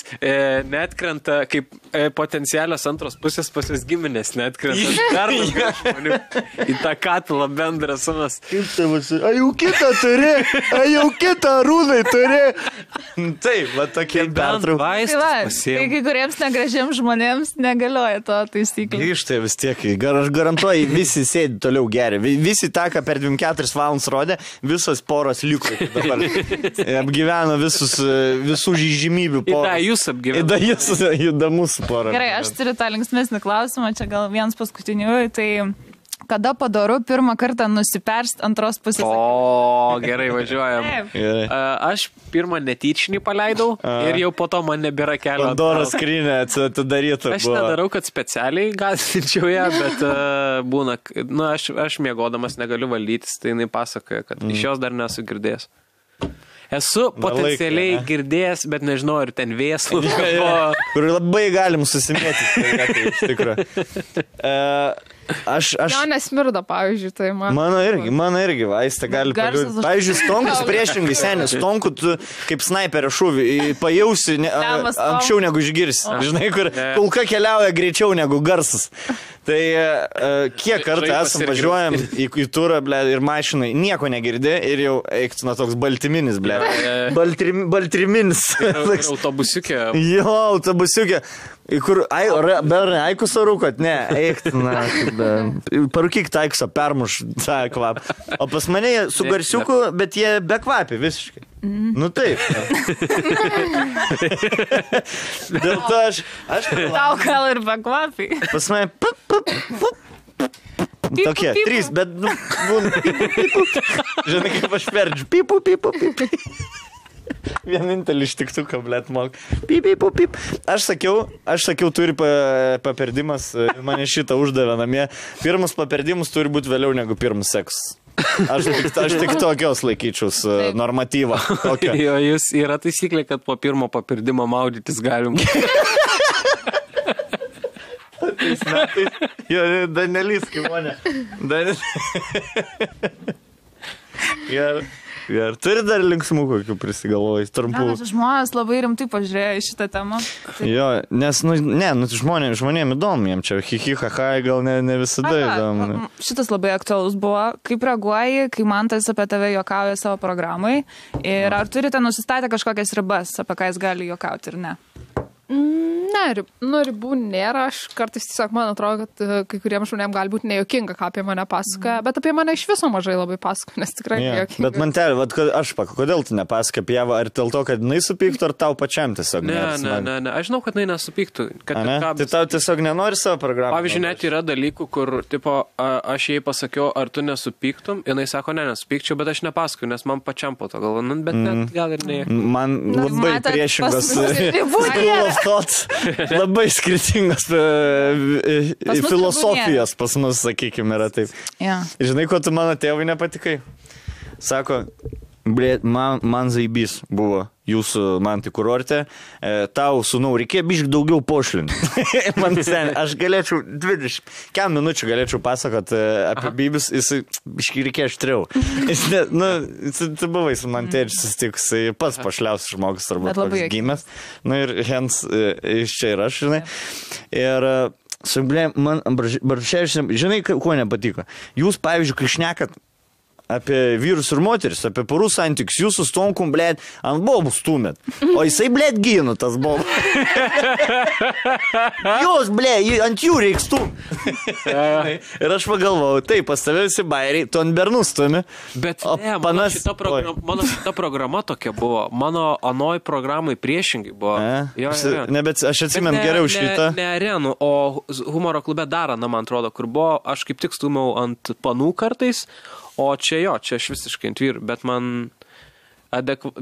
S2: netkrenta, kaip potencialios antros pusės pas jos giminės netkrenta. Dar daugiau žmonių į tą katilą bendrą sumas.
S1: Kaip tai visi? A jau kitą rūnai turi. Taip, va tokie pertraukai.
S3: Tai kai kuriems negražiems žmonėms negalioja to taisyklė.
S1: Grįžtai vis tiek, aš garantuoju, visi sėdi toliau geri. Visi tą, ką per 24 valandas rodė, visos poros liko dabar. Apgyveno visų žymybių poros.
S2: Įda jūs apgyveno.
S1: Įda jūs įdomus porą.
S3: Gerai, aš turiu tą linksmesnį klausimą, čia gal vienas paskutinių, tai Kada padaru pirmą kartą nusiperst antros pusės.
S2: O, gerai, važiuojam. Aš pirmą netyčinį paleidau ir jau po to man nebėra kelio.
S1: Pandoros skrynia atidaryta.
S2: Aš nedarau, kad specialiai gąsdinčiau ją, bet būna, aš miegodamas negaliu valdytis, tai jinai pasakoja, kad iš jos dar nesu girdėjęs. Esu potencialiai girdėjęs, bet nežinau, ar ten vėsų.
S1: Kur labai galim susimėti, iš tikrųjų.
S4: Jo nesmirda, pavyzdžiui, tai man.
S1: Mano irgi, vaistą gali paliūdyti. Pavyzdžiui, stonkus priešingai, senis, stonkų tu kaip snaiperio šūvį pajausi anksčiau negu išgirsi. Žinai, kur kulka keliauja greičiau negu garsas. Tai kiek kartų esam važiuojam į turą, ble, ir mašinai nieko negirdė ir jau eiktų toks baltyminis, ble. Baltriminis.
S2: Autobusiukė.
S1: Jo, autobusiukė. Kur, berai, aikusą rūkot? Ne, eiktų, parūkyk taikusą, permuš tą kvapą. O pas mane su garsiuku, bet jie be kvapi visiškai. Nu taip. Dėl to aš...
S3: Tau gal ir be kvapi.
S1: Pas mane... Tokie, 3, bet... Žinai, kaip aš perdžiu. Pipu. Vienintelį ištiktuką, blėt, mok. Pip. Aš sakiau, turi paperdimas, mane šitą uždavė namie. Pirmus paperdimus turi būti vėliau negu pirmus seksas. Aš tik tokios laikyčiaus normatyvą.
S2: Jo, jūs yra taisyklė, kad po pirmo papirdimo maudytis galim.
S1: Tais metais. Jo, Danelis, kaip mane. Ir turi dar linksmų kokių prisigalvojai, trumpų.
S3: Žmonės labai rimtai pažiūrėjo į šitą temą.
S1: Jo, nes, žmonėm įdomu, jiem čia hihihaha gal ne visada įdomu.
S3: Šitas labai aktualus buvo. Kaip reaguoji, kai Mantas apie tave juokauja savo programai? Ir ar turite nusistatę kažkokias ribas, apie ką jis gali juokauti ir ne?
S4: Ne, ribų nėra, aš kartais tiesiog man atrodo, kad kai kuriems žmonėms gali būti nejuokinga, ką apie mane pasakoja, bet apie mane iš viso mažai labai pasakoja, nes tikrai nejuokinga.
S1: Bet man kodėl tu nepasakoji apie ją, ar dėl to, kad jinai supyktų, ar tau pačiam tiesiog?
S2: Ne, aš žinau, kad jinai nesupyktų.
S1: Tai tau tiesiog nenori savo programą?
S2: Pavyzdžiui, net yra dalykų, kur, tipo, aš jai pasakiau, ar tu nesupyktum, jinai sako, nesupykčiau, bet aš nepasakoju, nes man pačiam po to galvo, bet net gal ir ne.
S1: Man labai priešingas labai skirtingos filosofijos pas mus, sakykime, yra taip. Žinai, ko tu mano tėvui nepatikai? Sako, man zaibys buvo jūsų mantai kurorte, tau, sūnau, reikėjo biškai daugiau pošlinti. Man sen, aš galėčiau 20 minučių galėčiau pasakot apie bybis, jis biškai reikėjo aštriau. Tu buvai su man tėčiu susitikus, pats pašliausias žmogus, turbūt toks gimęs. Ir hens iš čia ir aš, žinai. Ir man, žinai, kuo nepatiko? Jūs, pavyzdžiui, kai šnekat apie vyrus ir moteris, apie porų santykius, jūsų stonkum, blėt, ant bobų stumėt. O jisai, blėt, gino tas bobų. Jūs, blėt, ant jų reiks stumėt. Ir aš pagalvojau, taip, pas tave visi bairiai, tu ant bernų stumi.
S2: Bet ne, mano šita programa tokia buvo. Mano anoj programai priešingai buvo.
S1: Ne, bet aš atsimenu geriau šitą.
S2: Ne arenų, o humoro klube Darana, man atrodo, kur buvo, aš kaip tik stumiau ant panų kartais. O čia aš visiškai ant vyrų,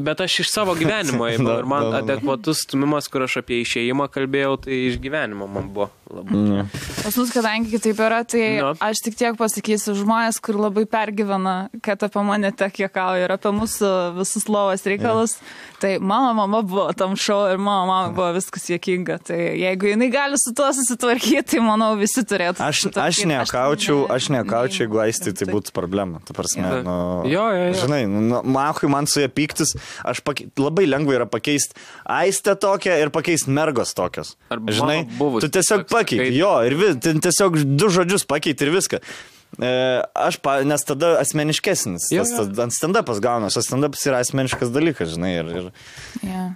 S2: bet aš iš savo gyvenimo įmau ir man adekvatus stumimas, kur aš apie išėjimą kalbėjau, tai iš gyvenimo man buvo labai.
S3: Pas mus, kadangi kitaip yra, tai aš tik tiek pasakysiu žmonės, kur labai pergyvena, kad apie mane tiek juokauja ir apie mūsų visus lovos reikalus. Tai mano mama buvo tam šou ir mano mama buvo viskas juokinga. Tai jeigu jinai gali su tuo susitvarkyti, tai manau visi turėtų.
S1: Aš nekaučiau, jeigu Aistį tai būtų problema. Ta prasme, žinai, man su ją pyktis, labai lengva yra pakeisti Aistę tokią ir pakeisti mergos tokios. Žinai, tu tiesiog pakeiti, ir tiesiog 2 žodžius pakeiti ir viską. Nes tada asmeniškesnis, ant stand-upas gaunas, o stand-upas yra asmeniškas dalykas, žinai,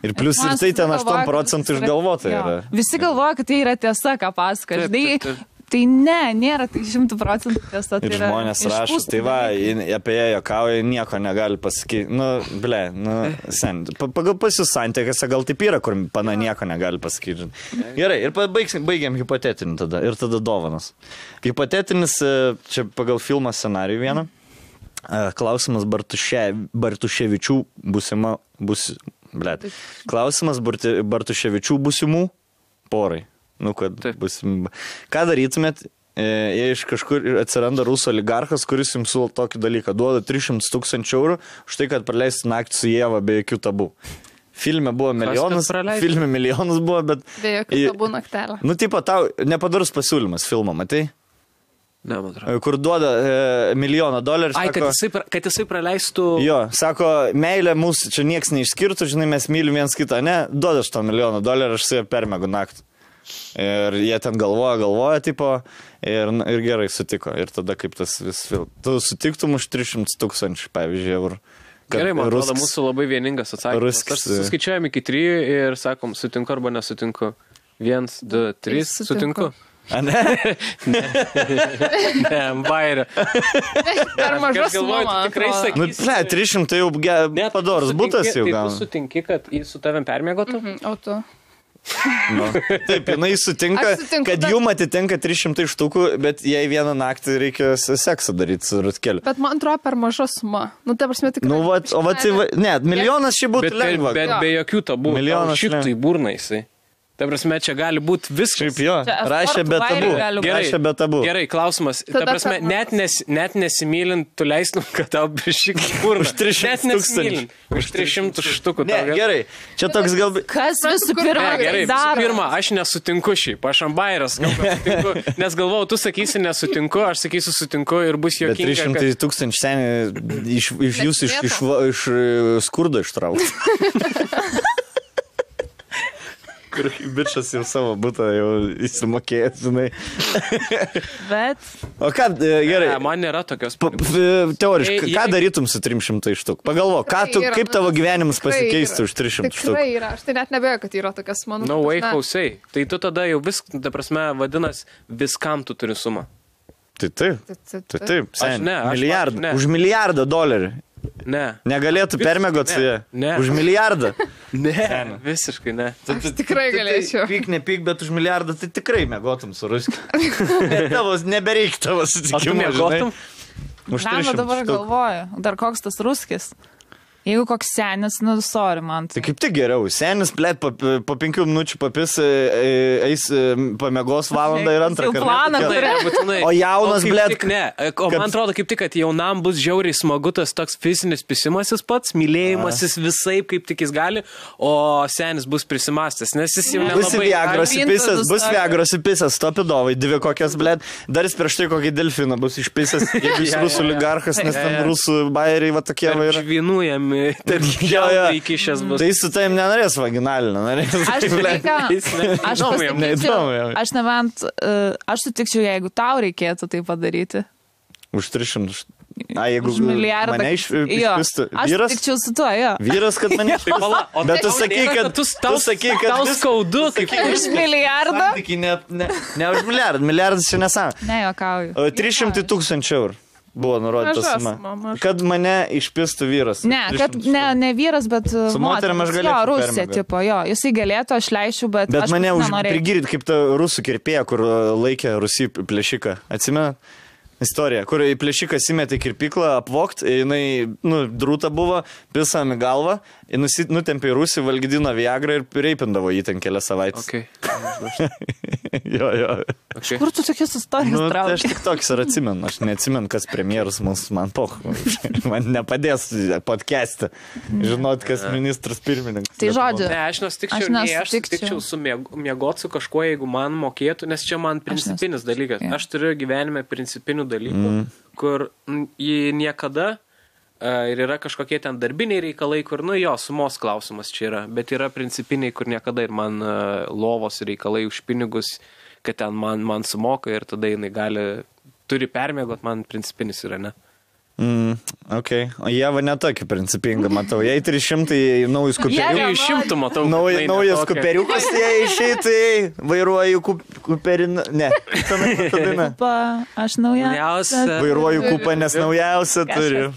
S1: ir plius ir tai ten 8% išgalvota yra.
S3: Visi galvoja, kad tai yra tiesa, ką pasaka, žinai. Tai nėra tai 100% tiesa.
S1: Ir žmonės rašo, tai va, apie ją juokauja, nieko negali pasakyti. Sen, pagal pas jūs santykiuose gal taip yra, kur pana nieko negali pasakyti. Gerai, ir baigiam hipotetinį tada, ir tada dovanas. Hipotetinis, čia pagal filmą scenarijų vieną, klausimas Bartuševičių klausimas Bartuševičių būsimų porai. Ką darytumėt, jei iš kažkur atsiranda rusų oligarchas, kuris jums siūlo tokį dalyką, duoda 300 000 eurų už tai, kad praleisti naktį su Ieva be jokių tabų. Filme buvo milijonas buvo, bet...
S4: Be jokių tabų naktelę.
S1: Tipo, tau nepadarus pasiūlymas filmą, matai?
S2: Ne, man atrodo.
S1: Kur duoda $1 milijoną.
S2: Ai, sako, kad jisai praleistų...
S1: Jo, sako, meilė mūsų čia nieks neišskirtų, žinai, mes mylim viens kitą, ne? Duoda $1 milijoną, aš su jie permegu naktį. Ir jie ten galvoja, tipo, ir gerai sutiko. Ir tada kaip tas vis film. Tu sutiktum už 300 000, pavyzdžiui, eurų.
S2: Gerai, man atrodo, mūsų labai vieningas atsakymas. Aš suskaičiuojam iki 3 ir sakom, sutinku arba nesutinku. 1, 2, 3, sutinku.
S1: A, ne?
S2: Ne, bairio.
S4: Per mažas suma,
S2: tikrai sakysi.
S1: 300 jau padorus butas jau gal.
S2: Tai tu sutinki, kad jis su tavim permiegotų?
S4: O tu?
S1: Taip, jinai sutinka, kad jum atitinka 300 štukų, bet jei vieną naktį reikia seksą daryti su rutkeliu.
S4: Bet man atrodo per maža suma. Ta prasme tikrai.
S1: Ne, milijonas šį būtų lengva.
S2: Bet be jokių tabų. Šitai tai burna jisai. Ta prasme, čia gali būti viskas.
S1: Šiaip jo, rašė be tabų.
S2: Gerai, klausimas. Ta prasme, net nesimylint, tu leistum, kad tau bišik burna.
S1: Už 300 000.
S2: Už 300 štukų.
S1: Ne, gerai. Čia toks galbūt...
S3: Kas visų pirma?
S2: Gerai, visų pirma, aš nesutinku šiaip. Aš ambairas, nes galvojau, tu sakysi nesutinku, aš sakysiu sutinku ir bus juokinga.
S1: Bet 300 000 seniai iš jūsų iš skurdo ištraukti. Kur bičas jau savo butą jau įsimokėjęs, žinai.
S3: Bet...
S1: O ką, gerai.
S2: Ne, man nėra tokios...
S1: Teoriškai, ką darytum su 300 štuk? Pagalvo, kaip tavo gyvenimas pasikeistų už 300 štuk?
S4: Tikrai yra, aš tai net nebejoju, kad yra tokias mano...
S2: No way, hausai. Tai tu tada jau ta prasme, vadinas, viskam tu turi sumą.
S1: Taip.
S2: Milijardą.
S1: Už $1 milijardą.
S2: Ne.
S1: Negalėtų permiegot su jie?
S2: Ne.
S1: Už $1 milijardą?
S2: Ne, visiškai ne.
S4: Aš tikrai galėčiau.
S1: Pyk, nepyk, bet už $1 milijardą tai tikrai miegotum su ruskiu. Nebereik tavo sutikimo, žinai. Už 300
S3: dabar galvoju, dar koks tas ruskis. Jeigu koks senis, sorry man.
S1: Tai kaip tik geriau. Senis, blėt, po 5 minučių papis, eis pamiegos valandą ir antrą kartą. O jaunas, blėt...
S2: Ne, o man atrodo kaip tik, kad jaunam bus žiauriai smagu tas toks fizinis pisimasis pats, mylėjimasis visai, kaip tik jis gali, o senis bus prisimastęs, nes jis jau nelabai...
S1: Bus Viagros įpisęs, stopidovai, 2 kokias, blėt, dar jis prieš tai kokį delfiną bus išpisęs, jeigu jis rusų oligarchas, nes ten rusų bairiai va tokie va yra.
S2: Žvinujami. Tai
S1: su taim nenorės vaginalinio,
S3: aš sutikčiau, jeigu tau reikėtų tai padaryti.
S1: Už 300. Jeigu mane išpistų.
S3: Aš sutikčiau su tuo, jo.
S1: Vyras, kad mane išpistų. Bet tu sakai, kad...
S2: Tau skaudu, kaip
S3: už milijardą?
S1: Ne už milijardą. Milijardas čia nesam.
S3: Ne, juokauju.
S1: 300 000 eurų. Buvo nurodyta suma. Kad mane išpistų vyras.
S3: Ne, kad ne vyras, bet
S1: su moterim aš galėčiau.
S3: Jo, Rusija, tipo, jo. Jisai galėtų, aš leisčiau, bet aš
S1: mane
S3: nenorėjau.
S1: Prigirit kaip ta rusų kirpėja, kur laikė Rusijai plėšiką. Atsimenat? Istorija, kur į plėšiką įmetė kirpiklą, apvokt, jinai, drūta buvo, pisam į galvą, nutempė į Rusiją, valgydino Viagrą ir reipindavo jį ten kelias savaitės. Jo.
S3: Kur tu tokias istorijas trauki?
S1: Aš tik toks ir atsimenu, aš neatsimenu, kas premjeras man man nepadės podcast'e žinot, kas ministras pirmininkas.
S3: Tai žodžiu.
S2: Ne, aš nesutikčiau su miegot su kažkuo, jeigu man mokėtų, nes čia man principinis dalykas. Aš turiu gyvenime principinių dalykų, kur jį niekada ir yra kažkokie ten darbiniai reikalai, kur, sumos klausimas čia yra, bet yra principiniai, kur niekada ir man lovos reikalai už pinigus, kad ten man sumoka ir tada jinai turi permiegot, man principinis yra, ne?
S1: Okay. O Ieva netokia principinga, matau. Jei 300 naujus kuperiukus.
S2: 300 matau.
S1: Naujas kuperiukas, jei išeitai, vairuoju kuperiną. Ne, tada.
S3: Aš naujausia.
S1: Vairuoju kupą, nes naujausia turiu.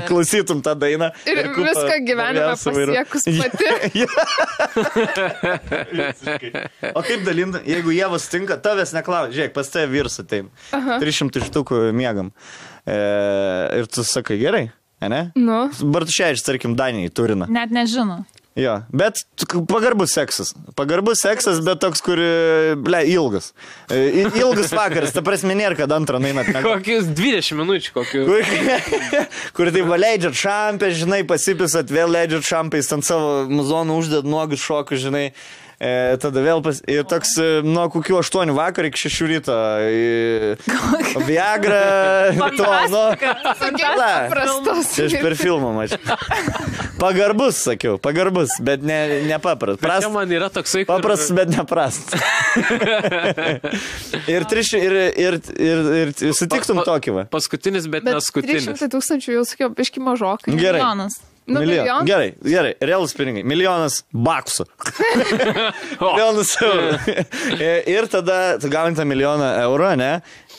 S1: Klausytum tą dainą.
S4: Ir viską gyvenime pasiekus pati.
S1: O kaip dalinti, jeigu Ieva sutinka, tavęs neklausia. Žiūrėk, pas tave vyrs ateim. 300 štukų miegam. Ir tu sakai, gerai, ne?
S4: Nu.
S1: Bartuševičius, tarkim, Danijai turina.
S3: Net nežinau.
S1: Jo, bet pagarbus seksas. Pagarbus seksas, bet toks, kur, ilgas. Ilgas vakaras, ta prasme nėra, kad antrą nainat.
S2: Kokius 20 minučių, kokių.
S1: Kur tai leidžiat šampę, žinai, pasipisat, vėl leidžiat šampę, jis ant savo muzoną uždėt nuogus šokus, žinai. Tada vėl ir toks nuo kokių 8 vakar iki 6 ryto. Viagra.
S4: Paprastas.
S1: Čia aš per filmą mačiau. Pagarbus, sakiau, pagarbus, bet nepaprast.
S2: Čia man yra toksai, kur...
S1: Paprastas, bet neprast. Ir sutiktum tokį va.
S2: Paskutinis, bet neskutinis.
S4: 300 000 jau sakiau, biški mažokai.
S1: Gerai.
S3: Milijonas.
S1: Gerai, realus pinigai. Milijonas baksų. Milijonas eurų. Ir tada tu gauni tą milijoną eurų, ne?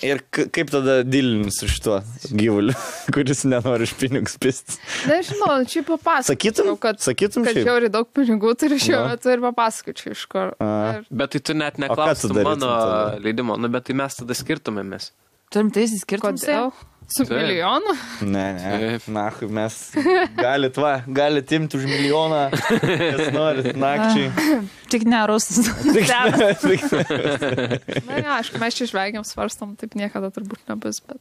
S1: Ir kaip tada dilini su šituo gyvuliu, kuris nenori iš pinigus pistis?
S4: Nežinau, čia papasakočiau, kad žiauri daug pinigų turiu šiuo metu ir papasakočiau iš kur.
S2: Bet tai tu net neklaustum mano leidimo, nu bet tai mes tada skirtumėmės.
S3: Turim tai įsiskirtum?
S4: Kodėl? Su milijonu?
S1: Ne. Nahui, mes galit imti už milijoną, kas norit, nakčiai.
S3: Tik ne rusas.
S4: Na, aišku, mes čia žvengiam, svarstam, taip niekada turbūt nebus, bet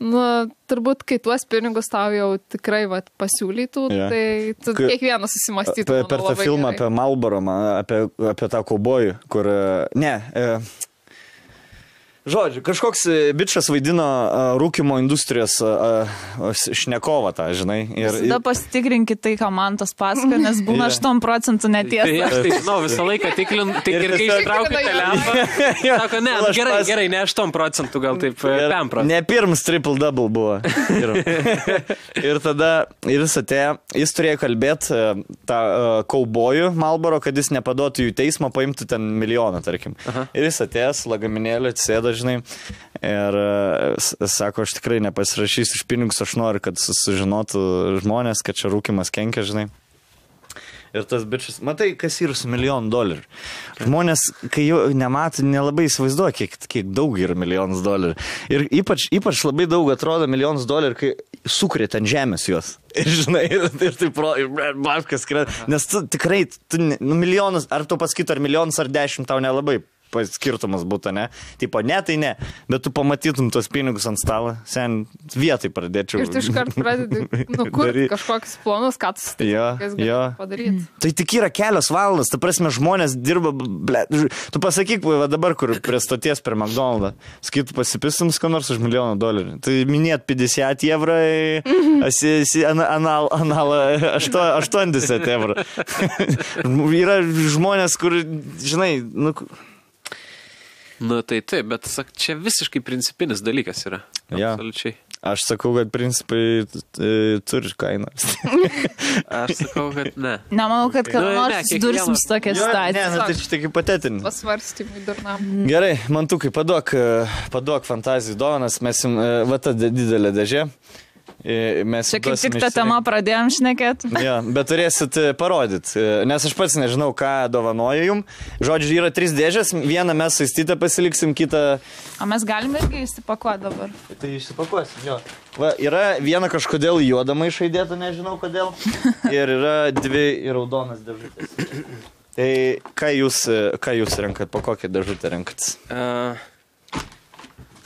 S4: nu, turbūt, kai tuos pinigus tau jau tikrai pasiūlytų, tai tu kiekvienas susimastytų.
S1: Per tą filmą apie Marlboro, apie tą kaubojų, kur... Žodžiu, kažkoks bičas vaidino rūkimo industrijos šnekovą tą, žinai.
S3: Tada pasitikrinkit tai, ką man tas pasako, nes būna 8% netiesa.
S2: Tai aš tai žinau, visą laiką tik ir kai ištraukiu telefoną, sako, ne, gerai, ne 8%, gal taip 5%.
S1: Ne pirmas triple-double buvo. Ir tada jis atėjo, jis turėjo kalbėti tą kaubojų Marlboro, kad jis nepaduotų jų teismą, paimtų ten milijoną, tarkim. Ir jis atėjęs, lagaminėlį, atsėda, žinai, ir sako, aš tikrai nepasirašysiu iš pinigus, aš noriu, kad sužinotų žmonės, kad čia rūkimas kenkia, žinai. Ir tas bičas, matai, kas yra su $1 milijonų. Žmonės, kai jau nemato, nelabai įsivaizduoja, kiek daug yra $1 milijonas. Ir ypač labai daug atrodo $1 milijonas, kai sukrėt ant žemės juos. Ir žinai, ir taip, baškas krėt. Nes tu tikrai, milijonas, ar tu pasakytų, ar milijonas, ar 10, tau nelabai skirtumas būtų, ne? Tipo, ne, tai ne. Bet tu pamatytum tos pinigus ant stalo, sen vietai pradėčiau.
S4: Ir tu iškart pradedi nukurti kažkokius planus, ką tu padaryti.
S1: Tai tik yra kelios valandas, ta prasme, žmonės dirba, tu pasakyk, va dabar, kur prie stoties per McDonald'ą, sakytų, pasipistum ką nors už $1 milijoną. Tai minėt 50 eurų, analą 80 eurų. Yra žmonės, kur, žinai,
S2: Nu tai taip, bet čia visiškai principinis dalykas yra. Absoliučiai.
S1: Aš sakau, kad principai turi kainą.
S2: Aš sakau, kad ne.
S3: Nemanau, kad nors dursim su tokia situacija.
S1: Ne, tai čia tik hipotetinis.
S4: Pasvarstymui durnam.
S1: Gerai, Mantukai, paduok fantazijų dovanas, mes jums, va ta didelė dėžė.
S3: Čia kaip tik tą temą pradėjom šnekėti.
S1: Ja, bet turėsit parodyti, nes aš pats nežinau, ką dovanoju jums. Žodžiu, yra 3 dėžės, vieną mes saistytą pasiliksim, kitą...
S3: O mes galime irgi įsipakuoti dabar.
S1: Tai išsipakuosim, jo. Va, yra viena kažkodėl juodama išaidėta, nežinau kodėl. Ir yra 2 raudonas dėžutės. Tai ką jūs renkat, po kokią dėžutę renkat?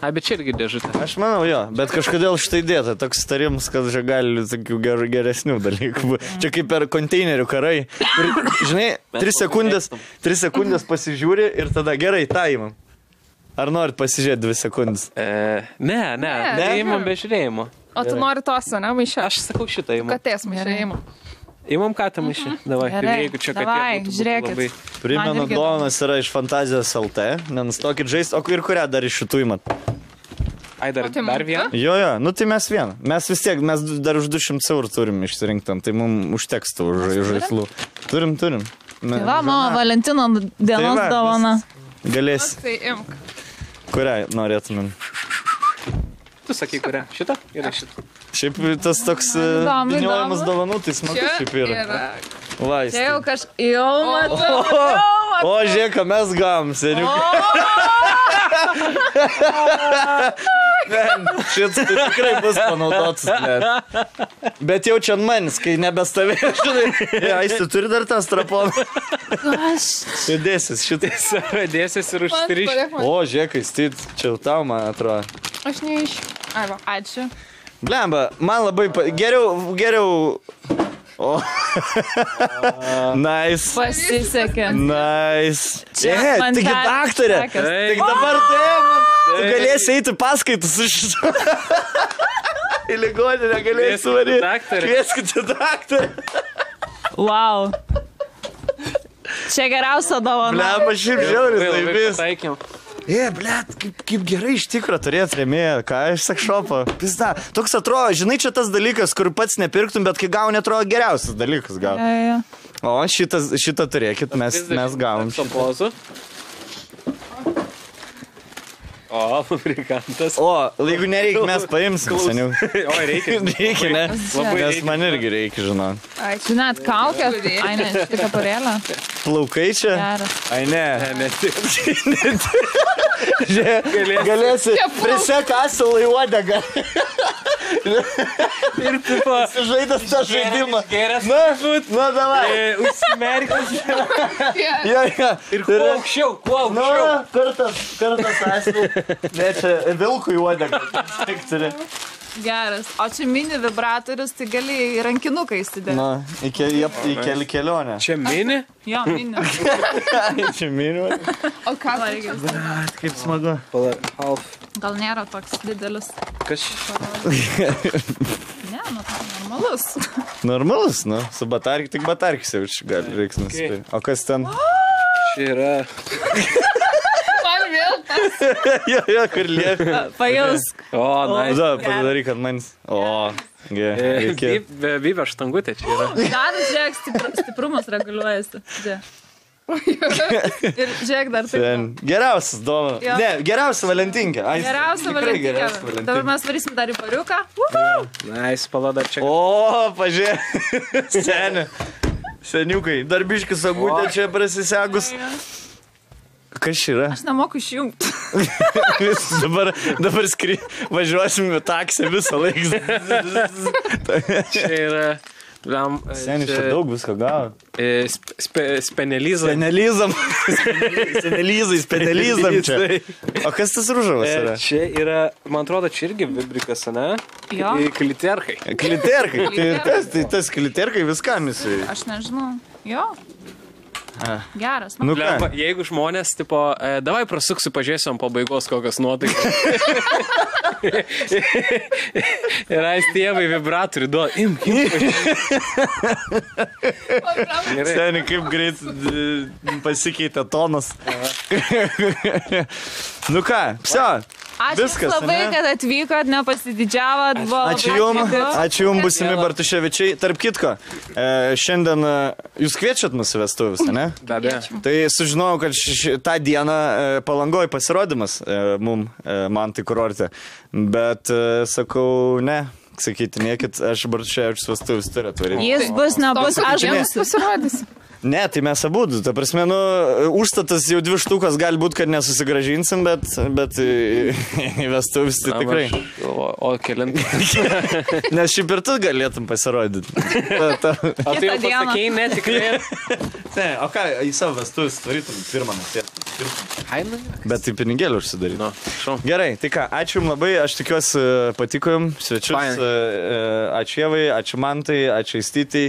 S2: Bet čia irgi dėžutė.
S1: Aš manau, jo, bet kažkodėl štai dėta toks tarimas, kad čia gali tokių geresnių dalykų. Čia kaip per konteinerių karai. Žinai, 3 sekundės pasižiūri ir tada gerai, tą įmam. Ar norit pasižiūrėti 2 sekundės?
S2: Ne, įmam be žiūrėjimo.
S4: O tu nori tos, ne, maišę?
S2: Aš sakau šitą įmam.
S4: Katės maišę įmam.
S2: Įmam katę maišę. Davai, jeigu čia katė būtų labai.
S1: Primenu, dovanas yra iš Fantazijos LT. Nenustokit žaisti. O ir kurią dar iš šitų įmat?
S2: Ai, dar vieną?
S1: Jo, nu tai mes vieną. Mes vis tiek, mes dar už 200 eurų turim išsirinktam, tai mums užteks tų žaislų. Turim.
S3: Tai va, mano Valentino dienos dovana.
S1: Galės.
S4: Tai imk.
S1: Kurią norėtumėm?
S2: Tu sakai, kurią? Šitą? Yra šitą.
S1: Šiaip tas toks piniojimas dovanų, tai smagu šiaip yra. Vaistai.
S3: Čia jau jau matau.
S1: O, žiūrėk, ką mes gavom, seniukai. Šis tai tikrai bus panaudotas. Bet jau čia manis, kai nebestovė, žinai. Aisti, turi dar tą straponą. Tai dėsis šitais.
S2: Dėsis ir užstriš.
S1: O, žiūrėk, čia jau tau, man atrodo.
S4: Aš neiš.
S3: Ačiū.
S1: Blemba, man labai... Geriau... O. Nice.
S3: Pasisekė.
S1: Nice. Taigi daktarė. Tik dabar tu galėsi eiti paskaitus iš šito. Į ligoninę galėsi varyti. Kvieskite daktarę.
S3: Wow. Čia geriausia dovana.
S1: Blemba, šiaip žiauris laimės.
S2: Taikėm.
S1: Blet, kaip gerai iš tikro turėt rėmėją, ką iš sekšopo. Pizda, toks atrodo, žinai, čia tas dalykas, kur pats nepirktum, bet kai gauni, atrodo geriausias dalykas gal. O šitą turėkit, mes gavom šitą.
S2: O, fabrikantas.
S1: O, jeigu nereikia, mes paimsim seniau.
S2: O, reikia.
S1: Reikia, ne? Nes man irgi reikia, žinau.
S3: Ačiū, net kaukė. Ai, ne, šitą kaparėlę.
S1: Plaukai čia?
S3: Geras.
S1: Ai, ne.
S2: Ne,
S1: Galėsi prisek asilą į uodegą.
S2: Ir tipo...
S1: Žaidas tą žaidimą.
S2: Geras.
S1: Na, davai.
S2: Užsimerkęs.
S1: Jo.
S2: Ir kuo aukščiau.
S1: Kartas asilą. Ne, čia vilkų į uodegą. Tik turi.
S3: Geras. O čia mini vibratorius, tai gali į rankinuką įsidėti.
S1: Na, į kelionę.
S2: Čia mini?
S3: Jo, mini.
S1: Čia mini.
S3: O ką reikia?
S1: Kaip smagu.
S2: Half.
S3: Gal nėra toks didelis.
S2: Kas?
S3: Ne, nu, normalus.
S1: Normalus, nu. Su batarkis, tik batarkis jau gali reiks nusipirkti. O kas ten?
S2: Čia yra...
S3: Man vėl tas.
S1: Jo, kur lieka.
S3: Pajausk.
S2: O, nice.
S1: Da, padaryk, kad manis. O, reikia.
S2: Bybė štangutė čia yra.
S3: Dar žiūrėk, stiprumas reguliuojasi. Ir žiūrėk dar taip.
S1: Geriausias dovana. Ne, geriausia Valentinka.
S3: Geriausia Valentinka. Dabar mes varysim dar į pariuką.
S2: Nice, palada čia.
S1: O, pažiūrėk. Seniukai. Darbiškis sagutė čia prasisegus. Kas yra?
S3: Aš nemoku išjungti.
S1: Dabar važiuosim į taksį visą laiką.
S2: Čia yra...
S1: Senis, čia daug visko gavo.
S2: Spenelizam.
S1: Spenelizam čia. O kas tas rūžavas yra?
S2: Čia yra, man atrodo, čia irgi vibrikas, ne?
S3: Jo.
S2: Kliterkai.
S1: Kliterkai. Tai tas kliterkai viskam jisai.
S3: Aš nežinau. Jo. Geras.
S1: Nu ką?
S2: Jeigu žmonės, tipo, davai prasuksiu, pažiūrėsim pabaigos kokios nuotaikas. Ir ais tėvai vibratorių duoda. Imk.
S1: Seniai, kaip greit pasikeitė tonas. Nu ką, psio.
S3: Ačiū
S1: viskas,
S3: labai, kad atvykot, nepasididžiavot.
S1: Ačiū jums, būsimi Bartuševičiai. Tarp kitko, šiandien jūs kviečiat mūsų vestuvės, ne?
S2: Be abejo.
S1: Tai sužinojau, kad tą dieną Palangoj pasirodymas man tai kurorte. Bet sakau, ne. Sakytinėkit, aš Bartuševičius vestuvės turiu atvaryti.
S3: Jis bus, nebus, aš bus
S4: pasirodysiu.
S1: Ne, tai mes abudu. Ta prasme, užstatas jau 2 štukas gali būti, kad nesusigražinsim, bet į vestuvės tai tikrai.
S2: O kelint.
S1: Nes šiaip ir tu galėtum pasirodyti.
S2: O tai jau pasakėjai, ne, tikrai.
S1: Ne, o ką, į savo vestuvės tvarytum pirmą naktį. Bet tai pinigėlį užsidaryt. Gerai, tai ką, ačiū jums labai, aš tikiuosi patiko jums, svečius. Ačiū Jevai, ačiū Mantai, ačiū Aistytai.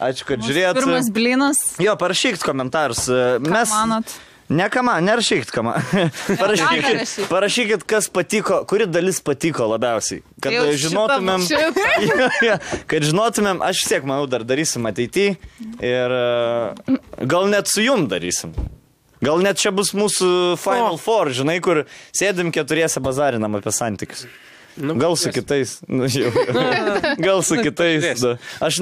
S1: Ačiū, kad žiūrėjot.
S3: Pirmas blinas.
S1: Jo, parašykit komentarus.
S3: Ką manot?
S1: Nerašykit, ką man. Parašykit, kas patiko, kuri dalis patiko labiausiai. Kad žinotumėm, kad žinotumėm, aš siek, manau, dar darysim ateityje. Ir gal net su jum darysim. Gal net čia bus mūsų Final Four, žinai, kur sėdim keturiese bazarinam apie santykius. Gal su kitais. Gal su kitais. Aš,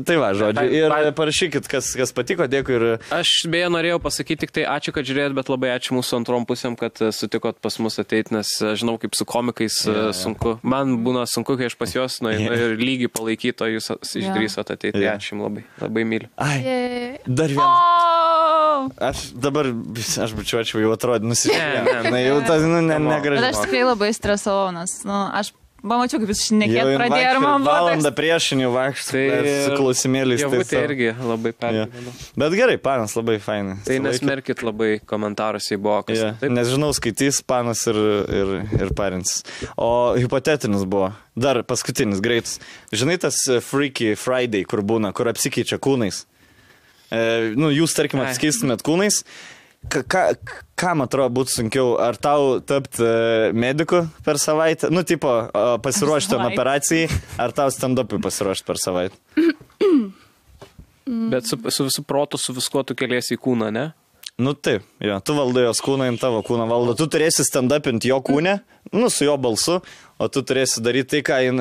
S1: tai va, žodžiu. Ir parašykit, kas patiko, dėkui. Ir...
S2: Aš beje norėjau pasakyti tik tai ačiū, kad žiūrėjot, bet labai ačiū mūsų antrom pusėm, kad sutikot pas mus ateiti, nes žinau, kaip su komikais sunku. Man būna sunku, kai aš pas juos ir lygiai palaikyto, jūs išdrįsot ateiti. Ačiū jums labai. Labai myliu.
S1: Ai, dar vienas. Aš bučiuočiau, jau atrodė nusižiūrėjau. Jau tas, negražiai.
S3: Bet aš tikrai labai stresavau, nes, aš pamačiau, kaip jūs šnekėt pradėjo ir man buvo.
S1: Valandą priešinių vaikštų su klausimėliais.
S2: Tai irgi labai pergyvenu.
S1: Bet gerai, panas labai fainai.
S2: Tai nesmerkit labai komentaruose į buvo.
S1: Nes žinau, skaitys panas ir parins. O hipotetinis buvo. Dar paskutinis, greitas. Žinai tas Freaky Friday, kur būna, kur apsikeičia kūnais. Jūs, tarkim, apsikeistumėt kūnais. Kam atrodo būtų sunkiau? Ar tau tapti mediku per savaitę? Tipo, pasiruošti operacijai, ar tau stand-upui pasiruošti per savaitę?
S2: Bet su visu protu, su viskuo tu keliesi į kūną, ne?
S1: Taip, jo. Tu valdai jos kūną, in tavo kūną valdo. Tu turėsi stand-upinti jo kūnę, su jo balsu, o tu turėsi daryti tai, ką jin...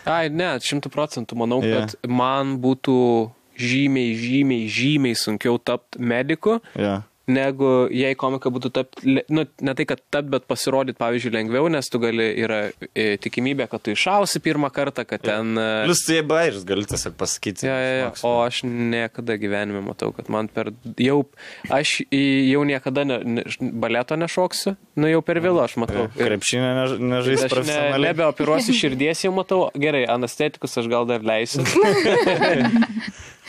S2: Ai, ne, 100% manau, kad man būtų žymiai sunkiau tapti mediku. Negu jei komika būtų tapti, ne tai, kad tapti, bet pasirodyti, pavyzdžiui, lengviau, nes tu gali, yra tikimybė, kad tu iššausi pirmą kartą, kad ten...
S1: Plius tu jie bairis, gali tiesiog pasakyti.
S2: O aš niekada gyvenime matau, kad man aš jau niekada baleto nešoksiu, jau per vėlu aš matau.
S1: Krepšinę nežais profesionaliai.
S2: Nebeoperuosiu širdies jau matau, gerai, anestetikus aš gal dar leisiu,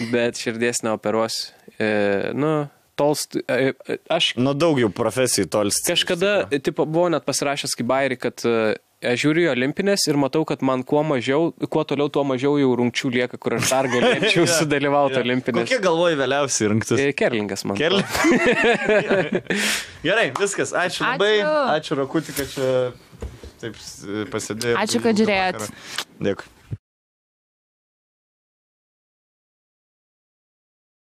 S2: bet širdies neoperuosiu. Aš...
S1: daug jau profesijų tolsti.
S2: Kažkada, buvo net pasirašęs kaip bairį, kad aš žiūriu į olimpinės ir matau, kad man kuo toliau, tuo mažiau jau rungčių lieka, kur aš dar galėčiau sudalyvauti olimpinės.
S1: Kokie galvoji vėliausiai rinktis?
S2: Kerlingas man.
S1: Gerai, viskas. Ačiū labai. Ačiū Rakutį, kad čia taip pasidėjau.
S3: Ačiū, kad žiūrėjot.
S1: Dėkui.